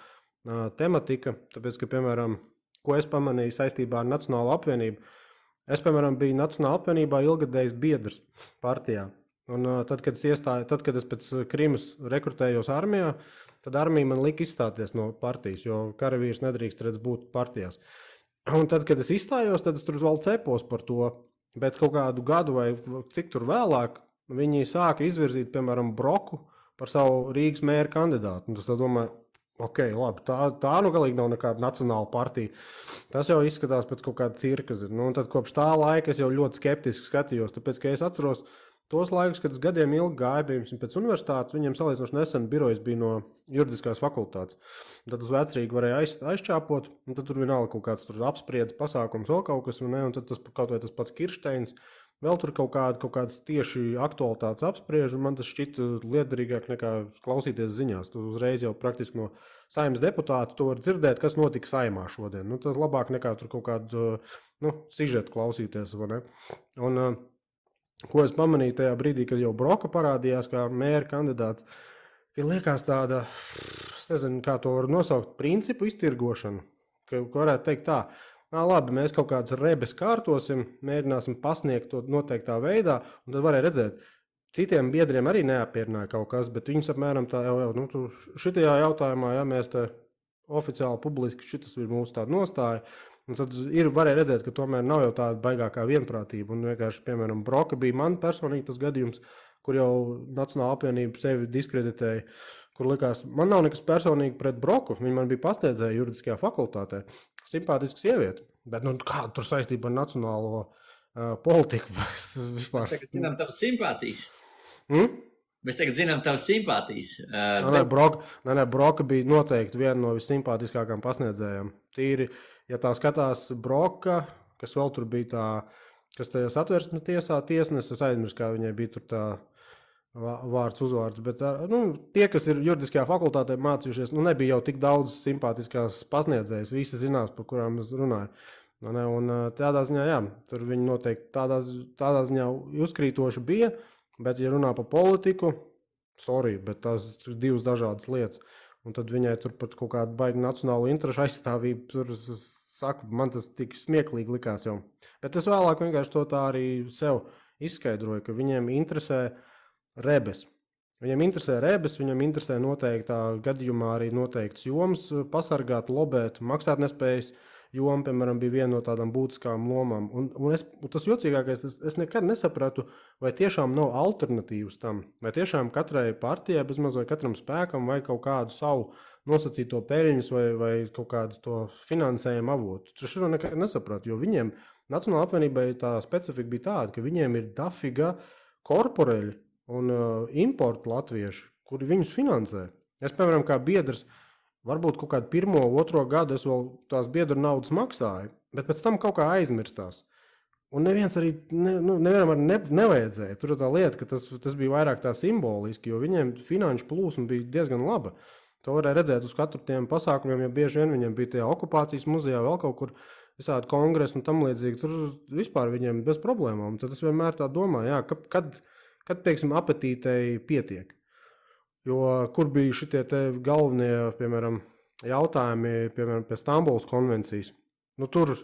tematika, tāpēc, ka, piemēram, ko es pamanīju saistībā ar Nacionālo apvienību, es, piemēram, biju Nacionālā apvienībā ilgadējs biedrs partijā. Un tad, kad es pēc Krimas rekrutējos armijā, tad armija man lika izstāties no partijas, jo karavīrs nedrīkst būt partijās. Un tad, kad es izstājos, tad es tur vēl cepos par to, bet kaut kādu gadu vai cik tur vēlāk viņi sāka izvirzīt, piemēram, Broku par savu Rīgas mēra kandidātu. Un tas tā domāju, ok, labi, tā nu galīgi nav nekāda nacionāla partija. Tas jau izskatās pēc kaut kāda cirka. Nu, un tad kopš tā laika es jau ļoti skeptiski skatījos, tāpēc, ka es atceros tos laikus, kad es gadiem ilgi gāju, piemēram, pēc universitātes, viņiem salīdzinoši nesen birojas bija no juridiskās fakultātes. Tad uz Vecrīgu varēja aizčāpot, un tad tur vienalga kaut kāds apspriedzes pasākums, vēl kaut kas, un tad tas kaut vai tas pats Kirsteins, vēl tur kaut kādas tieši aktualitātes apspriež, un man tas šķita liederīgāk nekā klausīties ziņās. Tu uzreiz jau praktiski no Saeimas deputāta tu vari dzirdēt, kas notika Saeimā šodien. Nu, tas labāk nekā tur kaut kādu sižetu klausīties, vai ne? Un, ko es pamanīju tajā brīdī, kad jau Broka parādījās kā mēra kandidāts, ka liekas tāda, es nezinu, kā to var nosaukt, principu iztirgošanu, ka varētu teikt tā, labi, mēs kaut kādas rebes kārtosim, mēģināsim pasniegt to noteiktā veidā, un tad varēja redzēt, citiem biedriem arī neapmierināja kaut kas, bet viņus apmēram tā jau šitajā jautājumā, ja mēs te oficiāli publiski, šitas ir mūsu tāda nostāja, un tad varēja redzēt, ka tomēr nav jau tāda baigākā vienprātība. Un vienkārši, piemēram, Broka bija man personīgi tas gadījums, kur jau Nacionāla apvienība sevi diskreditēja, kur likās, man nav nekas personīgi pret Broku, viņa man bija pasniedzēja juridiskajā fakultātē, simpātiska sieviete, bet kāda tur saistība ar nacionālo politiku? Mēs tagad zinām tavas simpātijas. Mēs tagad zinām tavas simpātijas. Broka bija noteikti viena no visimpātiskākām pasniedzējām. Tīri, ja tā skatās Broka, kas vēl tur bija tā, kas tajā Satversmes tiesā tiesnesis, es aizmirsu, kā viņai bija tur tā vārds, uzvārds, bet tie, kas ir juridiskajā fakultātē mācījušies, nebija jau tik daudz simpātiskās pasniedzējas, visi zinās, par kurām es runāju. Un tādā ziņā, jā, tur viņi noteikti tādā ziņā uzkrītoši bija, bet, ja runā par politiku, bet tās ir divas dažādas lietas. Un tad viņai tur pat kaut kāda baigi nacionālo interešu aizstāvība, tur saku, man tas tik smieklīgi likās jau. Bet es vēlāk vienkārši to tā arī sev izskaidroju, ka viņiem interesē rebes. Viņiem interesē noteiktā gadījumā arī noteikts jomas pasargāt, lobēt, maksāt nespējas. Joma, piemēram, bija viena no tādām būtiskām lomām. Un tas jocīgākais, es nekad nesapratu, vai tiešām nav alternatīvas tam, vai tiešām katrai partijai, bezmaz vai katram spēkam, vai kaut kādu savu nosacīto peļņas vai kaut kādu to finansējumu avotu. Es šo nekad nesapratu, jo viņiem, Nacionālā apvienībai, tā specifika bija tāda, ka viņiem ir dafiga korporeļi un importu latvieši, kuri viņus finansē. Es, piemēram, kā biedrs, varbūt kaut kādu 1, 2 gadu es vēl tās biedru naudas maksāju, bet pēc tam kaut kā aizmirstās. Un neviens arī nevienam arī nevajadzēja. Tur ir tā lieta, ka tas bija vairāk tā simboliski, jo viņiem finanšu plūsma bija diezgan laba. To varēja redzēt uz katru tiem pasākumiem, jo bieži vien viņiem bija tajā okupācijas muzejā vēl kaut kur visādi kongresi un tam līdzīgi. Tur vispār viņiem bez problēmām. Tad es vienmēr tā domāju, jā, kad teiksim, apetītei pietiek. Jo kur bija šitie te galvenie, piemēram, jautājumi, piemēram, pie Stambulas konvencijas. Tur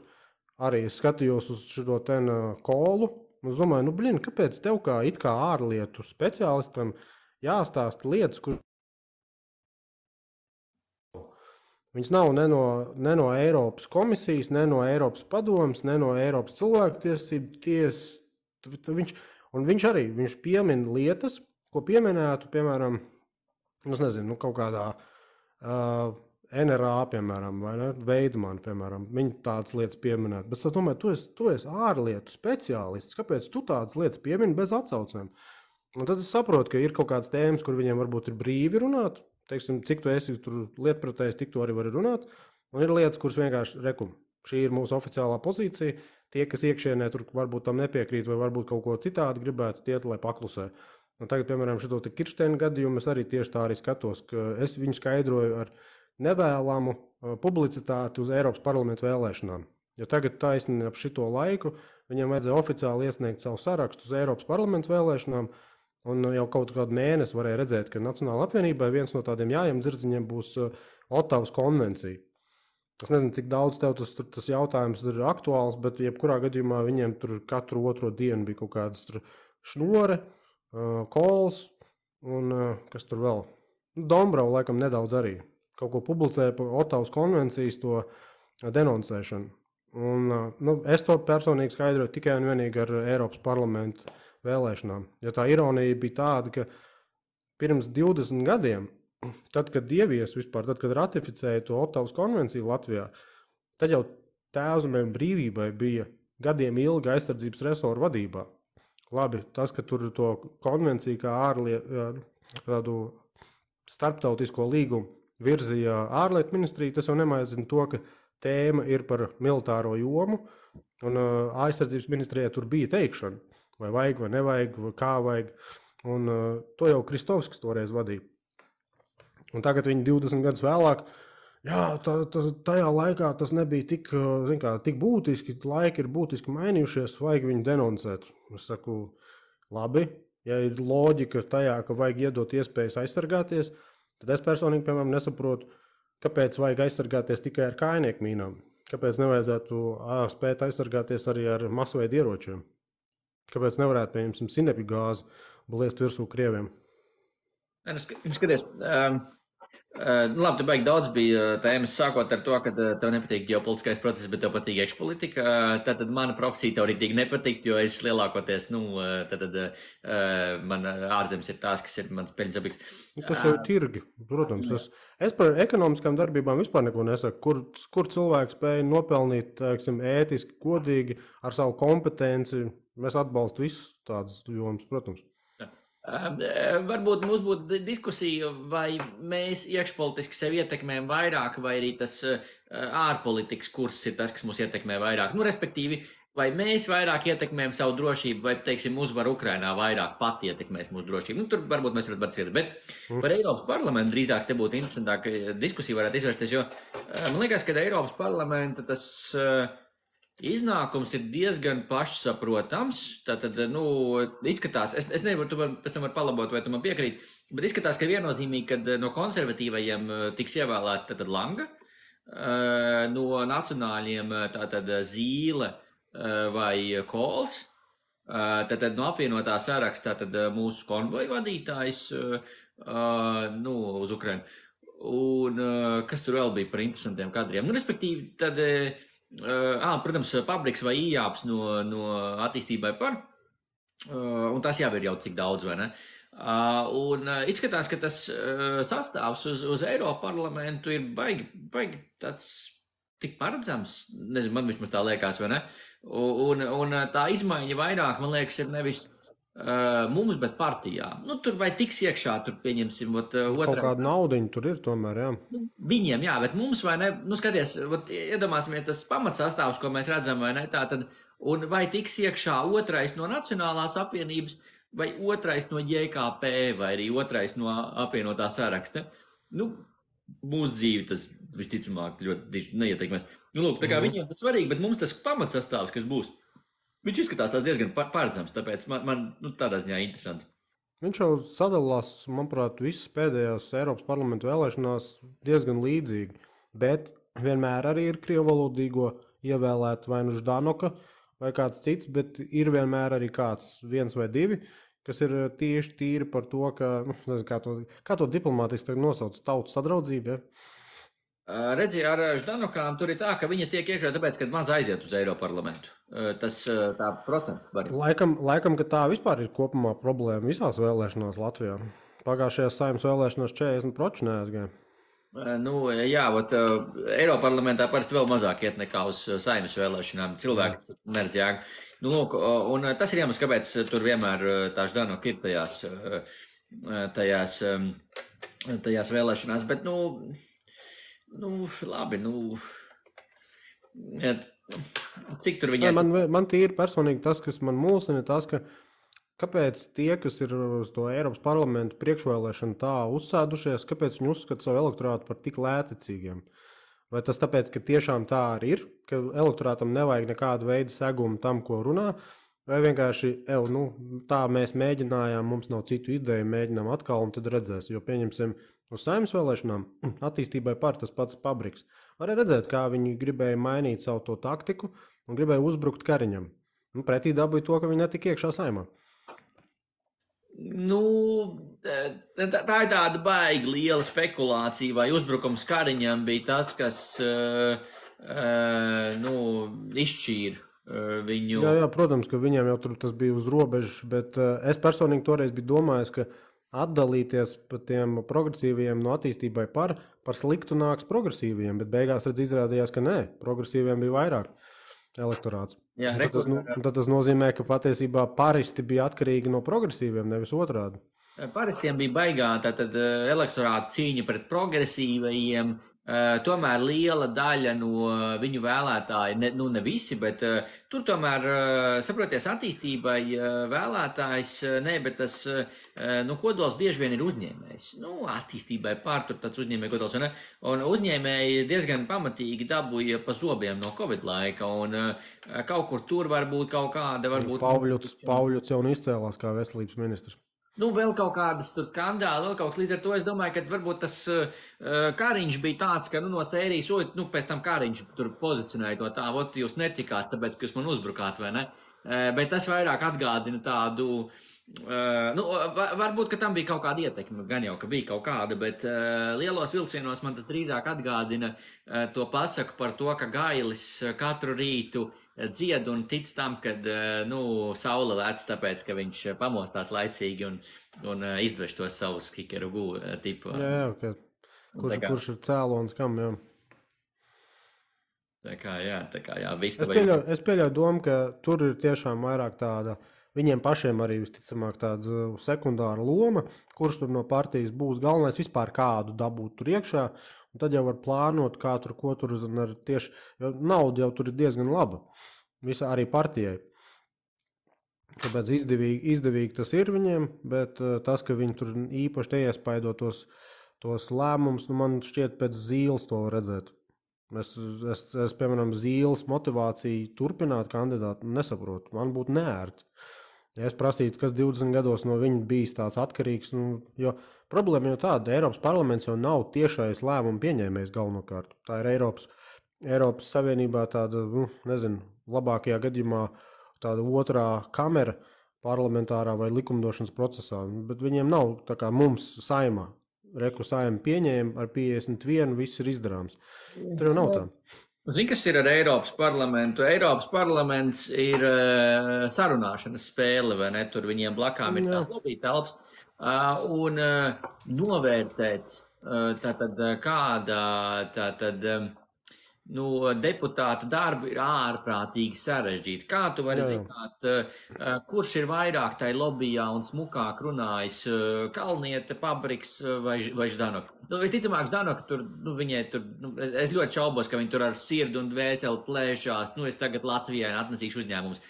arī es skatījos uz šo ten kolu, un es domāju, kāpēc tev kā it kā ārlietu speciālistam jāstāsta lietas, kur viņas nav ne no Eiropas komisijas, ne no Eiropas padomas, ne no Eiropas cilvēktiesību tiesas. Viņš piemin lietas, ko pieminētu, piemēram, es nezinu, kaut kādā NRA, piemēram, vai ne, Veidmanu, piemēram, viņi tādas lietas pieminētu. Bet es domāju, tu esi ārlietu speciālists, kāpēc tu tādas lietas piemini bez atsaucēm? Un tad es saprotu, ka ir kaut kādas tēmas, kur viņiem varbūt ir brīvi runāt, teiksim, cik tu esi tur lietpratējis, tik tu arī vari runāt, un ir lietas, kuras vienkārši šī ir mūsu oficiālā pozīcija, tie, kas iekšienē tur varbūt tam nepiekrīt, vai varbūt kaut ko citādi gribētu tiet, lai paklusē. Un tagad, piemēram, šito Kirsteina gadījumu es arī tieši tā arī skatos, ka es viņu skaidroju ar nevēlamu publicitāti uz Eiropas parlamentu vēlēšanām. Jo tagad taisni ap šito laiku viņam vajadzēja oficiāli iesniegt savu sarakstu uz Eiropas parlamentu vēlēšanām, Un jau kaut kādu mēnesi varēja redzēt, ka Nacionāla apvienībai viens no tādiem jājiem dzirdziņiem būs Ottavas konvencija. Es nezinu, cik daudz tev tas jautājums ir aktuāls, bet jebkurā gadījumā viņiem tur katru otro dienu bija kaut kādas šnore, kols un kas tur vēl. Dombrava laikam nedaudz arī kaut ko publicēja par Ottavas konvencijas to denoncēšanu. Un, es to personīgi skaidroju tikai un vienīgi ar Eiropas parlamentu vēlēšanām. Ja tā ironija bija tāda, ka pirms 20 gadiem, tad, kad ievies vispār, tad, kad ratificēja to Ottavas konvenciju Latvijā, tad jau Tēvzemei un brīvībai bija gadiem ilga aizsardzības resoru vadībā. Labi, tas, ka tur to konvenciju kā tādu starptautisko līgumu virzīja ārlietu ministrija, tas jau nemaizina to, ka tēma ir par militāro jomu, un aizsardzības ministrijai tur bija teikšana, vai vajag, vai nevajag, vai kā vajag, un to jau Kristovskis toreiz vadīja. Un tagad viņi 20 gadus vēlāk, tajā laikā tas nebija tik būtiski, laiki ir būtiski mainījušies, vajag viņu denoncēt. Es saku, labi, ja ir loģika tajā, ka vajag iedot iespējas aizsargāties, tad es personīgi, piemēram, nesaprotu, kāpēc vajag aizsargāties tikai ar kājnieku mīnām? Kāpēc nevajadzētu spēt aizsargāties arī ar masveidu ieročiem? Kāpēc nevarētu, pieņemsim, sinepju gāzi bliest virsū Krieviem? Skaties, labi, tu baigi daudz bija tēmas, sākot ar to, ka tev nepatīk ģeopolitiskais process, bet tev patīk iekšpolitika. Tad mana profesija tev ritīgi nepatikt, jo es lielākoties, man ārzemes ir tās, kas ir mans peļņas objekts. Tas jau ir tirgi, protams. Es par ekonomiskām darbībām vispār neko nesaku. Kur cilvēks spēja nopelnīt, teiksim, ētiski, godīgi, ar savu kompetenci. Mēs atbalstu visus tādus jomas, protams. Varbūt mums būtu diskusija, vai mēs iekšpolitiski sevi ietekmējam vairāk, vai arī tas ārpolitikas kurs ir tas, kas mūs ietekmē vairāk. Respektīvi, vai mēs vairāk ietekmējam savu drošību, vai, teiksim, uzvaru Ukrainā vairāk pati ietekmēs mūsu drošību. Tur varbūt mēs varam atcerēt, bet par Eiropas parlamentu drīzāk te būtu interesantāk diskusija varētu izvērsties, jo man liekas, ka Eiropas parlamenta tas iznākums ir diezgan pašsaprotams. Tātad, izskatās, es nevaru, tu pēc tam var palabot, vai tu man piekrīt, bet izskatās, ka viennozīmīgi, kad no konservatīvajiem tiks ievēlēta tātad Langa, no nacionāļiem tātad Zīle vai Kols, tātad no apvienotā sarakstā tātad mūsu konvoju vadītājs uz Ukrainu. Un kas tur vēl bija par interesantiem kadriem? Respektīvi, tad protams, Pabriks vai Ījāps no attīstībai par, un tas jau ir jau cik daudz, vai ne? Un izskatās, ka tas sastāvs uz Eiropa parlamentu ir baigi tāds tik paredzams, nezinu, man vismaz tā liekas, vai ne? Un tā izmaiņa vairāk, man liekas, ir nevis mums, bet partijām. Tur vai tiks iekšā, tur pieņemsim, otrā. Kaut kāda naudiņa tur ir tomēr, jā. Viņiem, jā, bet mums vai ne, skaties, iedomāsimies tas pamatsastāvs, ko mēs redzam, vai ne, tā tad, un vai tiks iekšā otrais no Nacionālās apvienības, vai otrais no JKP, vai arī otrais no apvienotā saraksta. Mūsu dzīvi tas visticamāk ļoti neietekmēs. Lūk, tā kā viņiem tas svarīgi, bet mums tas pamatsastāvs, kas būs, viņš izskatās tās diezgan paredzams, tāpēc man tādā ziņā interesanti. Viņš jau sadalās, manuprāt, visas pēdējās Eiropas parlamentu vēlēšanās diezgan līdzīgi, bet vienmēr arī ir krievvalodīgo ievēlēt vai nu Ždanoka vai kāds cits, bet ir vienmēr arī kāds viens vai divi, kas ir tieši tīri par to, ka, nezinu, kā to diplomātiski nosauc, tautu sadraudzību, ja? Redzi, ar Ždanokām tur ir tā, ka viņa tiek iekšā tāpēc, ka maz aiziet uz Eiroparlamentu. Tas tā procentu var. Laikam, ka tā vispār ir kopumā problēma visās vēlēšanās Latvijā. Pagājušajās Saeimas vēlēšanās 40% neaizgāja. Jā, Eiroparlamentā parasti vēl mazāk iet nekā uz Saeimas vēlēšanām. Cilvēki neredz jēgu. Lūk, un tas ir iemesls, kāpēc tur vienmēr tā Ždanoka ir tajās vēlēšanās, bet, labi, cik tur viņai... Man tīri personīgi tas, kas man mulsina, tas, ka kāpēc tie, kas ir uz to Eiropas parlamentu priekšvēlēšanu tā uzsēdušies, kāpēc viņi uzskata savu elektorātu par tik lētecīgiem? Vai tas tāpēc, ka tiešām tā arī ir, ka elektorātam nevajag nekādu veidu segumu tam, ko runā, Vai vienkārši, tā mēs mēģinājām, mums nav citu ideju, mēģinām atkal, un tad redzēs. Jo, pieņemsim, uz saimnes vēlēšanām attīstībai par tas pats Pabriks. Varēja redzēt, kā viņi gribēja mainīt savu to taktiku un gribēja uzbrukt Kariņam. Pretī dabūja to, ka viņi netika iekšā saimā. Tā ir tāda baigi liela spekulācija, vai uzbrukums Kariņam bija tas, kas izšķīra viņu. Jā, protams, ka viņiem jau tur tas bija uz robežas, bet es personīgi toreiz biju domājis, ka atdalīties pa tiem progresīviem no attīstībai par sliktu nāks progresīviem, bet beigās izrādījās, ka nē, progresīviem bija vairāk elektorāts. Jā, tad tas nozīmē, ka patiesībā paristi bija atkarīgi no progresīviem, nevis otrādi. Paristiem bija baigā tātad elektorāta cīņa pret progresīvajiem. Tomēr liela daļa no viņu vēlētāju, ne visi, bet tur tomēr, saproties, attīstībai vēlētājs, bet tas, kodols bieži vien ir uzņēmējs. Attīstībai pār tur tāds uzņēmēja kodols, un uzņēmēji diezgan pamatīgi dabūja pa zobiem no Covid laika, un kaut kur tur varbūt kaut kāda, Pauļuts jau izcēlās kā veselības ministrs. Vēl kaut kādas tur skandāli, vēl kaut kas līdz ar to. Es domāju, ka varbūt tas Kariņš bija tāds, ka no sērijas, pēc tam Kariņš tur pozicionēja to tā, jūs netikāt, tāpēc, ka jūs man uzbrukāt, vai ne? Bet tas vairāk atgādina tādu, varbūt, ka tam bija kaut kāda ietekme, gan jau, ka bija kaut kāda, bet lielos vilcienos man tas drīzāk atgādina to pasaku par to, ka Gailis katru rītu dzied un tic tam, kad saule lēc, tāpēc, ka viņš pamostās laicīgi un izdveš tos savus kikeru tipu. Jā, kurš ir cēlons kam, jā. Tā kā jā. Es pieļauju domu, ka tur ir tiešām vairāk tāda, viņiem pašiem arī visticamāk tāda sekundāra loma, kurš tur no partijas būs galvenais vispār kādu dabūt tur iekšā, un tad jau var plānot, kā tur, ko tur tieši, jo nauda jau tur ir diezgan laba, visā arī partijai. Tāpēc izdevīgi tas ir viņiem, bet tas, ka viņi tur īpaši neiespaido tos lēmumus, man šķiet pēc Zīles to var redzēt. Es piemēram, Zīles motivāciju turpināt kandidātu nesaprotu, man būtu neērti. Ja es prasītu, kas 20 gados no viņa bijis tāds atkarīgs, jo problēma jau tāda, Eiropas parlaments jau nav tiešais lēmumu pieņēmējs galvenokārt. Tā ir Eiropas Savienībā tāda, labākajā gadījumā tāda otrā kamera parlamentārā vai likumdošanas procesā, bet viņiem nav tā kā mums saimā. Reku saima pieņēma ar 51, viss ir izdarāms. Tur jau nav tā. Zini, kas ir ar Eiropas parlamentu? Eiropas parlaments ir sarunāšanas spēle, vai ne? Tur viņiem blakām ir tās lobby telpas. Un novērtēt deputāta darbu ir ārprātīgi sarežģīti. Kā tu vari zināt, kurš ir vairāk tai lobbyjā un smukāk runājis, Kalniete, Pabriks vai Ždanoka? Visticamāk, Ždanoka tur, viņai tur, es ļoti šaubos, ka viņi tur ar sirdu un dvēseli plēšās, es tagad Latvijai atnesīšu uzņēmumus.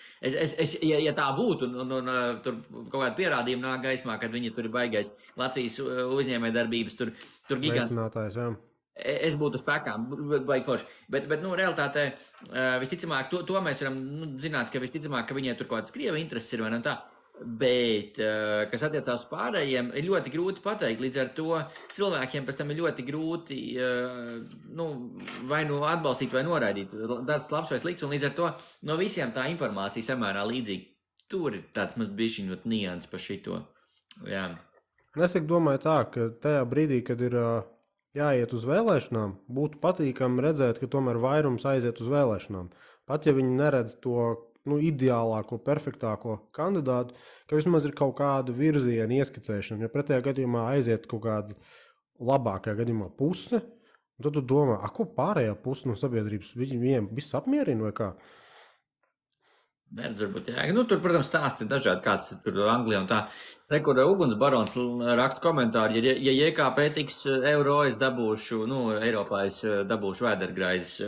Ja tā būtu, un tur kaut kāda pierādījuma nāk gaismā, kad viņi tur ir baigais Latvijas uzņēmējdarbības, tur gigants. Veicinātājs, jā. Es būtu spēkām, baigi forši. Bet realitātē, visticamāk, to mēs varam zināt, ka visticamāk, ka viņiem tur kaut kāds Krievi intereses ir, vai ne tā. Bet, kas attiecās uz pārējiem, ir ļoti grūti pateikt. Līdz ar to cilvēkiem pēc tam ir ļoti grūti vai atbalstīt vai noraidīt. Darbs labs vai slikts, un līdz ar to no visiem tā informācija samērā līdzīga. Tur ir tāds maz bišķiņot nians par šito. Jā. Es domāju tā, ka tajā brīdī, kad ir jāiet uz vēlēšanām, būtu patīkami redzēt, ka tomēr vairums aiziet uz vēlēšanām. Pat ja viņi neredz to ideālāko, perfektāko kandidātu, ka vismaz ir kaut kāda virziena ieskicēšana. Ja pretējā gadījumā aiziet kaut kāda labākajā gadījumā puse, tad tu domā, ko pārējā puse no sabiedrības viņiem viss apmierina vai kā? Neredz, varbūt, jā. Tur, protams, stāsti dažādi, kāds ir tur Anglijā un tā. Kur Uguns barons raksta komentāri, ja JKP tiks eiro, es dabūšu, Eiropā es dabūšu vēdergraizes.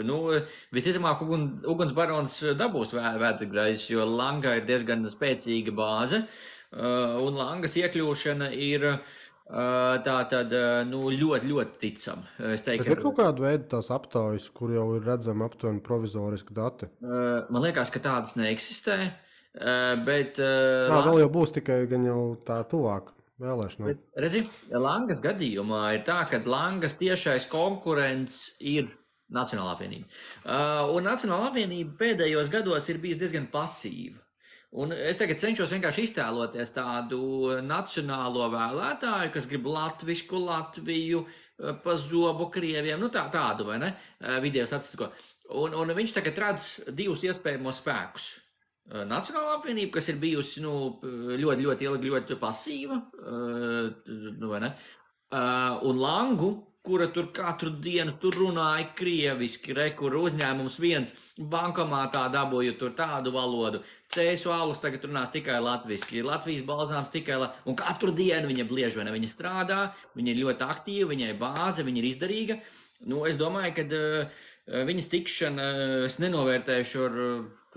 Visticamāk, Uguns barons dabūs vēdergraizes, jo Langa ir diezgan spēcīga bāze, un Langas iekļūšana ir ļoti, ļoti ticam. Bet ir kaut kāda veida tās aptaujas, kur jau ir redzama aptuveni provizoriski dati? Man liekas, ka tādas neeksistē. Bet, vēl jau būs tikai gan jau tā tuvāk vēlēšanām. bet redzi, Langas gadījumā ir tā, ka Langas tiešais konkurents ir Nacionālā apvienība. Un Nacionālā apvienība pēdējos gados ir bijusi diezgan pasīva. Un es tagad cenšos vienkārši iztēloties tādu nacionālo vēlētāju, kas grib latvisku Latviju, pa zobu Krieviem, nu tādu, vai ne, video statistiko. Un viņš tagad redz divus iespējamos spēkus. Nacionālā apvienība, kas ir bijusi, ļoti, ļoti ilgi, ļoti pasīva, vai ne, un Langu, kura tur katru dienu tur runāja krieviski, kur uzņēmums viens bankomātā dabūja tur tādu valodu, Cēsu alus tagad runās tikai latviski, Latvijas balzāms tikai, un katru dienu viņa bliež, vai ne, viņa strādā, viņa ir ļoti aktīva, viņai bāze, viņa ir izdarīga. Es domāju, ka viņas tikšana, es nenovērtēšu ar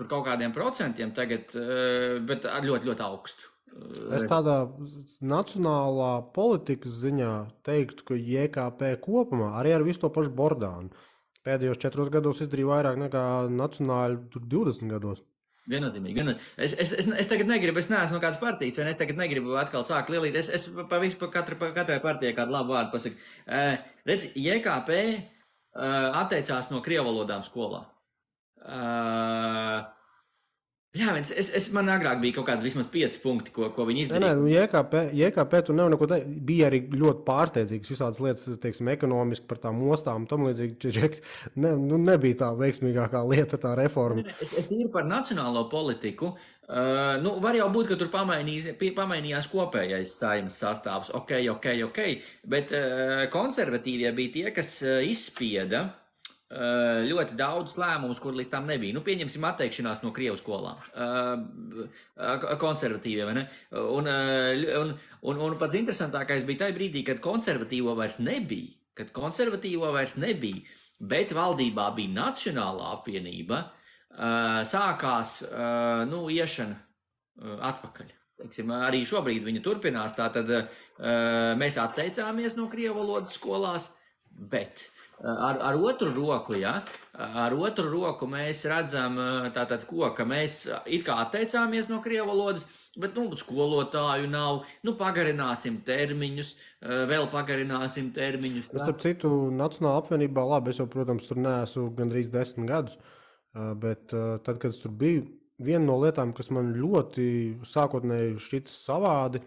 kaut kādiem procentiem tagad, bet ar ļoti, ļoti augstu. Es tādā nacionālā politikas ziņā teiktu, ka JKP kopumā arī ar visu to pašu Bordānu pēdējos 4 gados izdarīja vairāk nekā nacionāļi 20 gados. Viennozīmīgi. Es tagad negribu, es neesmu no kādas partijas, vai es tagad negribu atkal sākt lielīt. Es katrai partijai kādu labu vārdu pasaku. Redz, JKP atteicās no krievalodām skolā. Jā, man agrāk bija kaut kādi vismaz 5 punkti, ko viņi izdarīja. JKP tur nav neko teikt. Bija arī ļoti pārsteidzīgas visādas lietas, teiksim, ekonomiski par tām ostām un tam līdzīgi. Nebija tā veiksmīgākā lieta, tā reforma. Es tīri par nacionālo politiku. Var jau būt, ka tur pamainījās kopējais Saeimas sastāvs. Ok. Bet konservatīvie bija tie, kas izspieda ļoti daudz lēmumus, kur līdz tam nebija. Pieņemsim atteikšanās no Krievu skolām. Konservatīvie, vai ne? Un pats interesantākais bija tajā brīdī, kad konservatīvo vairs nebija, bet valdībā bija Nacionālā apvienība, sākās, iešana atpakaļ. Teiksim, arī šobrīd viņa turpinās, tātad mēs atteicāmies no Krievu valodas skolās, bet ar otru roku, ar otru roku mēs redzam tātad ka mēs it kā atteicāmies no Krievu valodas, bet, skolotāju nav, pagarināsim termiņus, vēl pagarināsim termiņus. Es ap citu Nacionālā apvienībā, labi, es jau, protams, tur neesmu gandrīz 10 gadus, bet tad, kad es tur biju, viena no lietām, kas man ļoti sākotnēji šķita savādi,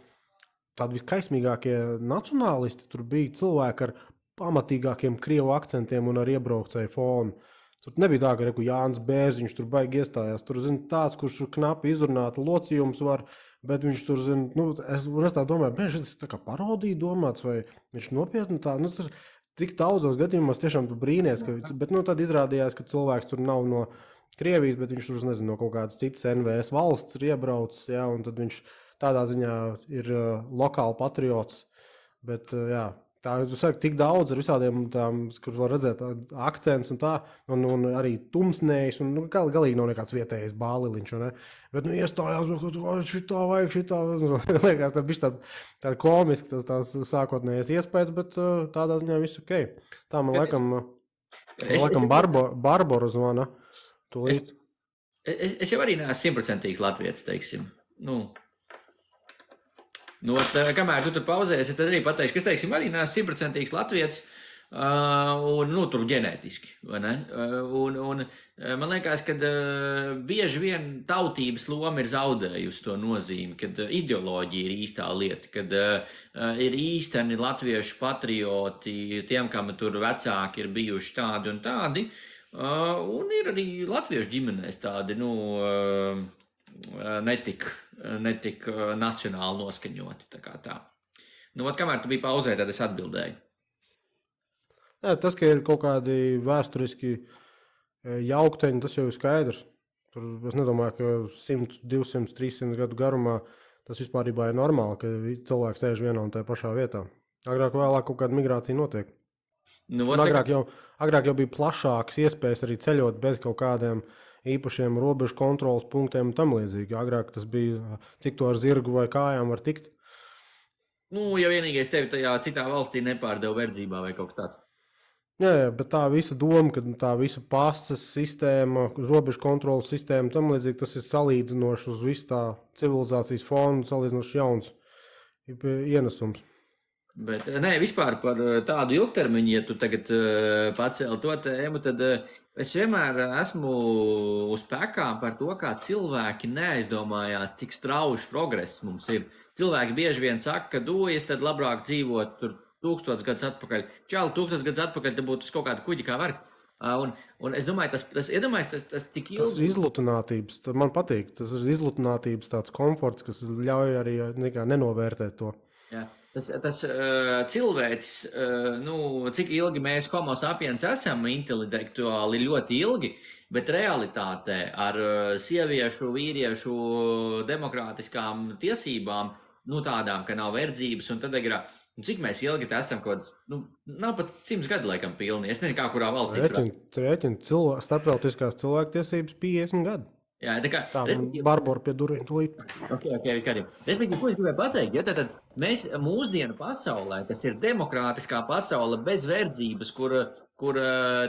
tādi viskaismīgākie nacionālisti tur bija cilvēki ar pamatīgākiem krievu akcentiem un ar iebraukcēju fonu. Tur nebija tā, ka Jānis Bērziņš tur baigi iestājās. Tur, tāds, kurš knapi izrunāt locījums var, bet viņš tur, es tā domāju, šis tā kā parodija domāts, vai viņš nopietni tā, tik daudzos gadījumos tiešām tu brīnies, bet, tad izrādījās, ka cilvēks tur nav no Krievijas, bet viņš tur, no kaut kādas citas NVS valsts ir iebraucis, un tad viņš tādā ziņā ir lokāli patriots, bet, tā, tu saki, tik daudz ar visādiem tām, kur var redzēt akcents un tā, un arī tumsnējs, un galīgi nav nekāds vietējais bāliliņš, ne? Bet, iestājās, šitā vajag, liekas, tā bišķi tā komiski, tās sākotnējais iespējas, bet tādā ziņā viss ok. Tā man laikam Barbora zvana. Es jau arī neesmu 100% latvietis, teiksim. Kamēr tu tur pauzēsi, tad arī pateikšu, ka es, teiksim, arī neesmu 100% latvietis, un, tur ģenētiski, vai ne? Un man liekas, ka bieži vien tautības loma ir zaudējusi to nozīmi, kad ideoloģija ir īstā lieta, kad ir īsteni latviešu patrioti, tiem, kam tur vecāki ir bijuši tādi un tādi, un ir arī latviešu ģimenēs tādi, netik nacionāli noskaņoti, tā kā tā. Kamēr tu biji pauzē, tad es atbildēju. Jā, tas, ka ir kaut kādi vēsturiski jaukteņi, tas jau ir skaidrs. Tur es nedomāju, ka 100, 200, 300 gadu garumā tas vispārībā ir normāli, ka cilvēks sēž vienā un tajā pašā vietā. Agrāk vēlāk kaut kāda migrācija notiek. Agrāk jau bija plašākas iespējas arī ceļot bez kaut kādiem īpašiem robežu kontrolas punktiem un tam līdzīgi. Agrāk tas bija, cik to ar zirgu vai kājām var tikt. Ja vienīgais tevi tajā citā valstī nepārdeva verdzībā vai kaut kas tāds. Jā, bet tā visa doma, ka tā visa pasas sistēma, robežu kontrolas sistēma, tam līdzīgi tas ir salīdzinoši uz visu tā civilizācijas fonu, salīdzinoši jauns ienesums. Bet nē, vispār par tādu ilgtermiņu, ja tu tagad pacēli to tēmu, tad es vienmēr esmu uz pekām par to, kā cilvēki neaizdomājās, cik strauji progress mums ir. Cilvēki bieži vien saka, ka es tad labāk dzīvot tur 1000 gadus atpakaļ. Čāli 1000 gadus atpakaļ, tad būtu uz kaut kāda kuģa kā vergs. Un es domāju, tas tik ilgi. Tas ir izlutinātības, man patīk, tas ir izlutinātības tāds komforts, kas ļauj arī nenovērtēt to. Jā. Tas cilvēks, cik ilgi mēs homo sapiens esam intelektuāli ļoti ilgi, bet realitātē ar sieviešu, vīriešu demokrātiskām tiesībām, tādām, ka nav verdzības un tad ir, cik mēs ilgi te esam kaut nav pat 100 gadu laikam pilni. Es nezinu, kā kurā valstī. Rēķina starptautiskās cilvēktiesības 50 gadu. Jā, tā Barbora pie durvīm tūlīt. Ok, viss kārtībā. Respektīvi, ko es gribēju pateikt, ja tad mēs mūsdienu pasaulē, kas ir demokrātiskā pasaule bez verdzības, kur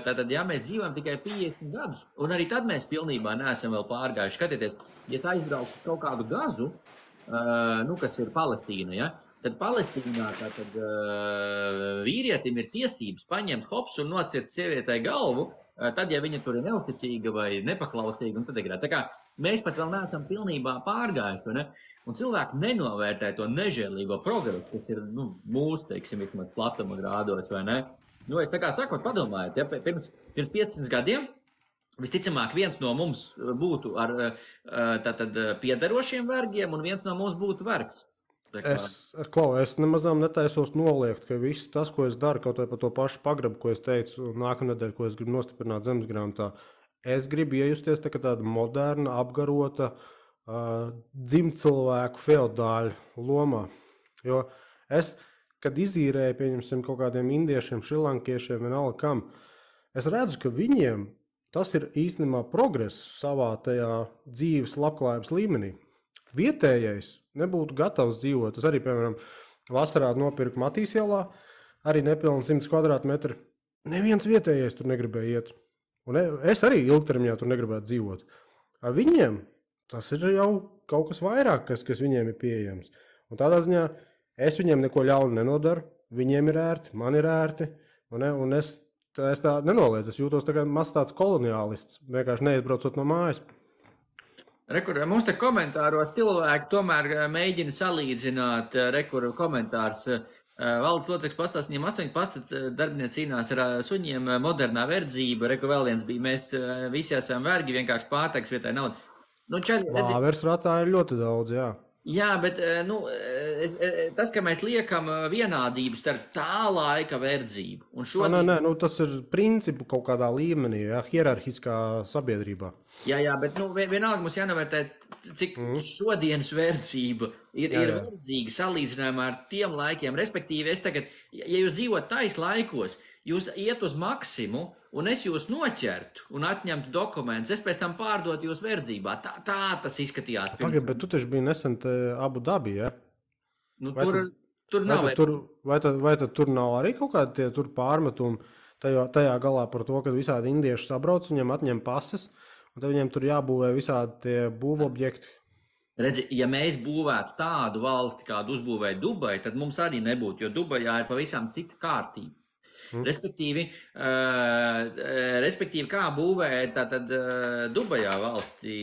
tātad, ja mēs dzīvojam tikai 50 gadus, un arī tad mēs pilnībā neesam vēl pārgājuši. Skatieties, ja es aizbraucu kaut kādu Gazu, kas ir Palestīna, ja, tad Palestīnā tātad vīrietim ir tiesības paņemt hops un nocirst sievietei galvu, tad, ja viņa tur ir neusticīga vai nepaklausīga, un tad ir tā kā mēs pat vēl neesam pilnībā pārgājuši, ne? Un cilvēki nenovērtē to nežēlīgo progresu, kas ir, mūsu, teiksim, vismaz platuma grādos, vai ne? Es tā kā sakot, padomājiet, ja pirms 500 gadiem visticamāk viens no mums būtu ar tātad piederošiem vergiem, un viens no mums būtu vergs. Es nemazām netaisos noliegt, ka viss tas, ko es daru, kaut vai par to pašu pagrabu, ko es teicu nākamnedēļ, ko es gribu nostiprināt zemesgrāmatā, es gribu iejusties tā kā tāda moderna, apgarota dzimtcilvēku feodāļu lomā. Jo es, kad izīrēju, pieņemsim, kaut kādiem indiešiem, šrilankiešiem, vienalga kam, es redzu, ka viņiem tas ir īstenībā progress savā tajā dzīves labklājības līmenī. Vietējais nebūtu gatavs dzīvot. Es arī, piemēram, vasarā nopirku Matīs ielā, arī nepilni 100 kvadrātmetri. Neviens vietējais tur negribēja iet. Un es arī ilgtermiņā tur negribētu dzīvot. Ar viņiem tas ir jau kaut kas vairāk, kas viņiem ir pieejams. Un tādā ziņā es viņiem neko ļaunu nenodaru. Viņiem ir ērti, man ir ērti. Un es tā nenoliedzu. Es jūtos tā kā maz tāds koloniālists, vienkārši neizbraucot no mājas. Mums te komentāros cilvēki tomēr mēģina salīdzināt, komentārs. Valdes loceklis pastāst, viņiem 8 darbinieki cīnās ar suņiem, modernā verdzība, vēl viens bija, mēs visi esam vergi, vienkārši pārteks vietā naudu. Vāvers ratā ir ļoti daudz, jā. Jā, bet tas, ka mēs liekam vienādību starp tā laika verdzību un šodien... Nē, tas ir principu kaut kādā līmenī, jā, hierarhiskā sabiedrībā. Jā, bet vienalga mums jānovērtē, cik šodienas verdzība ir verdzīga salīdzinājumā ar tiem laikiem. Respektīvi, ja jūs dzīvot tais laikos, jūs iet uz maksimu, un es jūs noķertu un atņemtu dokumentus, es pēc tam pārdotu jūs verdzībā. Tā tas izskatījās. Pagaid, bet tu taču biji nesen Abu Dabi, ja? Tur nav. Vai tad tur nav arī kaut kādi tie tur pārmetumi tajā galā par to, ka visādi indieši sabrauc, viņiem atņem pases, un tad viņiem tur jābūvē visādi tie būvobjekti. Redzi, ja mēs būvētu tādu valsti, kādu uzbūvēja Dubai, tad mums arī nebūtu, jo Dubajā ir pavisam cita kārtība. Respektīvi, kā būvēja tātad Dubajā valstī.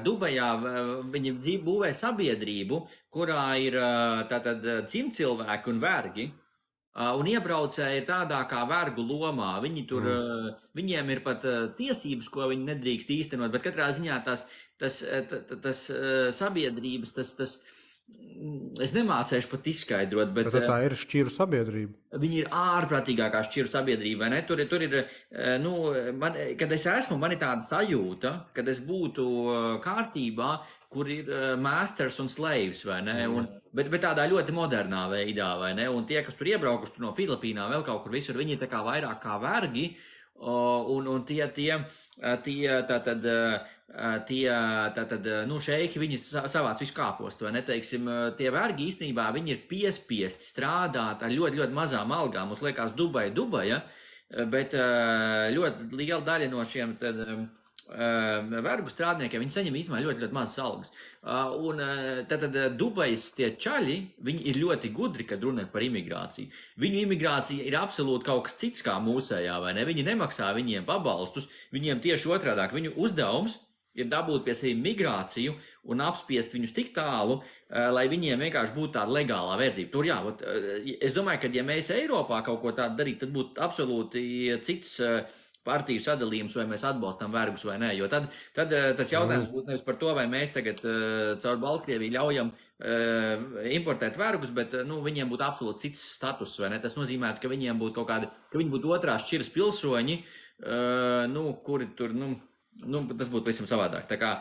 Dubajā viņi būvē sabiedrību, kurā ir tātad dzimtcilvēki un vergi, un iebraucēji ir tādā kā vergu lomā. Viņiem ir pat tiesības, ko viņi nedrīkst īstenot, bet katrā ziņā tas sabiedrības, es nemācēšu pat izskaidrot, bet tā ir šķiru sabiedrība. Viņi ir ārprātīgākā šķiru sabiedrība, vai ne? Tur ir, kad es esmu, man ir tāda sajūta, kad es būtu kārtībā, kur ir masters un slaves, vai ne? Bet tādā ļoti modernā veidā, vai ne? Un tie, kas tur iebraukuši no Filipīnām, vēl kaut kur visur, viņi ir tā kā vairāk kā vergi, un šeiki, viņi savāc visu kāpostu, vai ne, teiksim, tie vergi īstenībā, viņi ir piespiesti strādāt ar ļoti, ļoti mazām algām. Mums liekas Dubaja, Bet ļoti liela daļa no šiem vergu strādniekiem, viņi saņem īstenībā ļoti, ļoti mazas algas. Un tad Dubajas tie čaļi, viņi ir ļoti gudri, kad runā par imigrāciju. Viņu imigrācija ir absolūti kaut kas cits kā mūsējā, vai ne? Viņi nemaksā viņiem pabalstus, viņiem tieši otrādāk. Viņu uzdevums ir dabūt pie sevi migrāciju un apspiest viņus tik tālu, lai viņiem vienkārši būtu tāda legālā verdzība. Tur jā, es domāju, ka ja mēs Eiropā kaut ko tādu darītu, tad būtu absolūti cits partiju sadalījums, vai mēs atbalstam vergus vai nē. Jo tad tas jautājums būtu nevis par to, vai mēs tagad caur Baltkrieviju ļaujam importēt vergus, bet viņiem būtu absolūti cits status, vai ne? Tas nozīmē, ka viņiem būtu kaut kādi, ka viņi būtu otrās šķiras pilsoņi, kuri tur, tas būtu visam savādāk. Tā kā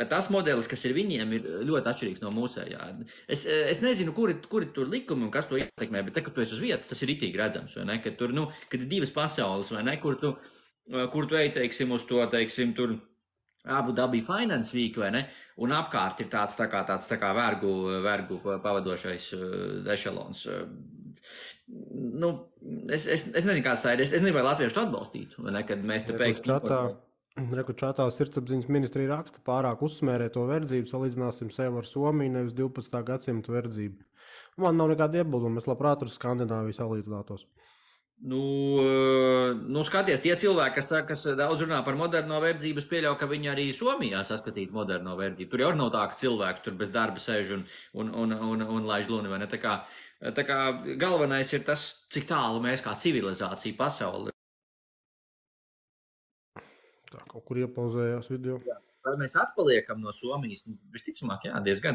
tas modelis, kas ir viņiem, ir ļoti atšķirīgs no mūsējā. Es nezinu, kuri tur likumi un kas to ietekmē, bet te, kad tu esi uz vietas, tas ir ritīgi redzams, vai ne? Kad tur, kad ir divas pasaules, vai ne? Kur tu ej, teiksim, uz to, teiksim, tur Abu Dhabi Finance Week, vai ne? Un apkārt ir tāds tā kā vergu pavadošais ešelons. Es nezinu, kāds tā ir. Es nezinu, vai latvieši to atbalstītu, vai ne? Kad mēs te pēkšņi... Čatā sirdsapziņas ministrija raksta, pārāk uzsmērē to verdzību, salīdzināsim sevi ar Somiju, nevis 12. gadsimta verdzību. Man nav nekāda iebilduma, es labprāt ar Skandināviju salīdzinātos. Skaties, tie cilvēki, kas daudz runā par moderno verdzību, es pieļauju, ka viņi arī Somijā saskatītu moderno verdzību. Tur jau nav tā, ka cilvēks tur bez darba sēž un laiž luni, vai ne? Tā kā galvenais ir tas, cik tālu mēs kā civilizācija pasauli. Tā kaut kur iepauzējās video. Jā. Vai mēs atpaliekam no Somijas? Visticamāk, jā, diezgan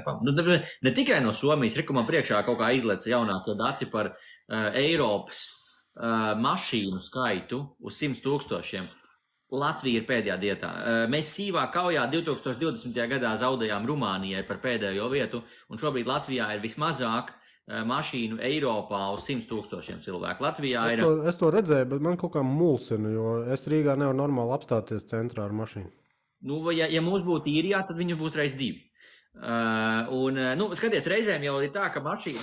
ne tikai no Somijas, man priekšā kaut kā izlaica jaunākie dati par Eiropas mašīnu skaitu uz 100 000. Latvija ir pēdējā vietā. Mēs sīvā kaujā 2020. gadā zaudējām Rumānijai par pēdējo vietu, un šobrīd Latvijā ir vismazāk mašīnu Eiropā uz 100 000 cilvēku. Latvijā ir... Es to redzēju, bet man kaut kā mulsina, jo es Rīgā nevaru normāli apstāties centrā ar mašīnu. Ja mums būtu īrijā, tad viņu būs reiz 2. Skaties, reizēm jau ir tā, ka mašīna...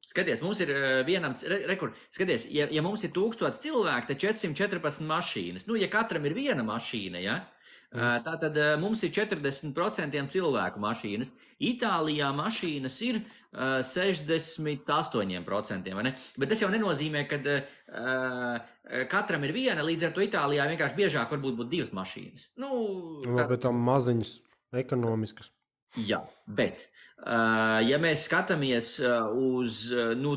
Skaties, mums ir vienam... Skaties, ja mums ir 1000 cilvēki, tad 414 mašīnas. Ja katram ir viena mašīna, ja? Tātad mums ir 40% cilvēku mašīnas. Itālijā mašīnas ir 68%, vai ne? Bet tas jau nenozīmē, ka katram ir viena, līdz ar to Itālijā vienkārši biežāk varbūt būtu 2 mašīnas. Bet tam maziņas ekonomiskas. Jā, bet, ja mēs skatāmies uz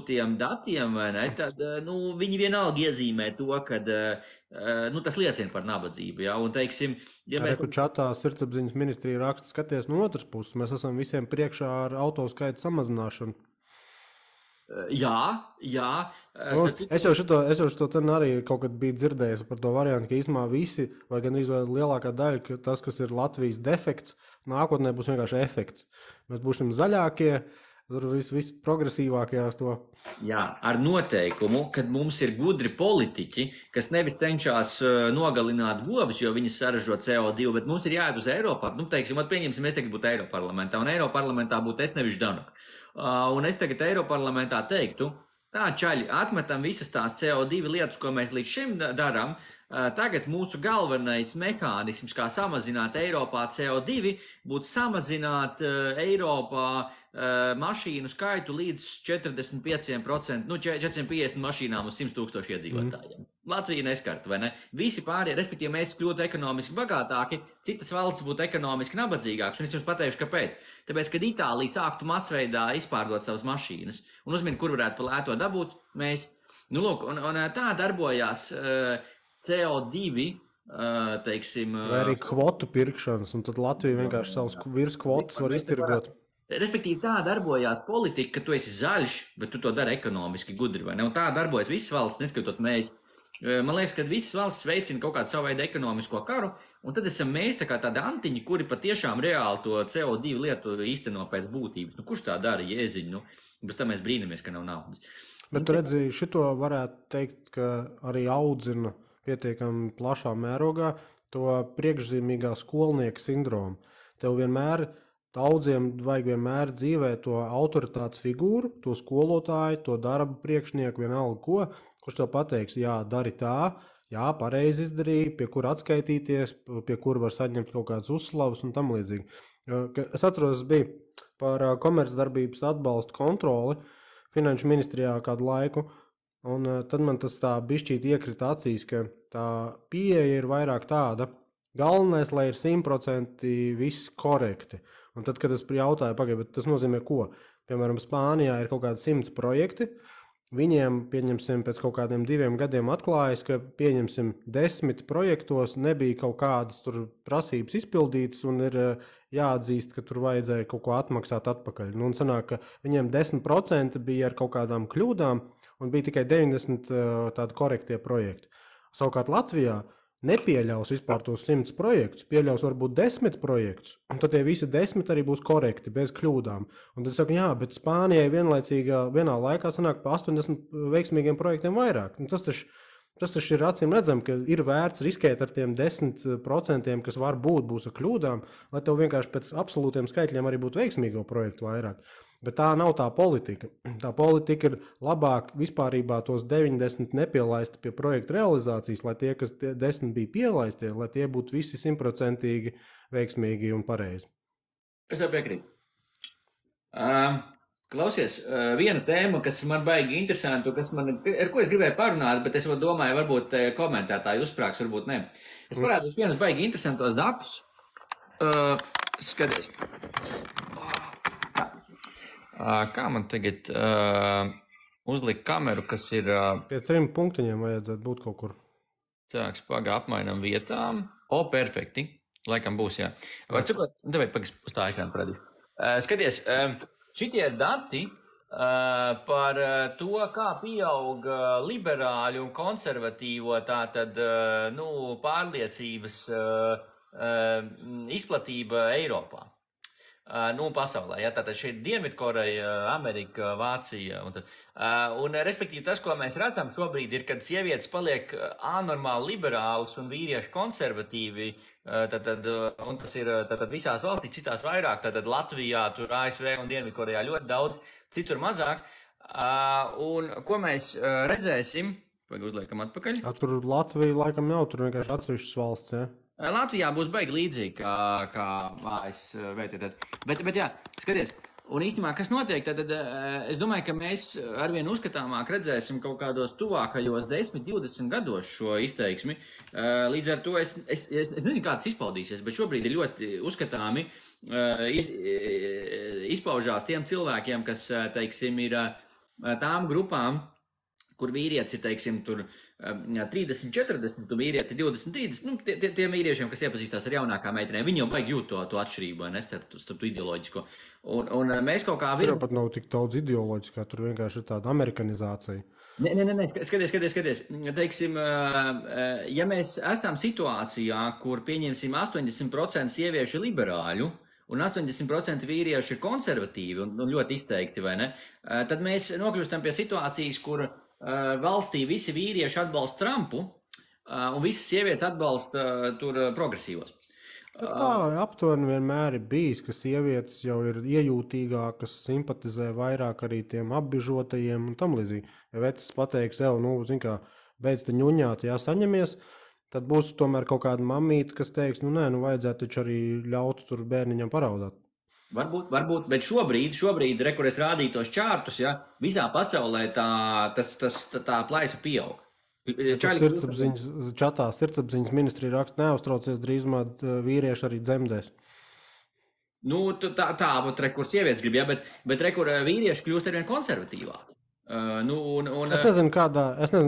tiem datiem, vai ne, tad viņi vienalga iezīmē to, ka tas liecina par nabadzību. Ja? Un, teiksim, ja mēs... Čatā sirdsapziņas ministrija raksta, skaties no otras puses, mēs esam visiem priekšā ar autoskaitu samazināšanu. Jā. Es jau šo ten arī kaut kad biju dzirdējis par to variantu, ka īstumā visi, vai gan lielākā daļa, ka tas, kas ir Latvijas defekts, nākotnē būs vienkārši efekts. Mēs būsim zaļākie, tur viss progresīvākie uz to. Jā, ar noteikumu, kad mums ir gudri politiķi, kas nevis cenšas nogalināt govs, jo viņi saražo CO2, bet mums ir jāiet uz Eiropā. Teiksim, pieņemsim, mēs tagad būtu Eiroparlamentā, un Eiroparlamentā būtu es nevis Ždanuk. Un es tagad Eiroparlamentā teiktu, tā čaļi, atmetam visas tās CO2 lietas, ko mēs līdz šim darām. Tagad mūsu galvenais mehānisms, kā samazināt Eiropā CO2, būtu samazināt Eiropā mašīnu skaitu līdz 45%, 450 mašīnām uz 100 000 iedzīvotājiem. Latvija neskart, vai ne? Visi pārējie, respektīvi mēs kļūtu ekonomiski bagātāki, citas valsts būtu ekonomiski nabadzīgākas, un es jums pateikšu, kāpēc. Tāpēc, kad Itālija sāktu masveidā izpārdot savas mašīnas, un uzmini, kur varētu pa lēto dabūt, mēs, un tā darbojās CO2, teiksim... Vai arī kvotu pirkšanas, un tad Latvija vienkārši savus virskvotas var iztirgot. Respektīvi, tā darbojās politika, ka tu esi zaļš, bet tu to dari ekonomiski gudri, vai ne? Un tā darbojas visas valsts, neskatot mēs. Man liekas, ka visas valsts veicina kaut kādu savu veidu ekonomisko karu, un tad esam mēs tā kā tādi antiņi, kuri patiešām reāli to CO2 lietu īsteno pēc būtības. Kurš tā dara, jēziņ? Bez tā mēs brīnamies, ka nav naudas. Bet tu redzi, šito varētu teikt, ka arī audzina pietiekami plašā mērogā to priekšzīmīgā skolnieka sindromu. Tev vienmēr, daudziem vajag vienmēr dzīvē to autoritātes figūru, to skolotāju, to darba priekšnieku, vienalga ko, kurš tev pateiks, jā, dari tā, jā, pareizi izdarīja, pie kura atskaitīties, pie kura var saņemt kaut kādas uzslavas un tam līdzīgi. Es atceros, bija par komercdarbības atbalstu kontroli Finanšu ministrijā kādu laiku, un tad man tas tā bišķīt iekrita acīs, ka tā pieeja ir vairāk tāda, galvenais, lai ir 100% viss korekti. Un tad, kad es jautāju, bet tas nozīmē ko? Piemēram, Spānijā ir kaut kādi 100 projekti, viņiem, pieņemsim, pēc kaut kādiem 2 gadiem atklājas, ka, pieņemsim, 10 projektos nebija kaut kādas tur prasības izpildītas un ir jāatzīst, ka tur vajadzēja kaut ko atmaksāt atpakaļ. Nu, un sanāk, ka viņiem 10% bija ar kaut kādām kļūdām un bija tikai 90 tādi korektie projekti. Savukārt Latvijā nepieļaus vispār tos 100 projektus, pieļaus varbūt 10 projektus, un tad tie visi 10 arī būs korekti, bez kļūdām. Un tad saka, jā, bet Spānijai vienā laikā sanāk pa 80 veiksmīgiem projektiem vairāk. Un tas taču ir acīm redzam, ka ir vērts riskēt ar tiem 10%, kas varbūt būs ar kļūdām, lai tev vienkārši pēc absolūtiem skaitļiem arī būtu veiksmīgo projektu vairāk. Bet tā nav tā politika. Tā politika ir labāk vispārībā tos 90 nepielaisti pie projekta realizācijas, lai tie, kas 10 bija pielaisti, lai tie būtu visi 100% veiksmīgi un pareizi. Es tev piekrītu. Klausies, viena tēma, kas man baigi interesantu, ar ko es gribēju parunāt, bet es domāju, varbūt komentētāji uzsprāgs, varbūt ne. Es parādīšu vienus baigi interesantos datus. Skaties. Kā man tagad uzlikt kameru, kas ir... Pie 3 punktiņiem vajadzētu būt kaut kur. Cēks, apmainam vietām. Perfekti. Laikam būs, jā. Var cikot, tev uz tā ekrāna parādīšu. Skaties, šitie dati par to, kā pieaug liberāļu un konservatīvo tātad, pārliecības izplatība Eiropā. Pasaulē, ja, tātad šeit Dienvidkoreja, Amerika, Vācija un respektīvi tas, ko mēs redzam šobrīd ir, kad sievietes paliek anormāli liberālas un vīrieši konservatīvi, un tas ir visās valstīs, citās vairāk, tātad Latvijā, tur ASV un Dienvidkorejā ļoti daudz, citur mazāk, un ko mēs redzēsim, uzliekam atpakaļ. Tur Latvija laikam nav, tur vienkārši atsevišķas valsts, ja? Latvijā būs baigi līdzīgi kā ASV. Bet jā, skaties, un īstenībā, kas notiek, tad es domāju, ka mēs arvien uzskatāmāk redzēsim kaut kādos tuvākajos 10-20 gados šo izteiksmi. Līdz ar to es nezinu, kā tas izpaudīsies, bet šobrīd ir ļoti uzskatāmi izpaužās tiem cilvēkiem, kas, teiksim, ir tām grupām, kur vīrietis ir, teiksim, tur 30, 40, un vīrieti 20, 30, tiem vīriešiem, kas iepazīstās ar jaunākām meitenēm, viņi jau baigi jūt to atšķirību, ne, starp ideoloģisko. Un mēs kaut kā... Tur pat nav tik daudz ideoloģiskā, tur vienkārši ir tāda amerikanizācija. Nē, skaties. Teiksim, ja mēs esam situācijā, kur pieņemsim 80% sieviešu liberāļu, un 80% vīrieši ir konservatīvi un ļoti izteikti, vai ne, tad mēs nokļūstam pie situācijas, kur valstī visi vīrieši atbalsta Trumpu, un visas sievietes atbalsta tur progresīvos. Tā aptuveni vienmēr ir bijis, ka sievietes jau ir iejūtīgākas, simpatizē vairāk arī tiem apbižotajiem un tam līdzīgi. Ja vecs pateiks, zin kā, beidz te ņuņāt, saņemies, tad būs tomēr kaut kāda mamīte, kas teiks, vajadzētu taču arī ļaut tur bērniņam paraudāt. Varbūt, bet šobrīd, kur es rādīju tos čārtus, ja, visā pasaulē tā plaisa pieaug. Sirdsapziņas ministrija raksta, neuztraucies, drīzumā vīrieši arī dzemdēs. Kur sievietes grib, ja, bet kur vīrieši kļūst arvien konservatīvāki. Es nezinu,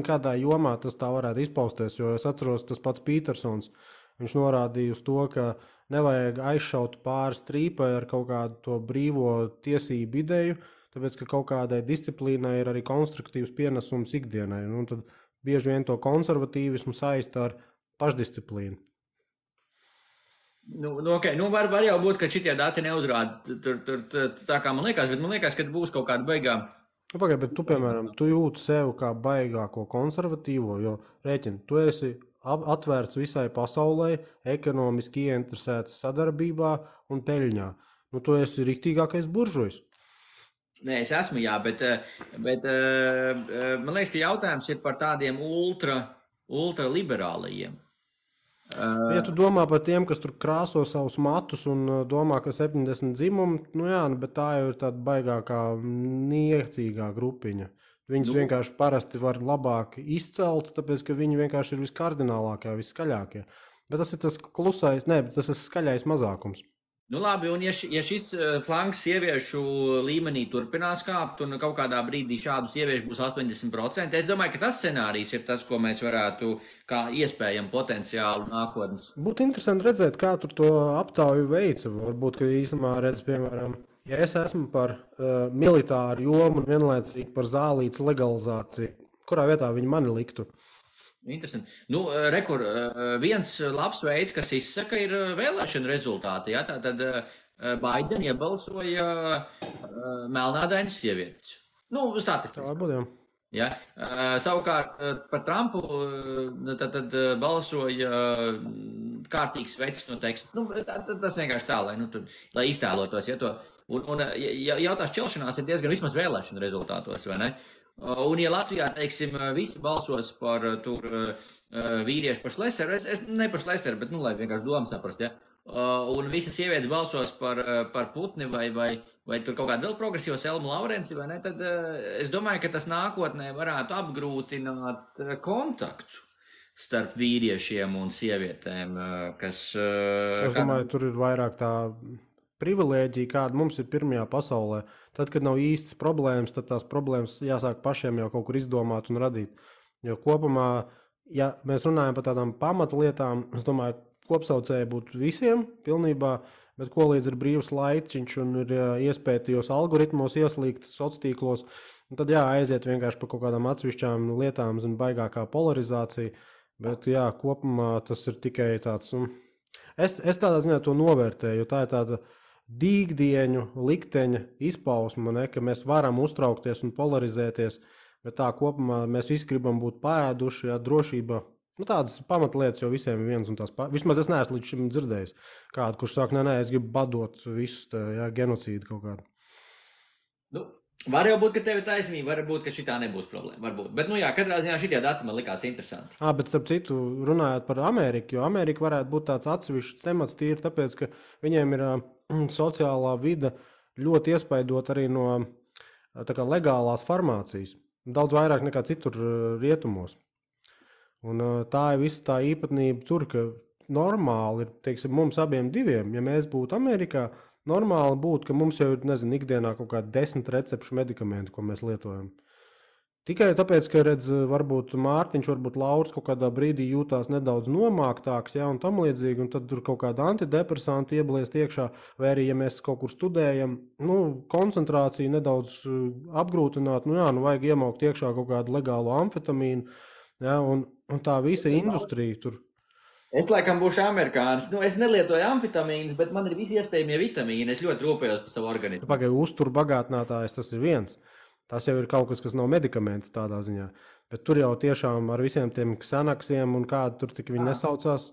kādā jomā tas tā varētu izpausties, jo es atceros tas pats Pītersons. Viņš norādīja uz to, ka nevajag aizšaut pāri strīpai ar kaut kādu to brīvo tiesību ideju, tāpēc, ka kaut kādai disciplīnai ir arī konstruktīvs pienesums ikdienai. Un tad bieži vien to konservatīvismu saista ar pašdisciplīnu. Var jau būt, ka šitie dati neuzrāda tā kā man liekas, bet man liekas, ka būs kaut kāda baigā. Bet tu, piemēram, tu jūti sevi kā baigāko konservatīvo, jo rēķini, tu esi atvērts visai pasaulē, ekonomiski ieinteresēts sadarbībā un peļņā. Tu esi riktīgākais buržujs. Nē, es esmu, jā, bet man liekas, ka jautājums ir par tādiem ultra ultraliberālajiem. Ja tu domā par tiem, kas tur krāso savus matus un domā, ka 70 dzimumi, nu jā, bet tā jau ir tāda baigākā niecīgā grupiņa. Viņus vienkārši parasti var labāk izcelt, tāpēc, ka viņi vienkārši ir viskardinālākie, viskaļākie. Bet tas ir tas klusais, tas ir skaļais mazākums. Nu labi, un ja šis flanks sieviešu līmenī turpinās kāpt, un kaut kādā brīdī šādu sieviešu būs 80%, es domāju, ka tas scenārijs ir tas, ko mēs varētu kā iespējami potenciālu nākotnes. Būtu interesanti redzēt, kā tur to aptauju veica. Varbūt, ka īstenībā redz, piemēram, ja es esmu par militāru jomu un vienlaicīgi par zālītes legalizāciju, kurā vietā viņi mani liktu? Interesanti. Nu, viens labs veids, kas izsaka, ir vēlēšana rezultāti. Ja? Tātad Baideni iebalsoja melnādainas sievietes. Nu, statistiski. Tā būtu, jā. Ja? Savukārt par Trumpu tad balsoja kārtīgs vecs no teksta. Nu, tas vienkārši tā, lai iztēlotos. Ja, to. Un jautās čelšanās ir diezgan vismaz vēlēšana rezultātos, vai ne? Un, ja Latvijā, teiksim, visi balsos par tur vīriešu par Šlēseru, ne par Šlēseru, bet, lai vienkārši domas saprast, ja? Un visas sievietes balsos par Putni vai tur kaut kādu vēl progresīvu Selmu Laurenci, vai ne, tad es domāju, ka tas nākotnē varētu apgrūtināt kontaktu starp vīriešiem un sievietēm, kas... Es domāju, tur ir vairāk tā privilēģija, kāda mums ir pirmajā pasaulē. Tad, kad nav īstas problēmas, tad tās problēmas jāsāk pašiem jau kaut kur izdomāt un radīt. Jo kopumā, ja mēs runājam par tādām pamatlietām, es domāju, kopsaucēji būtu visiem pilnībā, bet ko līdz ir brīvs laiciņš un ir iespēja tajos algoritmos ieslīgt sociālos, tad aiziet vienkārši par kaut kādām atsevišķām lietām, baigākā polarizācija. Bet jā, kopumā tas ir tikai tāds... Es tādā ziņā to novērtēju, jo tā ir tāda dīgdieņu likteņa izpausme, ka mēs varam uztraukties un polarizēties, bet tā kopumā mēs visi gribam būt pēduši, drošība. Tādas pamatlietas jau visiem ir viens un tās vismaz es neesmu līdz šim dzirdējis kādu, kurš saka, nē, es gribu badot visus genocīdu kaut kādu. Nu, var jau būt, ka tev ir taisnība, var būt, ka šitā nebūs problēma, varbūt. Bet, katrā ziņā šitie dati man likās interesanti. Bet starp citu, runājot par Ameriku, jo Amerika varētu būt tāds atsevišķs temats tīri, tāpēc, ka viņiem ir sociālā vide ļoti iespaidot arī no legālās farmācijas. Daudz vairāk nekā citur rietumos. Un tā ir visa tā īpatnība tur, ka normāli ir, teiksim, mums abiem diviem, ja mēs būtu Amerikā, normāli būtu, ka mums jau ir, ikdienā kaut kādi 10 recepšu medikamenti, ko mēs lietojam. Tikai tāpēc, ka, varbūt Mārtiņš, varbūt Lauris kaut kādā brīdī jūtās nedaudz nomāktāks, un tam līdzīgi, un tad tur kaut kāda antidepresantu iebliest iekšā, vai arī, ja mēs kaut kur studējam, koncentrāciju nedaudz apgrūtināt, vajag iemaukt iekšā kaut kādu legālu amfetamīnu, un tā visa industrija tur. Es laikam būšu amerikānis. Es nelietoju amfetamīnus, bet man ir visi iespējamie vitamīni. Es ļoti rūpējos par savu organismu. Pagaidām, uzturbagātinātājs tas ir viens. Tas jau ir kaut kas, kas nav medikaments tādā ziņā. Bet tur jau tiešām ar visiem tiem ksanaksiem un kādu tur tik viņi nesaucās,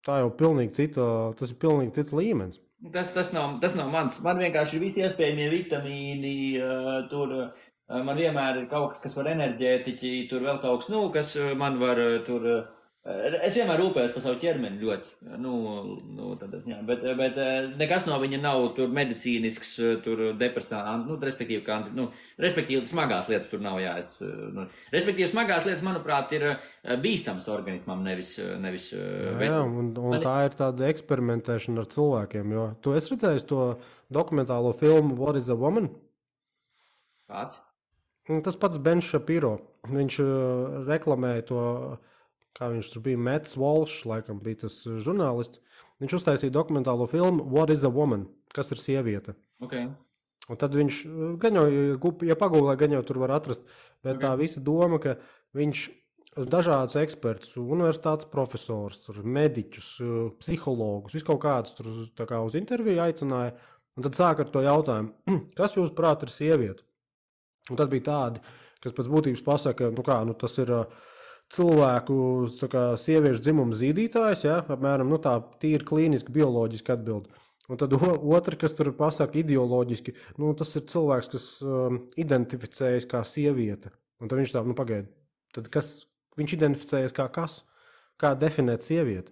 tā jau pilnīgi tas ir pilnīgi cits līmenis. Tas nav mans. Man vienkārši ir visi iespējamie vitamīni. Tur man vienmēr ir kaut kas var enerģētiķi, tur vēl kaut kas, kas man var tur... Es vienmēr rūpējos par savu ķermeni ļoti, bet nekas no viņa nav tur medicīnisks, tur depresāns, respektīvi smagās lietas tur nav respektīvi smagās lietas, manuprāt, ir bīstams organismam, nevis. Jā, un tā ir tāda eksperimentēšana ar cilvēkiem, jo tu esi redzējis to dokumentālo filmu What is a Woman? Kāds? Tas pats Bens Shapiro, viņš reklamēja to... Kā viņš tur bija, Mets Walsh, laikam bija tas žurnālists. Viņš uztaisīja dokumentālo filmu What is a Woman? Kas ir sieviete? Okay. Un tad viņš, gan jau, ja pagūlē, gan jau tur var atrast, bet tā visa doma, ka viņš dažādus ekspertus, universitātes profesors, tur, mediķus, psihologus, visu kaut kādus tur tā kā uz interviju aicināja, un tad sāk ar to jautājumu, kas jūs prāt ir sieviete? Un tad bija tādi, kas pēc būtības pasaka, tas ir... cilvēku sieviešu dzimuma zīdītājs, apmēram tā tīri klīniski, bioloģiski atbild. Un tad otra, kas tur pasaka ideoloģiski, tas ir cilvēks, kas identificējas kā sieviete. Un tad viņš tā, pagaid, tad kas, viņš identificējas kā kas, kā definēt sievieti.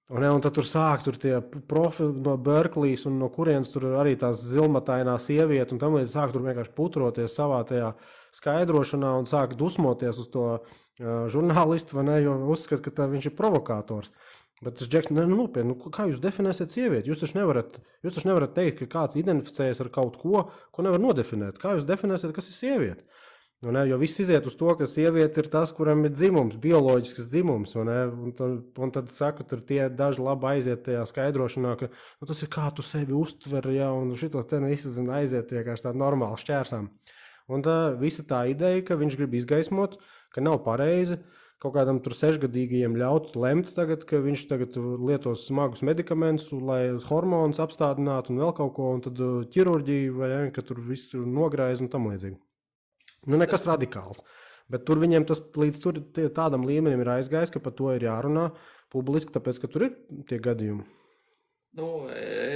Un tad tur sāk tie profili no Berklijas un no kurienes tur arī tās zilmatainā sieviete un tam līdz sāk tur vienkārši putroties savā tajā skaidrošanā un sāk dusmoties uz to žurnālistu, vai ne, jo uzskat, ka viņš ir provokators. Bet tas Džeks, nopietni, kā jūs definēsiet sievieti? Jūs taču nevarat teikt, ka kāds identificējas ar kaut ko nevar nodefinēt. Kā jūs definēsiet, kas ir sieviete? Jo viss iziet uz to, ka sieviete ir tas, kuram ir dzimums, bioloģisks dzimums. Un tad saka, tur tie daži labi aiziet tajā skaidrošanā, ka tas ir kā tu sevi uztver, ja, un šitos te aiziet vienkārši tā normāli šķērsām. Un visa tā ideja, ka viņš grib izgaismot, ka nav pareizi kaut kādam tur 6-gadīgajiem ļaut lemt tagad, ka viņš tagad lietos smagus medikamentus, lai hormonus apstādinātu un vēl kaut ko, un tad ķirurģiju, vai ne, ka tur viss tur nograiz un tam līdzīgi. Nekas radikāls. Bet tur viņiem tas līdz tādam līmenim ir aizgājis, ka par to ir jārunā publiski, tāpēc, ka tur ir tie gadījumi.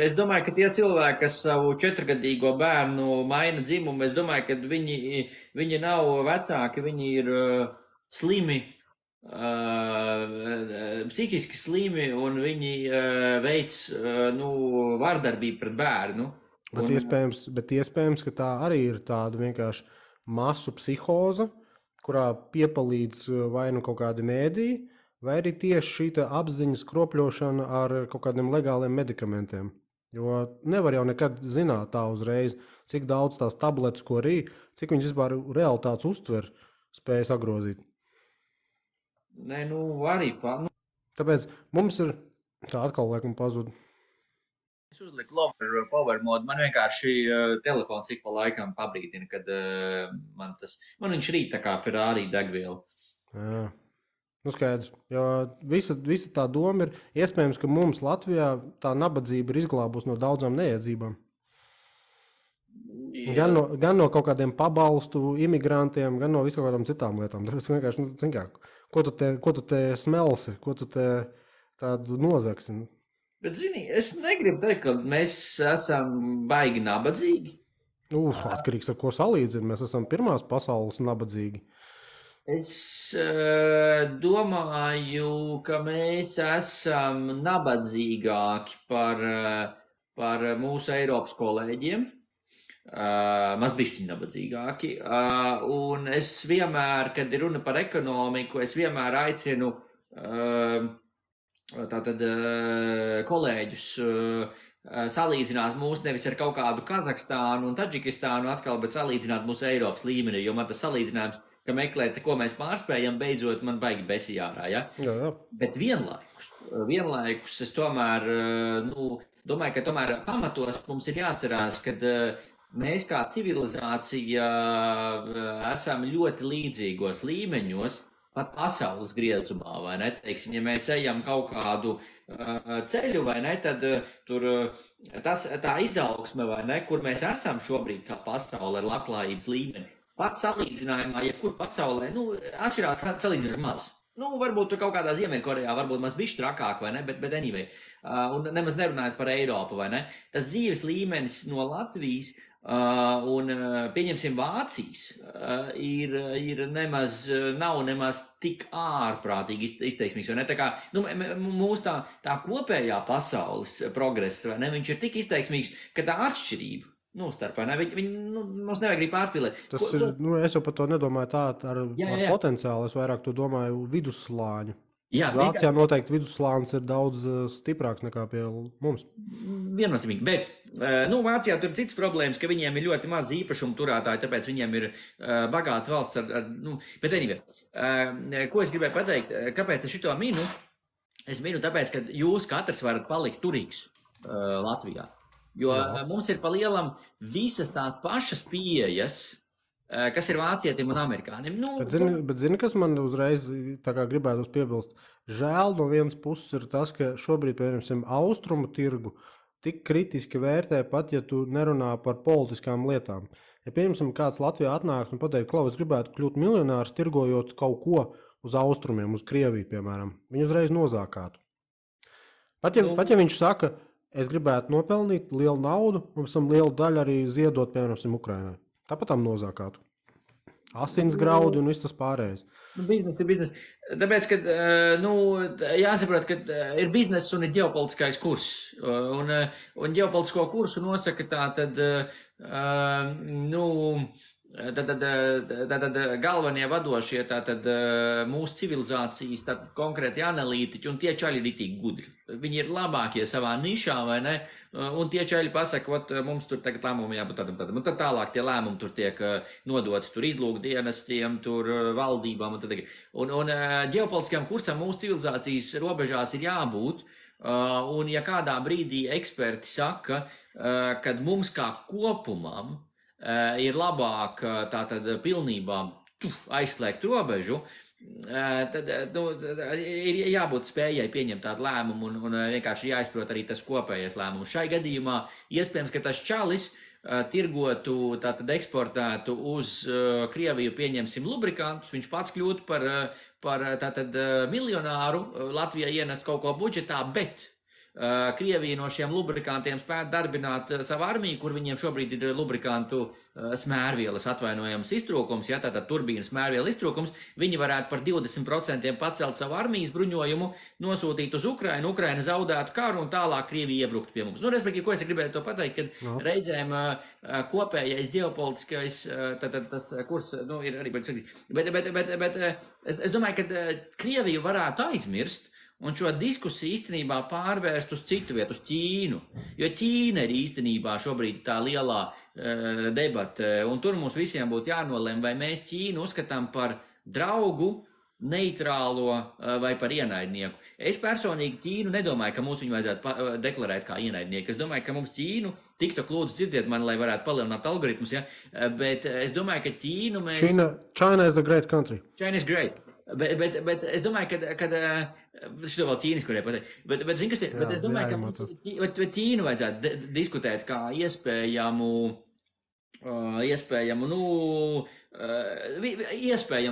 Es domāju, ka tie cilvēki, kas savu 4-gadīgo bērnu maina dzimumu, es domāju, ka viņi nav vecāki, viņi ir slimi, psihiski slimi, un viņi veic vardarbību pret bērnu. Bet iespējams, ka tā arī ir tāda vienkārši masu psihoze, kurā piepalīdz vai nu kaut kādi mēdīji, vai arī tieši šī apziņas kropļošana ar kaut kādiem legāliem medikamentiem. Jo nevar jau nekad zināt tā uzreiz, cik daudz tās tabletes, ko rī, cik viņas vispār realitātes uztver spēja sagrozīt. Nē, arī. Tāpēc mums ir tā atkal laikam pazud. Es uzliku lover power modu, man vienkārši telefons ik pa laikam pabrīdina, kad man viņš rīt tā kā Ferrari degviela. Jā. Skaidrs, jo visa tā doma ir, iespējams, ka mums Latvijā tā nabadzība ir izglābus no daudzām neiedzībām. Gan no kaut kādiem pabalstu imigrantiem, gan no visu kādām citām lietām. Tāpēc vienkārši, ko tu te smelsi, ko tu te tādu nozagsi? Bet, zini, es negribu teikt, ka mēs esam baigi nabadzīgi. Atkarīgs ar ko salīdzina. Mēs esam pirmās pasaules nabadzīgi. Es domāju, ka mēs esam nabadzīgāki par mūsu Eiropas kolēģiem. Mazbišķi nabadzīgāki. Un es vienmēr, kad ir runa par ekonomiku, es vienmēr aicinu kolēģus salīdzināt mūs nevis ar kaut kādu Kazahstānu un Tadžikistānu atkal, bet salīdzināt mūsu Eiropas līmenī, jo man tas salīdzinājums, ka meklēt, ko mēs pārspējam, beidzot man baigi besijārā, ja? Jā. Bet vienlaikus es tomēr, domāju, ka tomēr pamatos mums ir jāatcerās, ka mēs kā civilizācija esam ļoti līdzīgos līmeņos, pat pasaules griezumā, vai ne? Teiksim, ja mēs ejam kaut kādu ceļu, vai ne, tad tur tā izaugsme, vai ne, kur mēs esam šobrīd kā pasaule ar labklājības līmeni, pat salīdzinājumā, ja kur pasaulē, atšķirās salīdzinoši maz. Varbūt tur kaut kādā Ziemeļkorejā, varbūt maz bišķi trakāk, vai ne, bet anyway. Un nemaz nerunājot par Eiropu, vai ne. Tas dzīves līmenis no Latvijas un, pieņemsim, Vācijas nav nemaz tik ārprātīgi izteiksmīgs, vai ne? Tā kā, mūsu tā kopējā pasaules progress, vai ne, viņš ir tik izteiksmīgs, ka tā atšķirība starp, vai ne? Mums nevajag arī pārspīlēt. Es jau par to nedomāju tā ar potenciālu, es vairāk to domāju vidusslāņu. Jā, Vācijā noteikti vidusslānis ir daudz stiprāks nekā pie mums. Viennozīmīgi, bet Vācijā tur ir citas problēmas, ka viņiem ir ļoti maz īpašumu turētāji, tāpēc viņiem ir bagāta valsts bet anyway, ko es gribēju pateikt, kāpēc es šito minu? Es minu tāpēc, ka jūs katrs varat palikt turīgs Latvijā, jo mums ir pa lielam visas tās pašas pieejas, kas ir vācietim un amerikānim. Bet zini, kas man uzreiz tā kā gribētu piebilst? Žēl no vienas puses ir tas, ka šobrīd, piemēram, austrumu tirgu tik kritiski vērtē pat, ja tu nerunā par politiskām lietām. Ja, piemēram, kāds Latvijā atnāks un pateikt, Klau, es gribētu kļūt miljonārs, tirgojot kaut ko uz austrumiem, uz Krieviju, piemēram, viņu uzreiz nozākātu. Pat ja viņš saka, es gribētu nopelnīt lielu naudu, un pēc tam lielu daļu arī ziedot, piemēram, Ukrainai. Tāpat tam nozākātu. Asins graudi un viss tas pārējais. Biznes ir biznes. Tāpēc, ka jāsaprot, ka ir biznes un ir ģeopolitiskais kurs. Un ģeopolitisko kursu nosaka Tātad galvenie vadošie mūsu civilizācijas konkrēti analītiķi, un tie čaļi ir itīgi gudri. Viņi ir labākie savā nišā, vai ne? Un tie čaļi pasaka, mums tur tagad lēmumi jābūt tādam. Un tad tālāk tie lēmumi tur tiek nodoti tur izlūkdienestiem, tur valdībām. Un ģeopolitiskajam kursam mūsu civilizācijas robežās ir jābūt. Un ja kādā brīdī eksperti saka, kad mums kā kopumam ir labāk tātad pilnībā aizslēgt robežu, tad ir jābūt spējai pieņemt tādu lēmumu un vienkārši jāizprot arī tas kopējais lēmums. Šai gadījumā iespējams, ka tas čalis tirgotu, tātad eksportētu uz Krieviju, pieņemsim, lubrikantus, viņš pats kļūtu par tātad miljonāru, Latvijai ienest kaut ko budžetā, bet Krievija no šiem lubrikantiem spētu darbināt savu armiju, kur viņiem šobrīd ir lubrikantu smērvielas atvainojams iztrūkums, ja tātad turbīnas smērviela iztrūkums, viņi varētu par 20% pacelt savu armijas bruņojumu, nosūtīt uz Ukrainu, Ukraina zaudētu karu un tālāk Krievija iebruktu pie mums. Respektīvi, ko es gribēju to pateikt, kad reizēm kopējais ģeopolitiskais, tas kurs, ir arī, bet es domāju, ka Krieviju varētu aizmirst, un šo diskusiju īstenībā pārvērst uz citu vietu, uz Ķīnu. Jo Ķīna ir īstenībā šobrīd tā lielā debate, un tur mums visiem būtu jānolem, vai mēs Ķīnu uzskatām par draugu, neitrālo vai par ienaidnieku. Es personīgi Ķīnu nedomāju, ka mums viņu vajadzētu deklarēt kā ienaidnieku. Es domāju, ka mums Ķīnu, TikTok lūdzu dzirdiet mani, lai varētu palielināt algoritmus, ja? Bet es domāju, ka Ķīnu mēs... China is the great country. China is great. Bet es domāju, ka šito vēl ķīniski varēja pateikt, bet zin, kas ir, bet es domāju, ka Ķīnu vajadzētu diskutēt kā iespējamu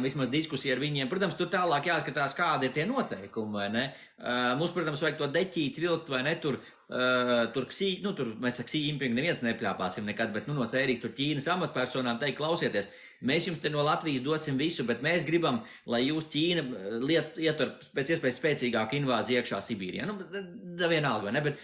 vismaz diskusiju ar viņiem. Protams, tur tālāk jāskatās, kādi ir tie noteikumi, vai ne? Mums, protams, vajag to deķīt, vilkt, vai ne, tur mēs Xi Jinping neviens nepļāpāsim nekad, bet no sērijas tur Ķīnas amatpersonām teikt, klausieties, mēs jums te no Latvijas dosim visu, bet mēs gribam, lai jūs Ķīna ietur pēc iespējas spēcīgāku invāziju iekšā Sibīrijā. Vienalga, vai ne? Bet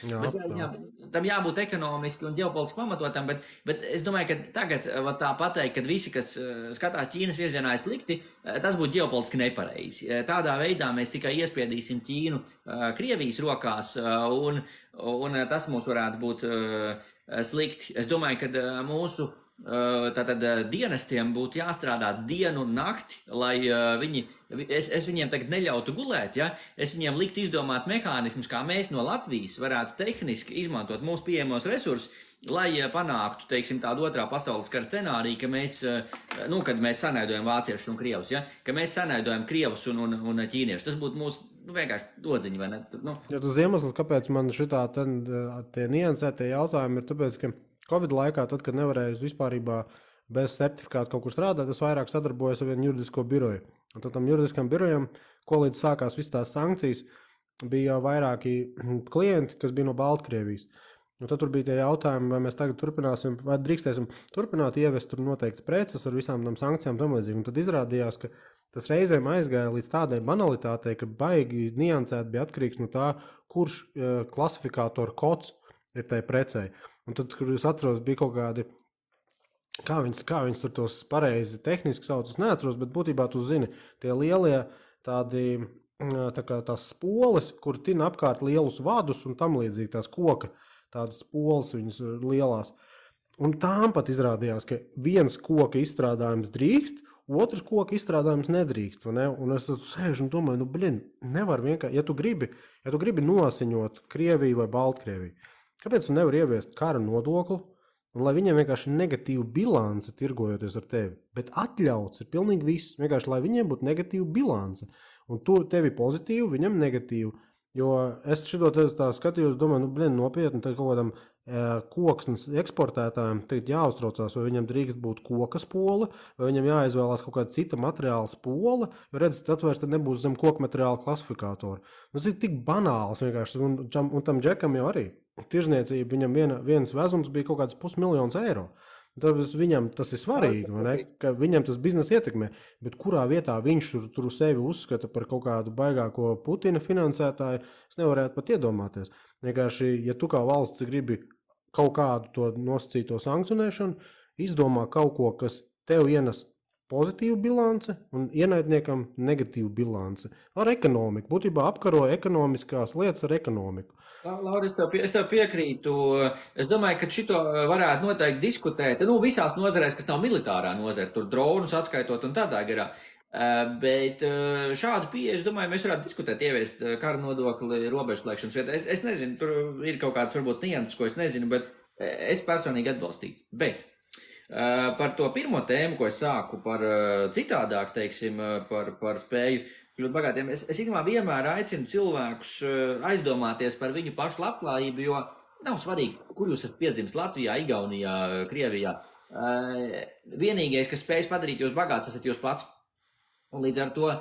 tam jābūt ekonomiski un ģeopolitiski pamatotam, bet es domāju, ka tagad tā pateikt, kad visi, kas skatās Ķīnas virzienā ir slikti, tas būtu ģeopolitiski nepareizi. Tādā veidā mēs tikai iespiedīsim Ķīnu Krievijas rokās, un tas mums varētu būt slikti. Es domāju, ka mūsu tātad dienestiem būtu jāstrādā dienu un nakti, lai es viņiem tagad neļautu gulēt, ja? Es viņiem liktu izdomāt mehānismus, kā mēs no Latvijas varētu tehniski izmantot mūsu pieejamos resursus, lai panāktu, teiksim, tādu otrā pasaules kara scenāriju, ka mēs, kad mēs sanaidojam vāciešus un krievus, ja? Ka mēs sanaidojam krievus un ķīniešus. Tas būtu mūsu vienkārši dodziņi, vai ne? Ja tas iemesls, kāpēc man šitā tie niansētie jautājumi ir tāpēc, ka Covid laikā, tad, kad nevarēju vispārībā bez certifikāta kaut kur strādāt, es vairāk sadarbojos ar vienu juridisko biroju. Un tad tam juridiskam birojam, ko līdz sākās visas tās sankcijas, bija vairāki klienti, kas bija no Baltkrievijas. Un tad tur bija tie jautājumi, vai mēs tagad turpināsim, vai drīkstēsim turpināt ievest tur noteikts preces ar visām tam sankcijām tam līdzīgi. Un tad izrādījās, ka tas reizēm aizgāja līdz tādai banalitātei, ka baigi niansēt bija atkarīgs no tā, kurš klasifikātoru kods ir tai precei. Un tad, kur es atceros, bija kaut kādi, kā viņas tur tos pareizi tehniski sauc, es neatceros, bet būtībā tu zini, tie lielie tādi, tās spoles, kur tina apkārt lielus vadus un tam līdzīgi tās koka, tādas spoles viņas lielās. Un tām pat izrādījās, ka viens koka izstrādājums drīkst, otrs koka izstrādājums nedrīkst, vai ne? Un es tad sēžu un domāju, nevar vienkārši, ja tu gribi nosiņot Krieviju vai Baltkrieviju, kāpēc tu nevar ieviest kara nodokli, un lai viņiem vienkārši negatīva bilance tirgojoties ar tevi, bet atļauts ir pilnīgi viss, vienkārši lai viņiem būtu negatīva bilance, un tu tevi pozitīvu, viņam negatīvu, jo es šito tā skatījos, domāju, nopietni, tad kaut kādam koksnes eksportētājiem tagad jāuztraucās, vai viņam drīkst būt koka spole, vai viņam jāizvēlās kaut kāda cita materiāla spole, jo redz, tad vairs tad nebūs zem koka materiāla klasifikātori. Tas ir tik banāls vienkārši, un tam džekam jau arī. Tirzniecība, viņam viens vezums bija kaut kāds €500,000. Tāpēc viņam tas ir svarīgi, vai ne? Ka viņam tas biznesa ietekmē, bet kurā vietā viņš tur sevi uzskata par kaut kādu baigāko Putina finansētāju, es nevarētu pat iedomāties. Vienkārši, ja tu kā valsts gribi kaut kādu to nosacīto sankcionēšanu, izdomā kaut ko, kas tev ienes pozitīvu bilanci un ienaidniekam negatīvu bilanci. Ar ekonomiku. Būtībā apkaroja ekonomiskās lietas ar ekonomiku. Lauri, es tev piekrītu. Es domāju, ka šito varētu noteikti diskutēt. Visās nozarēs, kas nav militārā nozara, tur dronus atskaitot un tādā garā. Bet šādu pieeju, es domāju, mēs varētu diskutēt, ieviest kara nodokli robežslēgšanas vietā. Es nezinu, tur ir kaut kāds varbūt nianses, ko es nezinu, bet es personīgi atbalstītu. Bet par to pirmo tēmu, ko es sāku par citādāk, teiksim, par spēju kļūt bagātiem, es ikdienā vienmēr aicinu cilvēkus aizdomāties par viņu pašu labklājību, jo nav svarīgi, kur jūs esat piedzimis Latvijā, Igaunijā, Krievijā. Vienīgais, kas spējas padarīt jūs bagāts, esat jūs pats. Un līdz ar to,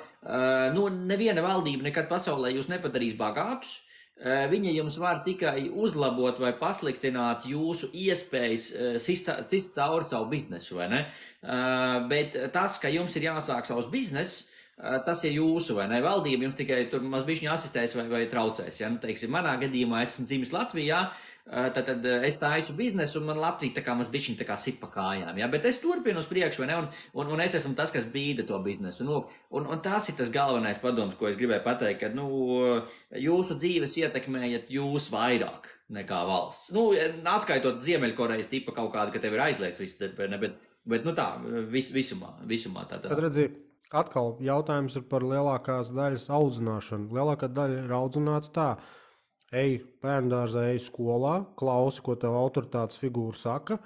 neviena valdība nekad pasaulē jūs nepadarīs bagātus. Viņa jums var tikai uzlabot vai pasliktināt jūsu iespējas cist cauri savu biznesu, vai ne? Bet tas, ka jums ir jāsāk savs biznes, tas ir jūsu, vai ne? Valdība jums tikai tur mazbišķiņi asistēs vai traucēs. Ja? Teiksim, manā gadījumā esmu dzimis Latvijā, tad es taisu biznesu un man Latvija tā kā mazbišķiņi tā kā sit pa kājām. Ja? Bet es turpinu uz priekšu, vai ne? Un es esmu tas, kas bīda to biznesu. Un tas ir tas galvenais padoms, ko es gribēju pateikt, ka jūsu dzīves ietekmējat jūs vairāk nekā valsts. Atskaitot Ziemeļkorejas tipa kaut kādu, ka tev ir aizliegts viss, bet tā, visumā tā. Tad redzi, atkal jautājums ir par lielākās daļas audzināšanu. Lielākā daļa ir audzināta tā. Ej bērndārzā, ej skolā, klausi, ko tev autoritātes figūra saka,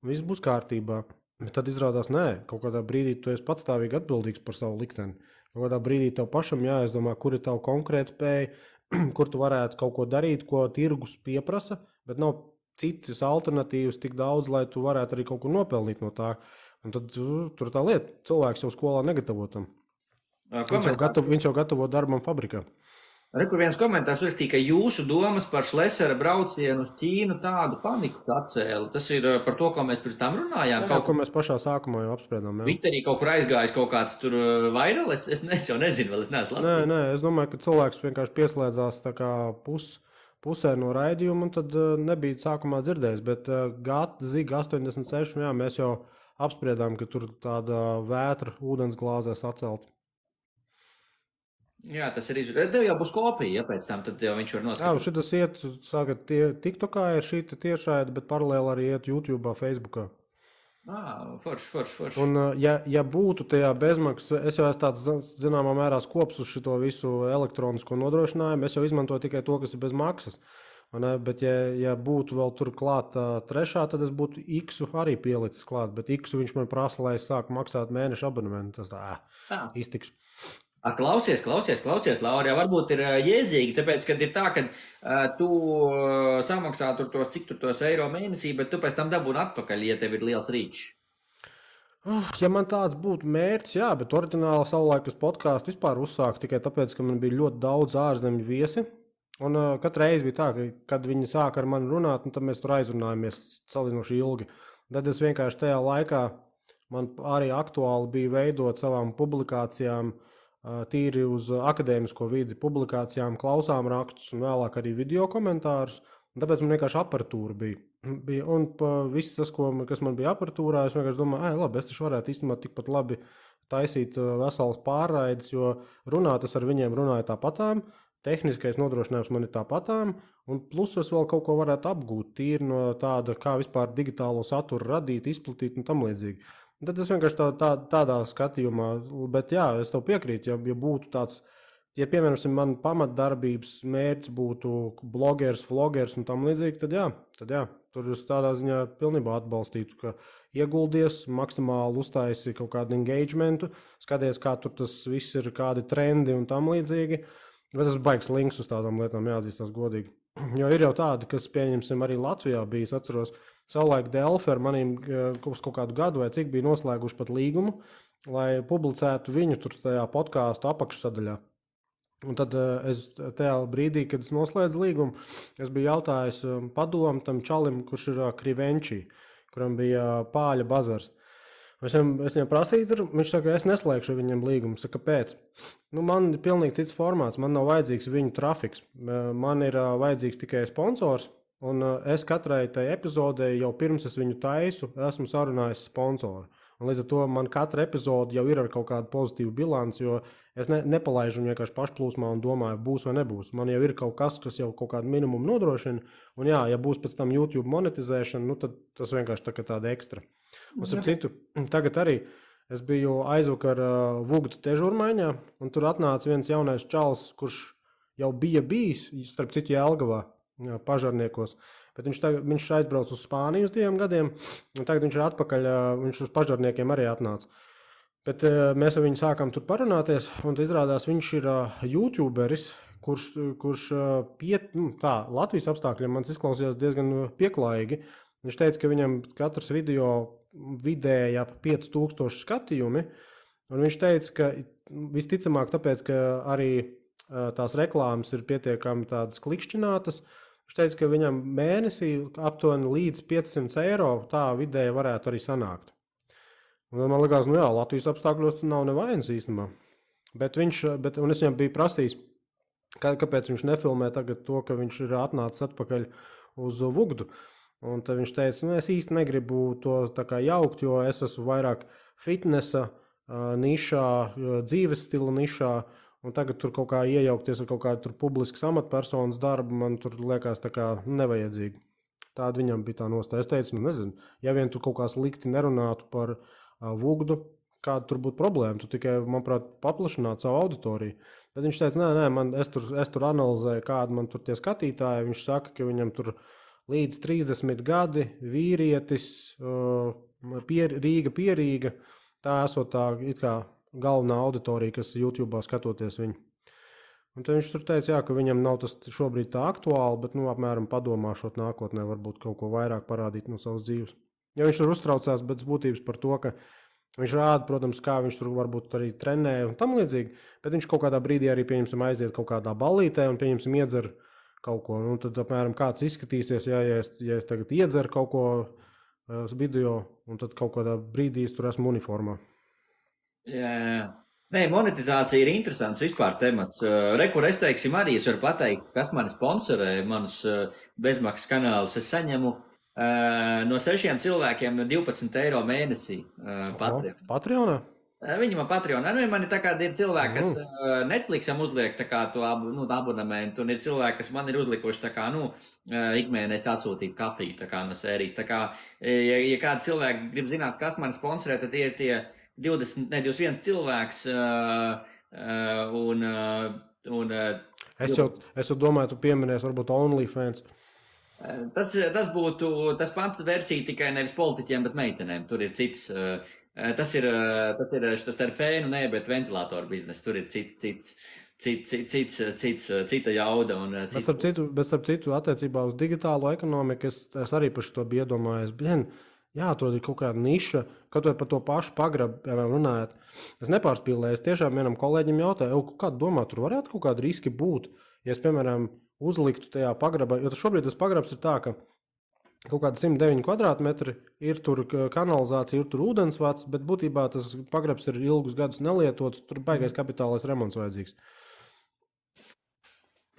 un viss būs kārtībā. Bet tad izrādās, nē, kaut kādā brīdī tu esi patstāvīgi atbildīgs par savu likteni. Kaut kādā brīdī tev pašam jāizdomā, kur ir tava konkrēta spēja, kur tu varētu kaut ko darīt, ko tirgus pieprasa, bet nav citas alternatīvas tik daudz, lai tu varētu arī kaut ko nopelnīt no tā. Un tad tur tā lieta, cilvēks jau skolā negatavotam. Viņš jau gatavo darbam fabrikā. Rekur viens komentārs uzrakstīja, ka jūsu domas par Šlesera braucienu uz Ķīnu tādu paniku atcēla. Tas ir par to, ko mēs pirms tam runājām. Ko mēs pašā sākumā jau apspriedām. Twitterī kaut kur aizgājis kaut kāds tur vairāk, es jau nezinu, vēl es neesmu lasījis. Nē, es domāju, ka cilvēks vienkārši pieslēdzās tā kā pusē no raidījuma, un tad nebija sākumā dzirdējis. Bet Ziga 86, jā, mēs jau apspriedām, ka tur tāda vētra ūdens glāzēs atcelta. Jā, tas ir izrādījums. Tev jau būs kopija, ja pēc tam tad jau viņš var noskatīt. Jā, šitas iet, saka, TikTokā ir šī tiešraide, bet paralēli arī iet YouTube'ā, Facebookā. Forši. Un, ja būtu tajā bezmaksas, es jau esmu tāds, zināmā mērā, skops uz šito visu elektronisko nodrošinājumu, es jau izmantoju tikai to, kas ir bez maksas. Bet, ja būtu vēl tur klāt trešā, tad es būtu X-u arī pielicis klāt, bet X-u viņš man prasa, lai es sāku maksāt mēneša abonementu. Tas iztiks. Klausies, Laura, varbūt ir jēdzīgi, tāpēc, kad ir tā, ka tu samaksā tos, cik tur tos eiro mēnesī, bet tu pēc tam dabūni atpakaļ, ja tev ir liels rīčs. Ja man tāds būtu mērķis, jā, bet oriģināli savulaik uz podcastu vispār uzsāku tikai tāpēc, ka man bija ļoti daudz ārzemju viesi. Un katru reizi bija tā, ka, kad viņi sāka ar mani runāt, tad mēs tur aizrunājamies salīdzinoši ilgi. Tad es vienkārši tajā laikā, man arī aktuāli bija veidot savām publikācijām, tīri uz akadēmisko vidi, publikācijām, klausām rakstus un vēlāk arī video komentārus. Tāpēc man vienkārši aparatūra bija. Un viss tas, kas man bija aparatūrā, es vienkārši domāju, labi, es taču varētu īstenībā tikpat labi taisīt veselas pārraides, jo runāt es ar viņiem runāju tāpatām. Tehniskais nodrošinājums man ir tāpatām, un plus es vēl kaut ko varētu apgūt tīri no tāda, kā vispār digitālo saturu radīt, izplatīt un tam līdzīgi. Tad es vienkārši tādā skatījumā, bet jā, es tev piekrītu, ja būtu tāds, ja piemēram man pamatdarbības mērķis būtu blogeris, vlogeris un tam līdzīgi, tad jā, tur es tādā ziņā pilnībā atbalstītu, ka ieguldies, maksimāli uztaisi kaut kādu engagementu, skaties, kā tur tas viss ir, kādi trendi un tam līdzīgi. Bet tas baigs links uz tādām lietām, jāatzīstās godīgi. Jo ir jau tādi, kas, pieņemsim, arī Latvijā bija, es atceros, savulaik Delfi ar maniem uz kaut kādu gadu vai cik bija noslēguši pat līgumu, lai publicētu viņu tur tajā podcastu apakšsadaļā. Un tad es tajā brīdī, kad es noslēdzu līgumu, es biju jautājis padomu tam čalim, kurš ir Krivenčī, kuram bija pāļa bazars. Es viņam prasīju, viņš saka, es neslēgšu viņam līgumu. Saka, kāpēc? Man ir pilnīgi cits formāts, man nav vajadzīgs viņu trafiks. Man ir vajadzīgs tikai sponsors, un es katrai tai epizodē jau pirms es viņu taisu, esmu sarunājis sponsoru. Un līdz ar to man katra epizode jau ir ar kaut kādu pozitīvu bilanci, jo es nepalaižu viņu vienkārši pašplūsmā un domāju, būs vai nebūs. Man jau ir kaut kas jau kaut kādu minimumu nodrošina, un jā, ja būs pēc tam YouTube monetizēšana, tad tas vienkārši tāda ekstra. Un citu, tagad arī es biju aizvakar Vugdu težurmaiņā, un tur atnāca viens jaunais čalis, kurš jau bija bijis, starp citu Jelgavā, pažarniekos. Bet viņš aizbrauc uz Spāniju uz 2 gadiem, un tagad viņš ir atpakaļ, viņš uz pažarniekiem arī atnāca. Bet mēs ar viņu sākām tur parunāties, un izrādās viņš ir YouTuberis, kurš Latvijas apstākļiem man izklausījās diezgan pieklājīgi. Viņš teica, ka viņam katrs video vidēji ap 5000 skatījumi, un viņš teica, ka visticamāk tāpēc, ka arī tās reklāmas ir pietiekami tādas klikšķinātas. Viņš teica, ka viņam mēnesī aptuveni līdz 500 eiro tā vidēji varētu arī sanākt. Un man likās, Latvijas apstākļos tas nav nevainas īstenībā. Un es viņam biju prasījis, kāpēc viņš nefilmē tagad to, ka viņš ir atnācis atpakaļ uz Vugdu. Un tad viņš teica, es īsti negribu to tā kā jaukt, jo es esmu vairāk fitnesa nišā, dzīves stila nišā, un tagad tur kaut kā iejaukties ar kaut kādu publiskas amatpersonas darbu, man tur liekas tā kā nevajadzīgi. Tāda viņam bija tā nostāja. Es teicu, nezinu, ja vien tu kaut kā slikti nerunātu par Vugdu, kāda tur būtu problēma, tu tikai, manuprāt, paplašinātu savu auditoriju. Bet viņš teica, es tur analizēju, kāda man tur tie skatītāji, viņš saka, ka viņam tur līdz 30 gadi, vīrietis, Rīga, tā esot tā it kā galvenā auditorija, kas YouTube'ā skatoties viņu. Un tad viņš tur teica, ka viņam nav tas šobrīd tā aktuāli, bet, apmēram padomāšot nākotnē, varbūt kaut ko vairāk parādīt no savas dzīves. Ja viņš tur uztraucās pēc būtības par to, ka viņš rāda, protams, kā viņš tur varbūt arī trenē un tam līdzīgi, bet viņš kaut kādā brīdī arī, pieņemsim, aiziet kaut kādā ballītē un, pieņemsim, iedzer kaut ko. Un tad, apmēram, kāds izskatīsies, ja es tagad iedzeru kaut ko video, un tad kaut kādā brīdī es tur esmu uniformā. Jā. Nē, monetizācija ir interesants vispār temats. Rekur, es teiksim arī, es varu pateikt, kas mani sponsorē, manus bezmaksas kanālus. Es saņemu no 6 cilvēkiem 12 eiro mēnesī Patreonā? Viņi man Patreonā. Man ir tā kā ir cilvēki, kas Netflixam uzliek tā kā to abonamentu, un ir cilvēki, kas man ir uzlikuši tā kā, ikmēnēs atsūtīt kafiju tā kā no sērijas. Tā kā, ja kādi cilvēki grib zināt, kas man sponsorē, tad tie ir tie 21 cilvēks, Es jau domāju, tu pieminēsi varbūt OnlyFans. Tas būtu, tas pants versija tikai nevis politiķiem, bet meitenēm. Tur ir cits, tas ir fēnu, bet ventilātoru biznes. Tur ir cita jauda. Bet starp citu, attiecībā uz digitālo ekonomiku, es arī par šo biju iedomājies. Jāatrod ir kaut kāda niša, kaut vai par to pašu pagrabu, piemēram, runājot. Es nepārspīlēju, es tiešām vienam kolēģim jautāju, kādu domā, tur varētu kaut kādi riski būt, ja es, piemēram, uzliktu tajā pagrabā, jo šobrīd tas pagrabs ir tā, ka kaut kāda 109 kvadrātmetri, ir tur kanalizācija, ir tur ūdensvats, bet būtībā tas pagrabs ir ilgus gadus nelietots, tur baigais kapitālais remonts vajadzīgs.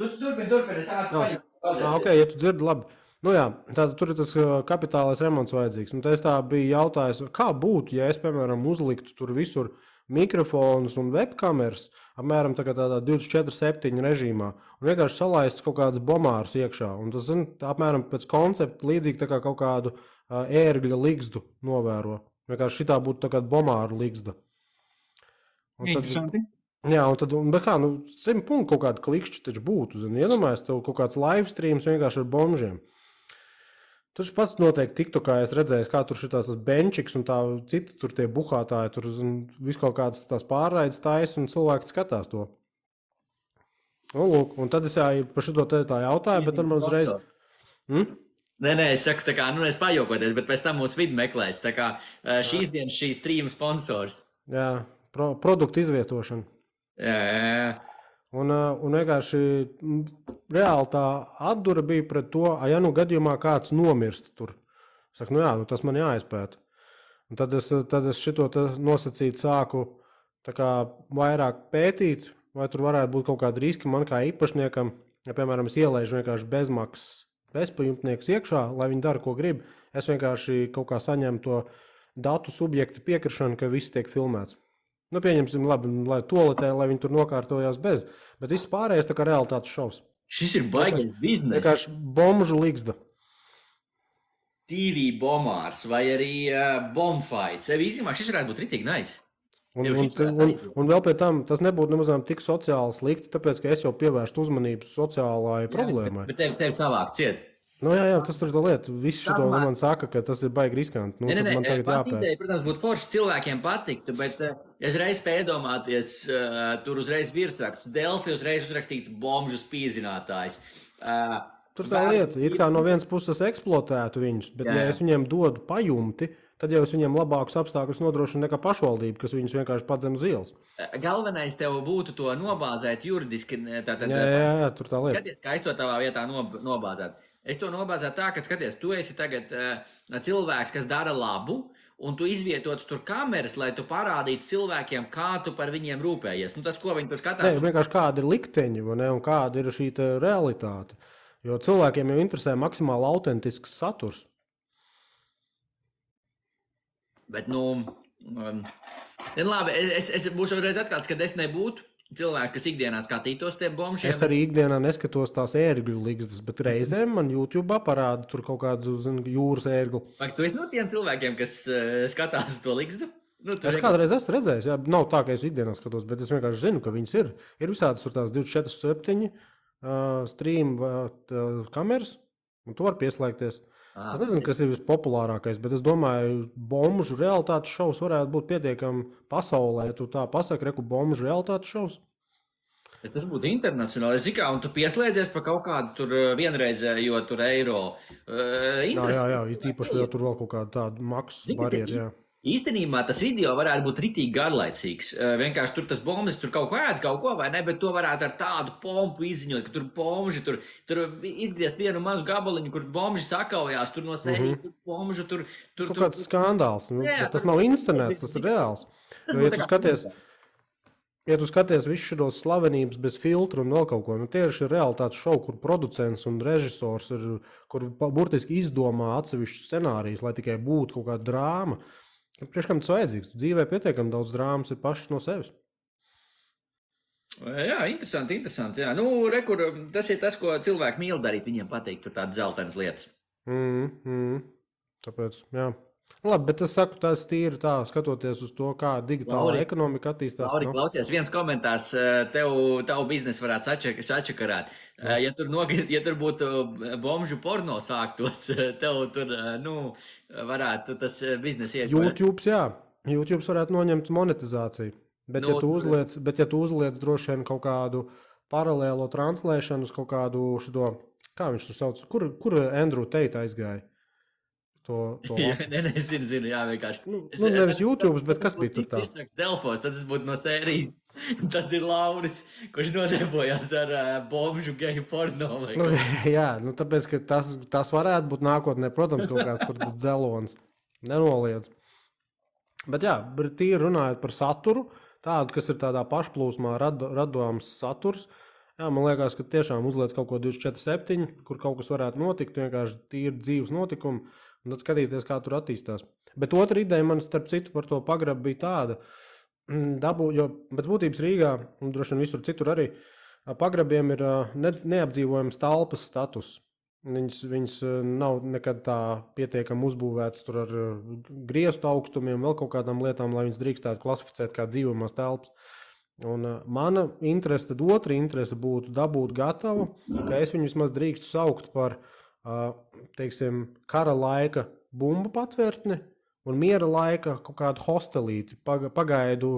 Turpini, es ātri paņemu. Ok, ja tu dzirdi labi. Tātad tur ir tas kapitālais remonts vajadzīgs. Un es tā biju jautājis, kā būtu, ja es, piemēram, uzliktu tur visur mikrofonus un webkameras, apmēram tādā 24/7 režīmā, un vienkārši salaistu kaut kādus bomārus iekšā. Un tas, apmēram pēc koncepta līdzīgi tā kā kaut kādu ērgļa ligzdu novēro. Vienkārši šitā būtu tā kā bomāru ligzda. Interesanti. Jā, un tad, bet kā, 100 punktu kaut kāda klikšķi taču būtu, iedomājies, tev kaut kāds live streams vienkārši ar bombžiem. Tur pats noteikti TikTokā es redzēju, kā tur šitās tas benčiks un tā citi tur tie buhātāji, tur visu kaut kādas tās pārraides taisa un cilvēki skatās to. Un tad es par šito tā jautāju, bet tad man uzreiz... Nē, es saku tā kā, es pajokoties, bet pēc tam mūsu vidi meklēs. Tā kā šīs dienas šī streama sponsors. Jā, produktu izvietošana. Jā. Un vienkārši reāli tā atdura bija pret to, ja gadījumā kāds nomirst tur. Saku, nu jā, nu tas man jāizpēta. Un tad es šito nosacīt sāku tā kā vairāk pētīt, vai tur varētu būt kaut kādi riski man kā īpašniekam. Ja, piemēram, es ielaižu vienkārši bezmaksas bezpajumtniekus iekšā, lai viņi dara, ko grib. Es vienkārši kaut kā saņemu to datu subjektu piekrišanu, ka viss tiek filmēts. Nu, pieņemsim, labi, lai toaletē, lai viņi tur nokārtojās bez. Bet viss pārējais tā kā realitātes šovs. Šis ir baigais biznes. Vienkārši bomžu ligzda. TV bomārs vai arī bombfights. Īstenībā šis varētu būt ritīgi nice. Un vēl pie tam tas nebūtu nemazām tik sociāli slikti, tāpēc, ka es jau pievērstu uzmanību sociālai problēmai. Bet tev savāk ciet. Nu, jā, tas ir tā lieta. Viss šito man saka, ka tas ir baigi riskanti. Nu, man tagad jāpēta. Ideja, protams, būtu forši cilvēkiem patiktu, bet es reiz spēju iedomāties, tur uzreiz virsraksts Delfi uzreiz uzrakstītu bomžu spīdzinātājs. Tur tā lieta, it kā no vienas puses eksploatētu viņus, bet ja es viņiem dodu pajumti, tad jau es viņiem labākus apstākļus nodrošinu nekā pašvaldība, kas viņus vienkārši padzen uz ielas. Galvenais tev būtu to nobāzēt juridiski. Jā, tur tā lieta. Skaties, kā es to tavā vietā nobāzētu. Es to nobāzētu tā, ka, skaties, tu esi tagad cilvēks, kas dara labu, un tu izvietotu tur kameras, lai tu parādītu cilvēkiem, kā tu par viņiem rūpējies. Nu, tas, ko viņi tur skatās. Nē, vienkārši kāda ir likteņi, un kāda ir šī realitāte. Jo cilvēkiem jau interesē maksimāli autentisks saturs. Bet, labi, es būšu reiz atklāts, kad es nebūtu cilvēki, kas ikdienā skatītos tie bombšiem. Es arī ikdienā neskatos tās ērgļu ligzdas, bet reizēm man YouTube parāda tur kaut kādu jūras ērglu. Vai tu esi no tiem cilvēkiem, kas skatās uz to ligzdu? Nu, es kādreiz esmu redzējis, jā, nav tā, ka es ikdienā skatos, bet es vienkārši zinu, ka viņas ir. Ir visādas tur tās 24/7 stream kameras, un tu var pieslēgties. Es nezinu, kas ir vispopulārākais, bet es domāju, bomžu realitātes šovs varētu būt pietiekami pasaulē. Tu tā pasaki, reku bomžu realitātes šovs. Ja tas būtu internacionāli. Es zinu, un tu pieslēdzies pa kaut kādu tur vienreizējo tur eiro. Jā, īpaši, ja tur vēl kaut kāda tāda maksas barjera, jā. Īstenībā tas video varētu būt ritīgi garlaicīgs. Vienkārši tur tas bombas, tur kaut ko ēd, kaut ko, vai ne, bet to varētu ar tādu pompu izziņot, ka tur bombži, tur izgriezt vienu mazu gabaliņu, kur bombži sakaujās, tur no sērijas, tur bombžu, tur... Kaut kāds skandāls, tas nav internets, tas ir reāls. Ja tu skaties visu šos slavenības bez filtru un vēl kaut ko, tie ir šie realitātes šovi, kur producents un režisors ir, kur burtiski izdomā atsevišķu scenārijas, lai tikai būtu kaut kāda drāma. Priekš kam tas vajadzīgs? Dzīvē pietiekami daudz drāmas ir pašas no sevis. Jā, interesanti. Jā. Nu, rekur, tas ir tas, ko cilvēki mīl darīt. Viņiem patīk tur tādas zeltainas lietas. Tāpēc, jā. Labi, bet es saku, tas tīri tā, skatoties uz to, kā digitāla ekonomika attīstās. Lauri, klausies, viens komentārs, tavu biznesu varētu sačakarāt. Ja tur būtu bomžu porno sāktos, tev tur, varētu tas biznes iet. YouTube varētu noņemt monetizāciju. Bet, ja tu uzliec droši vien kaut kādu paralēlo translēšanu uz kaut kādu šito, kā viņš tur sauc, kur Andrew Tate aizgāja? Zinu, jā, vienkārši. Nevis YouTube, bet kas bija tur tā? Delfos, tad tas būtu no sērijas. Tas ir Lauris, kurš nodarbojās ar bomžu geju porno. Tāpēc, ka tas varētu būt nākotnē, protams, kaut kāds tur tas dzelons. Nenoliedz. Bet jā, tīri runājot par saturu, tādu, kas ir tādā pašplūsmā radāms saturs, jā, man liekas, ka tiešām uzliec kaut ko 24/7, kur kaut kas varētu notikt, vienkārši tīri dzīves notikumi. Un tad skatīties, kā tur attīstās. Bet otra ideja man, starp citu, par to pagrabu bija tāda, jo pēc būtības Rīgā, un droši vien visur citur arī, pagrabiem ir neapdzīvojams telpas status. Viņas nav nekad tā pietiekami uzbūvētas tur ar griestu augstumiem, vēl kaut kādām lietām, lai viņas drīkstētu klasificēt kā dzīvojamās telpas. Un mana interese, tad otra interese būtu dabūt gatavu, ka es viņu vismaz drīkstu saukt par teiksim, kara laika bumbu patvērtni un miera laika kaut kādu hostelīti, pagaidu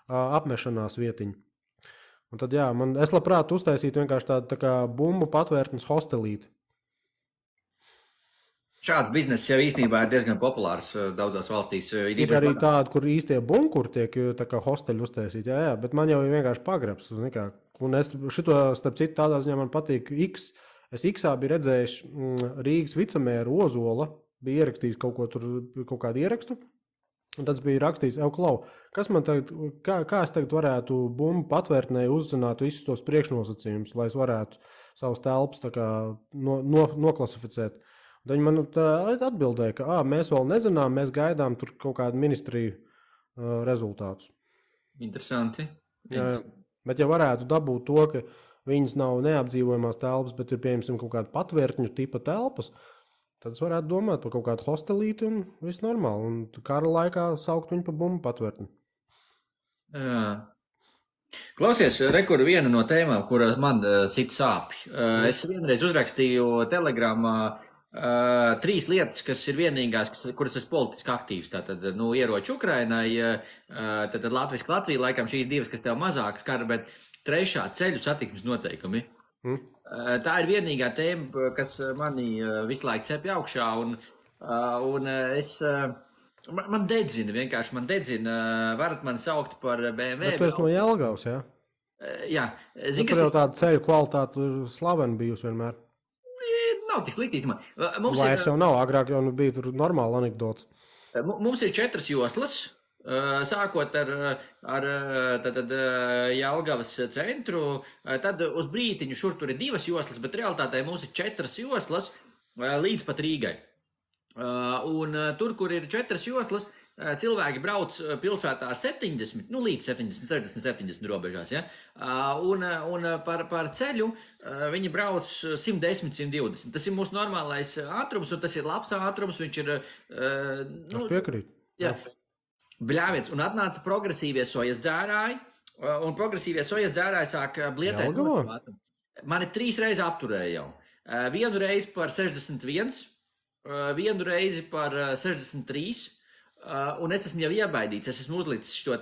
apmešanās vietiņu. Un tad, jā, es labprāt uztaisītu vienkārši tādu tā kā bumbu patvērtnes hostelīti. Šāds bizness jau īstenībā ir diezgan populārs daudzās valstīs. Ir arī tādi, kur īstie bunkuri tiek tā kā hosteļi uztaisīti, jā, bet man jau ir vienkārši pagrabs. Un es šito, starp citu, tādā ziņā man patīk X. Es X-ā biju redzējis Rīgas vicemēru Ozola bija ierakstījis kaut ko tur, kaut kādu ierakstu. Un tad bija rakstījis, Klau, kas man tagad, kā es tagad varētu bumbu patvērtnē uzzināt visus tos priekšnosacījumus, lai es varētu savus telpas tā kā noklasificēt. Un viņi man atbildēja, ka mēs vēl nezinām, mēs gaidām tur kaut kādu ministriju rezultātus. Interesanti. Jā, bet ja varētu dabūt to, ka viņas nav neapdzīvojamās telpas, bet ir, piemēram, kaut kāda patvērtņu tipa telpas, tad es varētu domāt par kaut kādu hostelīti un viss normāli. Un kara laikā saukt viņu par bumbu patvērtni. Jā. Klausies, rekur viena no tēmām, kura man sit sāpi. Es vienreiz uzrakstīju Telegramā 3 lietas, kas ir vienīgās, kuras esmu politiski aktīvs. Tātad, ieroči Ukrainai, tad latviski Latvija, laikam šīs 2, kas tev mazākas kara, bet 3. ceļu satiksmes noteikumi. Tā ir vienīgā tēma, kas mani visu laiku cepja augšā, un man dedzina, varat mani saukt par BMW. Bet tu esi no Jelgavas, jā? Jā. Tur jau tāda ceļu kvalitāte ir slavena bijusi vienmēr. Nav tik slikti, īstenībā. Vairs jau nav, agrāk jau bija tur normāla anekdots. Mums ir 4 joslas, sākot ar Jelgavas centru, tad uz brītiņu šur tur ir 2 joslas, bet realitātē mums ir 4 joslas līdz pat Rīgai. Un tur, kur ir 4 joslas, cilvēki brauc pilsētā ar 70, līdz 70, 60, 70 robežās, ja? Un par ceļu viņi brauc 110, 120. Tas ir mūsu normālais ātrums, un tas ir labs ātrums, viņš ir... Es piekrītu. Jā. Bļāviens, un atnāca progresīvie sojas dzērāji, un progresīvie sojas dzērāji sāk blietēt. Mani 3 reizes apturēja jau. Vienu reizi par 61, vienu reizi par 63, un es esmu jau iebaidīts, es esmu uzlicis šo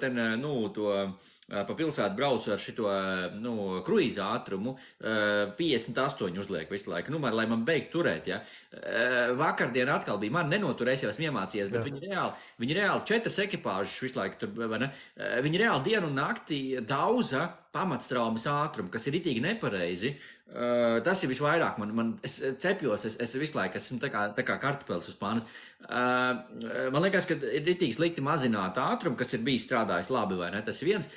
pa pilsētu braucu ar šito, kruīza ātrumu, 58 uzliek visu laiku, lai man beigtu turēt, ja. Vakardien atkal bija, man nenoturēs, jau esmu iemācījies, bet viņi reāli 4 ekipāžas visu laiku tur, vai ne? Viņi reāli dienu un nakti dauza pamatstraumes ātrumu, kas ir ritīgi nepareizi. Tas ir visvairāk, es cepjos, es visu laiku esmu tā kā kartupelis uz pānas. Man liekas, ka ir ritīgi slikti mazināt ātrumu, kas ir bijis strādājis labi, vai ne? Tas ir viens,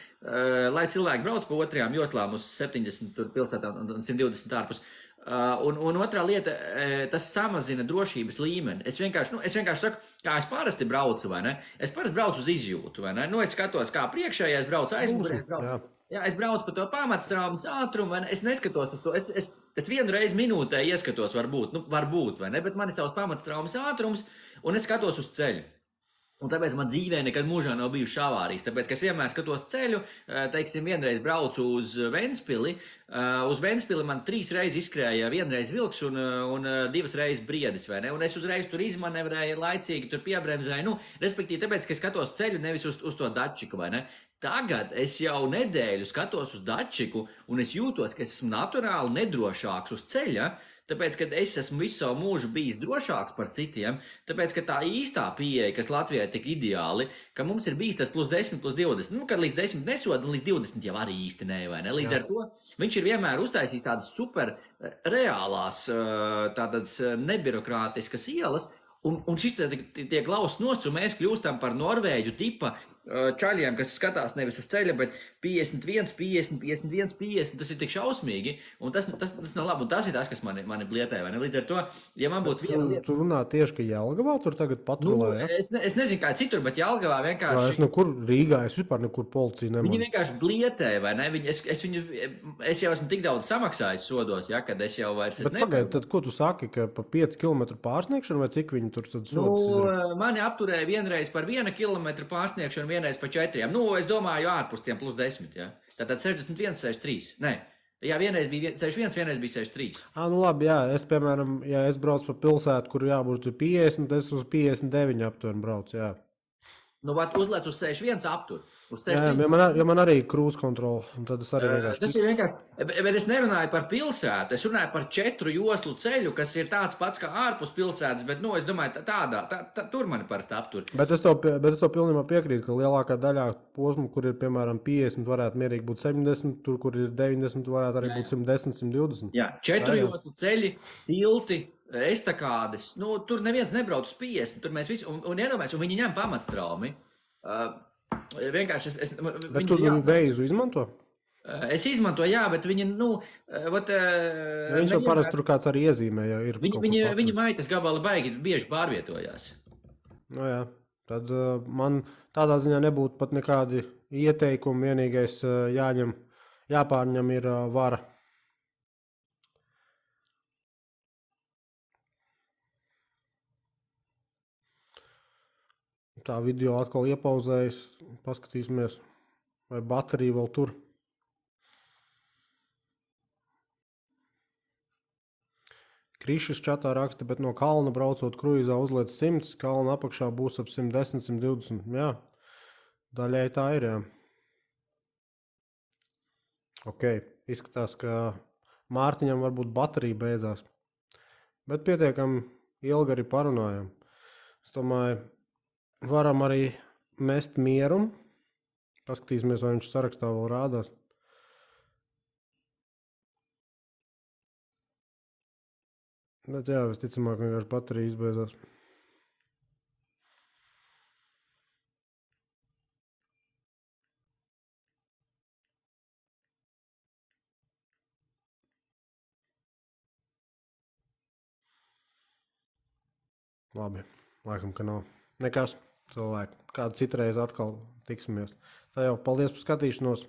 lai cilvēki brauc pa 2. joslām uz 70 pilsētām un 120 ārpus. Un otrā lieta, tas samazina drošības līmeni. Es vienkārši saku, kā es parasti braucu, vai ne? Es parasti braucu uz izjūtu, vai ne? Es skatos, kā priekšējais brauc, aizmugurējais brauc. Jā, es braucu pa to pamatstraumes ātrumu, vai ne? Es neskatos uz to. Es vienu reizi minūtē ieskatos, varbūt, vai ne? Bet man ir savs pamatstraumes ātrums, un es skatos uz ceļu. Un tāpēc man dzīvē nekad mūžā nav bijušas avārijas. Tāpēc, ka es vienmēr skatos ceļu, teiksim, vienreiz braucu uz Ventspili. Uz Ventspili man 3 reizes izskrēja, vienreiz vilks un 2 reizes briedis, vai ne? Un es uzreiz tur izmanevrēju, laicīgi tur piebremzēju. Respektīvi, tāpēc, ka es skatos ceļu, nevis uz to dačiku, vai ne? Tagad es jau nedēļu skatos uz dačiku, un es jūtos, ka es esmu naturāli nedrošāks uz ceļa, tāpēc, ka es esmu visu savu mūžu bijis drošāks par citiem, tāpēc, ka tā īstā pieeja, kas Latvijai tik ideāli, ka mums ir bijis tas +10, +20, kad līdz 10 nesoda, un līdz 20 jau arī īsti ne, vai ne? Līdz ar to viņš ir vienmēr uztaisījis tādas super reālās, tādas nebirokrātiskas ielas, un šis tiek lausts nost, un mēs kļūstam par Norvēģu tipa čaļiem, kas skatās nevis uz ceļa, bet 51, 50, 51, 50, tas ir tik šausmīgi, un tas nav labi, un tas ir tas, kas mani blietē, vai ne? Līdz ar to, ja man būtu viena lieta... Tu runā tieši, ka Jelgavā tur tagad patrulē, ja? Es nezinu, kā citur, bet Jelgavā vienkārši... Rīgā, es vispār nekur policiju nemanu. Viņi vienkārši blietē, vai ne? Es jau esmu tik daudz samaksājis sodos, ja, kad es jau vairs... Bet pagaid, tad ko tu saki, ka pa 5 kilometru pārsniegšanu, vai cik viņi tur tad sodas izraka? Mani apturēja vienreiz par 1 kilometru pārsniegšanu, vienreiz pa 4. Es domāju, ārpus tiem +10, ja. Tātad 61, 63. Nē. Jā, vienreiz bija 61, vienreiz bija 63. Labi, jā. Es, piemēram, ja es braucu pa pilsētu, kur jābūt 50, es uz 59 aptuveni braucu, jā. Uzlēc uz 61 aptur. Jā, jo man arī krūz kontrola, un tad es arī vienkārši... Tas ir vienkārši, bet es nerunāju par pilsētu, es runāju par 4 joslu ceļu, kas ir tāds pats kā ārpus pilsētas, bet, es domāju, tur mani parasti aptur. Bet es tev pilnībā piekrītu, ka lielākā daļā posmu, kur ir, piemēram, 50, varētu mierīgi būt 70, tur, kur ir 90, varētu arī būt 110, 120. Jā, 4 joslu ceļi, tilti, estakādes, nu, tur neviens nebrauc uz 50, tur mēs visi, un iedomājies, un viņi ņem pamatstraumi. Vienkārši Bet tu veizu izmanto? Es izmantoju, jā, bet viņi, Viņš jau parasti tur kāds arī iezīmē, ja ir. Viņi maitas gabali baigi bieži pārvietojās. No jā, tad man tādā ziņā nebūtu pat nekādi ieteikumi, vienīgais jāpārņem ir vara. Tā video atkal iepauzējas, paskatīsimies, vai baterija vēl tur. Krišas čatā raksta, bet no kalna braucot kruīzā uzliec 100, kalna apakšā būs ap 110, 120. Jā, daļai tā ir, jā. Ok, izskatās, ka Mārtiņam varbūt baterija beidzās. Bet pietiekami ilgi arī parunājam. Es domāju, varam arī mest mieru. Paskatīsimies, vai viņš sarakstā vēl rādās. Bet jā, visticamāk vienkārši baterija izbeidzās. Labi, laikam, ka nav. Nekas, cilvēki. Kādu citreiz atkal tiksimies. Tā jau, paldies par skatīšanos.